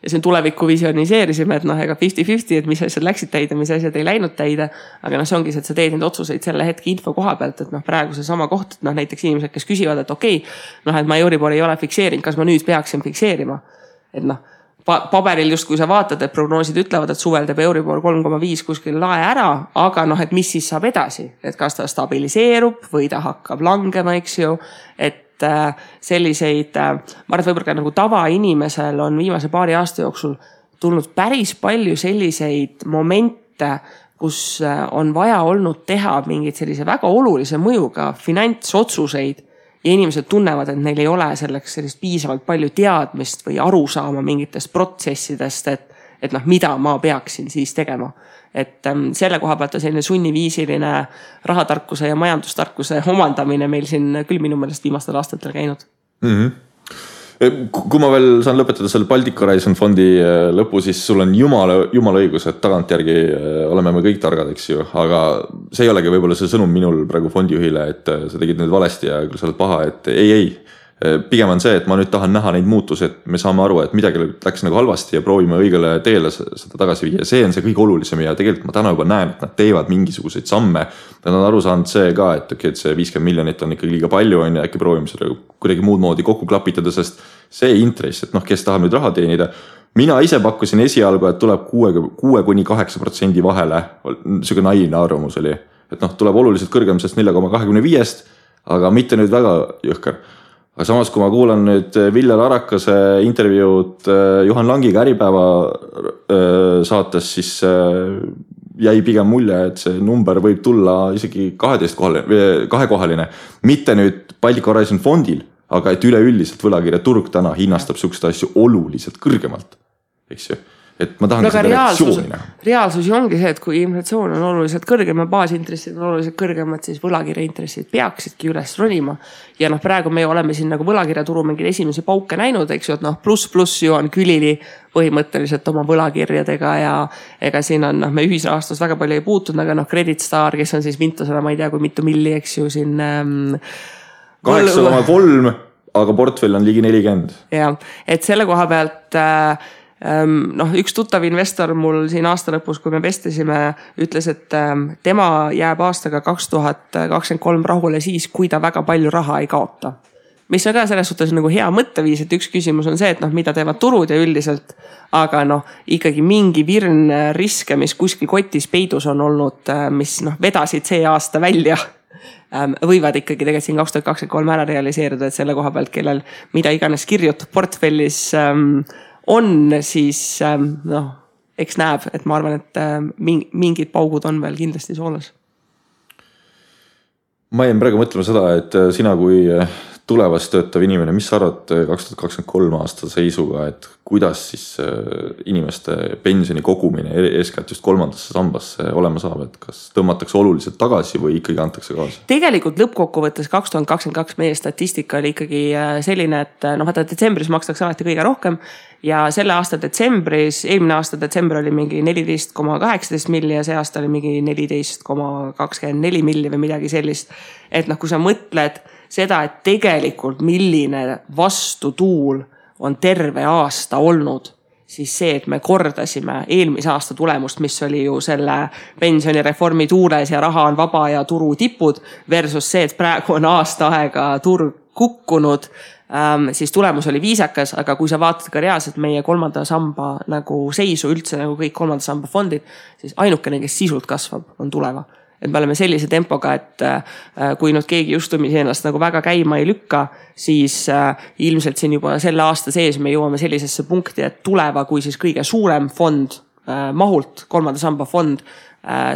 siin tulevikku visioniseerisime, et ega 50-50, et mis asjad läksid täide, mis asjad ei läinud täide, aga see ongi see, et sa teed neid otsuseid selle hetke info koha pealt, et praegu see sama koht, et näiteks inimesed, kes küsivad, et okei, et ma Euribor ei ole fikseerinud, kas ma nüüd peaksin fikseerima, et paberil just kui sa vaatad, et prognoosid ütlevad, et suvel teeb Euribor 3,5 kuskil lae ära, aga et mis siis saab edasi, et kas ta stabiliseerub või ta hakkab langema, eks ju, et selliseid, ma arvan, et võib-olla nagu tavainimesel on viimase paari aasta jooksul tulnud päris palju selliseid momente, kus on vaja olnud teha mingid sellise väga olulise mõjuga finantsotsuseid ja inimesed tunnevad, et neil ei ole selleks sellist piisavalt palju teadmist või arusaama mingitest protsessidest, et mida ma peaksin siis tegema. Et selle koha pealt on selline sunniviisiline rahatarkuse ja majandustarkuse omandamine meil siin küll minu meelest viimastel aastatel käinud. Kui ma veel saan lõpetada selle Baltic Horizon fondi lõpu, siis sul on jumala õigus, et tagantjärgi oleme me kõik targad, eks ju, aga see ei olegi võib-olla see sõnum minul praegu fondijuhile, et sa tegid nüüd valesti ja küll sa oled paha, et ei. Pigem on see, et ma nüüd tahan näha neid muutusi, et me saame aru, et midagi läks nagu halvasti ja proovime õigele teele seda tagasi viia. See on see kõige olulisem ja tegelikult ma täna juba näen, et nad teevad mingisuguseid samme. Nad on aru saanud see ka, et see 50 miljonit on ikkagi liiga palju ja äkki proovime seda kuidagi muud moodi kokku klapitada, sest see intress, et kes tahab nüüd raha teenida. Mina ise pakkusin esialgu, et tuleb 6-8% vahele, selline naiivne arvamus oli, et tuleb oluliselt kõrgem sest 4,25, aga mitte nüüd väga jõhker. Aga samas, kui ma kuulan nüüd Viljar Arakase intervjuud Juhan Langiga Äripäeva saates, siis jäi pigem mulje, et see number võib tulla isegi 2-kohaline. Mitte nüüd Baltic Horizon fondil, aga et üleüldiselt võlakirjaturg täna hinnastab sükst asju oluliselt kõrgemalt. Eks ju? Et ma tahan seda reaktsiooni näha. Reaalsus ongi see, et kui inflatsioon on oluliselt kõrgem ja baasintressid on oluliselt kõrgemad, siis võlakirjaintressid peaksidki üles ronima. Ja praegu me oleme siin nagu võlakirjaturu mingid esimesi pauke näinud, eks ju, et pluss ju on külili põhimõtteliselt oma võlakirjadega ja ega siin on, me ühisrahastus väga palju ei puutunud, aga Credit Star, kes on siis vintusena, ma ei tea, kui mitu milli, eks ju, siin 8,3, aga portfell on ligi 40. Ja, et selle koha pealt noh, üks tuttav investor mul siin aasta lõpus, kui me vestlesime, ütles, et tema jääb aastaga 2023 rahule siis, kui ta väga palju raha ei kaota. Mis on ka selles suhtes nagu hea mõtteviis, et üks küsimus on see, et noh, mida teevad turud ja üldiselt, aga noh, ikkagi mingi virn riske, mis kuskil kotis peidus on olnud, mis noh, vedasid see aasta välja, võivad ikkagi tegelikult siin 2023 ära realiseeruda, et selle koha pealt, kellel mida iganes kirjutab portfellis on, siis noh, eks näeb, et ma arvan, et mingid paugud on veel kindlasti soolas. Ma jäin praegu mõtlema seda, et sina kui tulevast töötav inimene, mis sa arvad 2023 aasta seisuga, et kuidas siis inimeste pensioni kogumine eeskätt just kolmandasse sambasse olema saab, et kas tõmmatakse oluliselt tagasi või ikkagi antakse kaasa? Tegelikult lõppkokkuvõttes 2022 meie statistika oli ikkagi selline, et noh, vaata detsembris makstakse alati kõige rohkem ja selle aasta detsembris, eelmine aasta detsember oli mingi 14,18 milli ja see aasta oli mingi 14,24 milli või midagi sellist. Et noh, kui sa mõtled seda, et tegelikult milline vastutuul on terve aasta olnud, siis see, et me kordasime eelmise aasta tulemust, mis oli ju selle pensionireformi tuules ja raha on vaba ja turu tipud versus see, et praegu on aasta aega turg kukkunud, siis tulemus oli viisakas, aga kui sa vaatad ka reaalselt meie kolmanda samba nagu seisu üldse nagu kõik kolmanda samba fondid, siis ainukene, kes sisult kasvab, on tuleva. Et me oleme sellise tempoga, et kui nüüd keegi justumisi ennast nagu väga käima ei lükka, siis ilmselt siin juba selle aasta sees me jõuame sellisesse punkti, et tuleva kui siis kõige suurem fond mahult, kolmanda samba fond,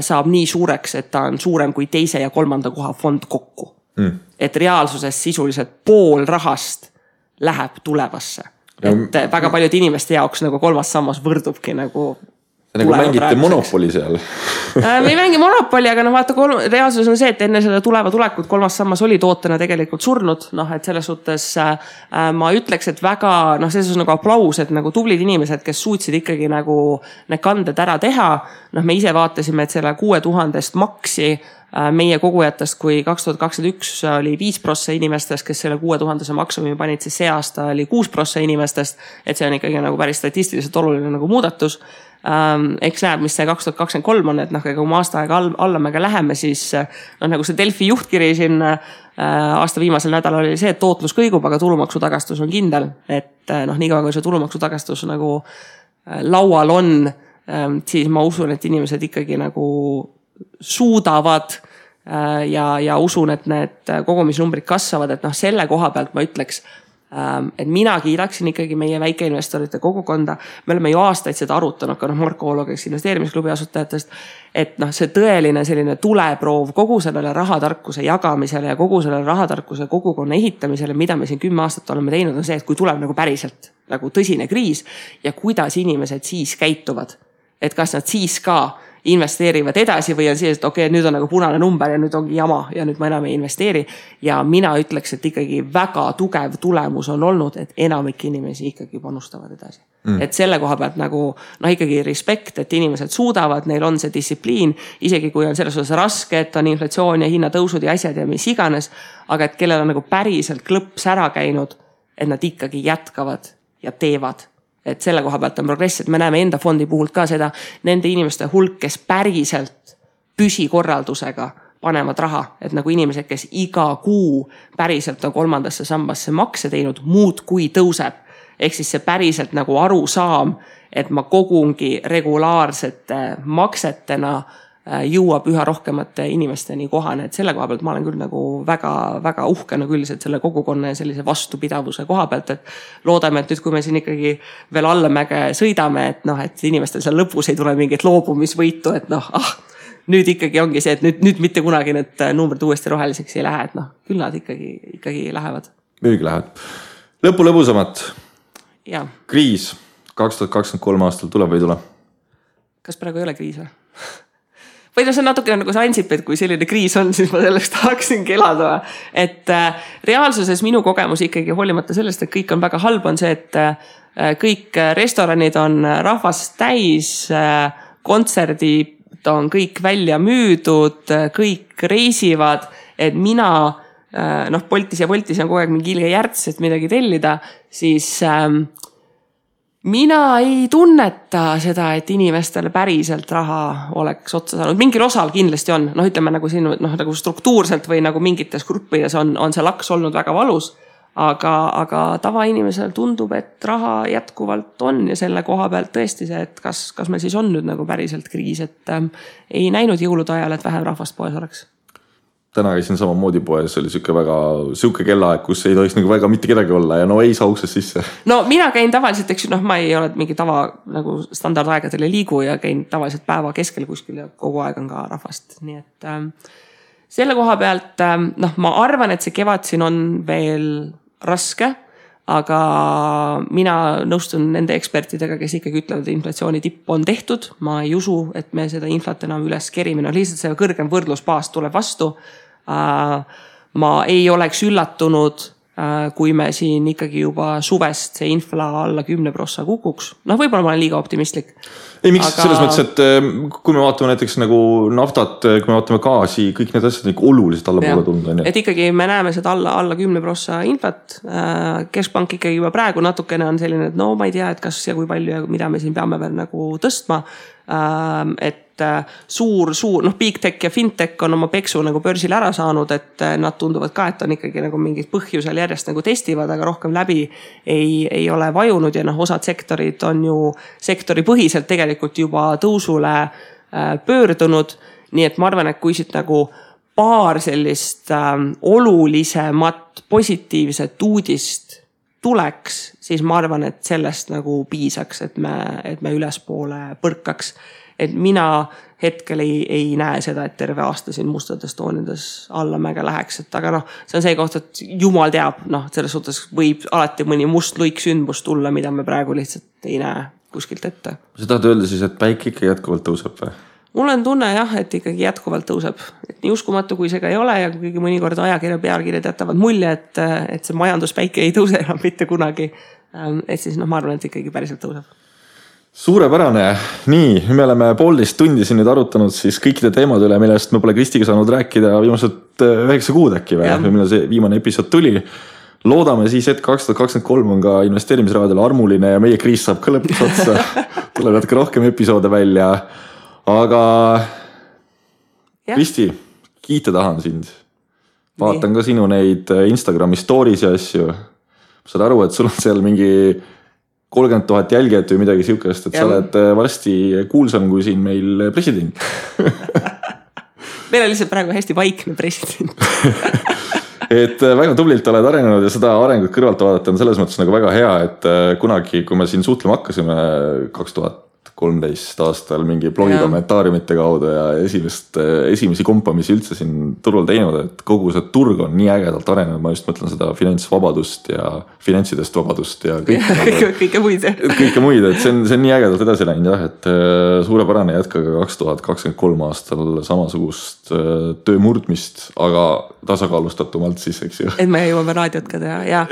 saab nii suureks, et ta on suurem kui teise ja kolmanda koha fond kokku. Et reaalsuses sisuliselt pool rahast läheb tulevasse. Et väga paljud inimeste jaoks nagu kolmas sammas võrdubki nagu nagu mängite monopoli seal. Me ei mängi monopoli, aga no vaata, reaalsus on see, et enne seda tuleva tulekut kolmas sammas oli tootena tegelikult surnud. Noh, et selles suhtes ma ütleks, et väga, noh, selles on nagu aplaus, et nagu tublid inimesed, kes suutsid ikkagi nagu need kanded ära teha. Noh, me ise vaatasime, et selle 6000 maksi meie kogujatest, kui 2021 oli 5% inimestest, kes selle 6000 maksumi panid, siis see aasta oli 6% inimestest, et see on ikkagi nagu päris statistiliselt oluline nagu muudatus. Eks näeb, mis see 2023 on, et noh, kui me aasta aega allamega läheme, siis noh, nagu see Delfi juhtkiri siin aasta viimasel nädalal oli see, et tootlus kõigub, aga tulumaksutagastus on kindel, et noh, nii kaua kui see tulumaksutagastus nagu laual on, siis ma usun, et inimesed ikkagi nagu suudavad ja usun, et need kogumisnumbrid kasvavad, et noh, selle koha pealt ma ütleks, et mina kiidaksin ikkagi meie väikeinvestorite kogukonda. Me oleme ju aastaid seda arutanud, ka noh, Marko Oolo, kes investeerimisklubi asutajatest, et noh, see tõeline selline tuleproov kogu sellele rahatarkuse jagamisele ja kogu sellele rahatarkuse kogukonna ehitamisele, mida me siin 10 aastat oleme teinud, on see, et kui tuleb nagu päriselt nagu tõsine kriis ja kuidas inimesed siis käituvad, et kas nad siis ka investeerivad edasi või on see, et okei, nüüd on nagu punane number ja nüüd ongi jama ja nüüd ma enam ei investeeri. Ja mina ütleks, et ikkagi väga tugev tulemus on olnud, et enamik inimesi ikkagi panustavad edasi. Et selle koha pealt nagu noh, ikkagi respekt, et inimesed suudavad, neil on see distsipliin, isegi kui on selles osas raske, et on inflatsioon ja hinnatõusud ja asjad ja mis iganes, aga et kellel on nagu päriselt klõps ära käinud, et nad ikkagi jätkavad ja teevad. Et selle koha pealt on progress, et me näeme enda fondi puhul ka seda nende inimeste hulk, kes päriselt püsikorraldusega panevad raha, et nagu inimesed, kes iga kuu päriselt on kolmandasse sambasse makse teinud, muud kui tõuseb. Ehk siis see päriselt nagu arusaam, et ma kogungi regulaarsete maksetena jõuab üha rohkemate inimesteni kohane, et selle koha pealt ma olen küll nagu väga uhkena külliselt selle kogukonna ja sellise vastupidavuse koha pealt, et loodame, et nüüd kui me siin ikkagi veel allamäge sõidame, et noh, et inimestel seal lõpus ei tule mingit loobumisvõitu, et noh, nüüd ikkagi ongi see, et nüüd mitte kunagi need numbrid uuesti roheliseks ei lähe, et noh, küll nad ikkagi lähevad. Müügi lähevad. Lõpu lõbusamat. Ja. Kriis 2023 aastal tuleb või ei tule? Kas praegu ei ole kriis või? Või no see on natuke nagu see Ansip, et kui selline kriis on, siis ma sellest tahaksin kelada. Et reaalsuses minu kogemus ikkagi hoolimata sellest, et kõik on väga halb, on see, et kõik restoranid on rahvast täis, kontserdid on kõik välja müüdud, kõik reisivad, et mina, noh, Boltis ja Voltis on kogu aeg mingi ilge järts, et midagi tellida, siis Mina ei tunneta seda, et inimestele päriselt raha oleks otsa saanud. Mingil osal kindlasti on. Ütleme nagu siin nagu struktuurselt või nagu mingites gruppides on see laks olnud väga valus. Aga tavainimesel tundub, et raha jätkuvalt on ja selle koha pealt tõesti see, et kas meil siis on nüüd nagu päriselt kriis, et ei näinud jõulude ajal, et vähem rahvast poes oleks. Täna käisin samamoodi poes, oli siuke kellaaeg, kus ei tohiks nagu väga mitte kedagi olla ja ei saa uksest sisse. No mina käin tavaliselt, eks ma ei ole mingi tava nagu standardaegadel ei liigu ja käin tavaliselt päeva keskel kuskil ja kogu aeg on ka rahvast. Nii et selle koha pealt, ma arvan, et see kevad siin on veel raske, aga mina nõustun nende ekspertidega, kes ikkagi ütlevad, et inflatsiooni tipp on tehtud. Ma ei usu, et me seda inflat enam üles kerime. Lihtsalt see kõrgem võrdlusbaas tuleb vastu. Ma ei oleks üllatunud, kui me siin ikkagi juba suvest see infla alla 10% kukuks. Võib-olla ma olen liiga optimistlik. Ei, miks selles mõttes, et kui me vaatame näiteks nagu naftat, kui me vaatame gaasi, kõik need asjad nagu oluliselt alla poole tunda. Et ikkagi me näeme seda alla 10% inflat. Keskpank ikkagi juba praegu natukene on selline, et ma ei tea, et kas ja kui palju ja mida me siin peame veel nagu tõstma. Et suur, big tech ja fintech on oma peksu nagu börsil ära saanud, et nad tunduvad ka, et on ikkagi nagu mingid põhjusel järjest nagu testivad, aga rohkem läbi ei ole vajunud ja osad sektorid on ju sektori põhiselt tegelikult juba tõusule pöördunud. Nii et ma arvan, et kui siit nagu paar sellist olulisemat positiivset uudist tuleks, siis ma arvan, et sellest nagu piisaks, et me ülespoole põrkaks. Et mina hetkel ei näe seda, et terve aasta siin mustades toonides alla mäge läheks. Et aga see on see koht, et jumal teab, selles suhtes võib alati mõni must luik sündmus tulla, mida me praegu lihtsalt ei näe kuskilt ette. Sa tahad öelda siis, et päike ikka jätkuvalt tõuseb või? Mul on tunne et ikkagi jätkuvalt tõuseb. Et nii uskumatu, kui see ka ei ole ja kuigi mõnikord ajakirja pealkirjad jätavad mulje, et see majanduspäike ei tõuse enam mitte kunagi. Et siis ma arvan, et ikkagi päriselt tõuseb. Suurepärane. Nii, me oleme 1,5 tundi siin nüüd arutanud siis kõikide teemade üle, millest me pole Kristiga saanud rääkida viimased 9 kuud äkki või millal see viimane episood tuli. Loodame siis, et 2023 on ka investeerimisrahadel armuline ja meie kriis saab ka lõpuks otsa. Tuleb natuke rohkem episoode välja. Aga Kristi, kiita tahan sind. Vaatan ka sinu neid Instagrami stories ja asju. Saad aru, et sul on seal mingi 30,000 jälgijat või midagi siukest, et sa oled varsti kuulsam kui siin meil president. Meil on lihtsalt praegu hästi vaikne president. Et väga tublilt oled arenenud ja seda arengut kõrvalt vaadata on selles mõttes nagu väga hea, et kunagi, kui me siin suhtlema hakkasime 2013 aastal mingi blogi kommentaariumite kaudu ja esimesi kompamisi üldse siin turul teinud, et kogu see turg on nii ägedalt arenenud, ma just mõtlen seda finantsvabadust ja finantsidest vabadust ja kõike muid. Kõike muid, et see on nii ägedalt edasi läinud et suurepärane jätkaga 2023 aastal samasugust töö murdmist, aga tasakaalustatumalt siis, eks ju. Et me jõuame raadiot ka teha ja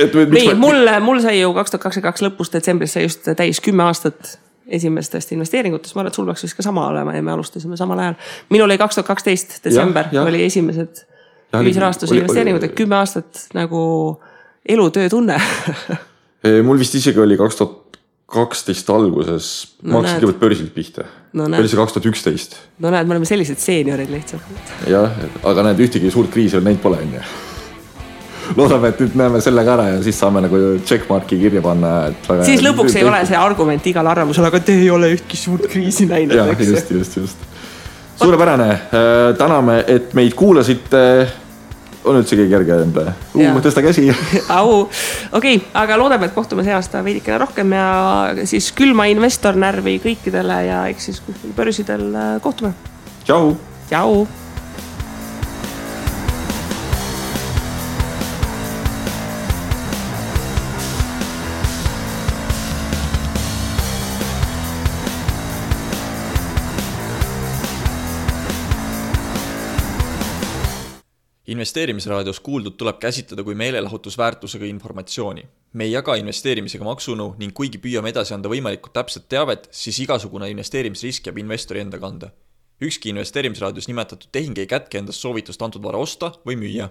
mul sai ju 2022 lõpus detsembris sai just täis 10 aastat esimestest investeeringutest, ma arvan, et sul peaks vist ka sama olema ja me alustasime samal ajal. Minul oli 2012 detsember, oli esimesed ühisrahastuse investeeringud, et 10 aastat nagu elutöö tunne. Mul vist isegi oli 2012 alguses, ma hakkasin kõigepealt börsilt pihta. Oli see 2011. No näed, me oleme sellised seeniorid lihtsalt. Jah, aga näed, ühtegi suurt kriisi on neid pole enne. Loodame, et nüüd näeme selle ka ära ja siis saame nagu checkmarki kirja panna. Siis lõpuks ei ole see argument igal arvamusel, aga te ei ole ühtki suurt kriisi näinud. Jah, just. Suurepärane. Täname, et meid kuulasite. On üldse keegi järge enda? Tõsta käsi. Okei, aga loodame, et kohtume see aasta veidikene rohkem ja siis külma investor närvi kõikidele ja eks siis börsidel kohtume. Tšau. Investeerimisraadios kuuldud tuleb käsitleda kui meelelahutusväärtusega informatsiooni. Me ei jaga investeerimisega maksunu ning kuigi püüame edasi anda võimalikult täpset teavet, siis igasugune investeerimisrisk jääb investori enda kanda. Ükski investeerimisraadios nimetatud tehing ei kätke endast soovitust antud vara osta või müüa.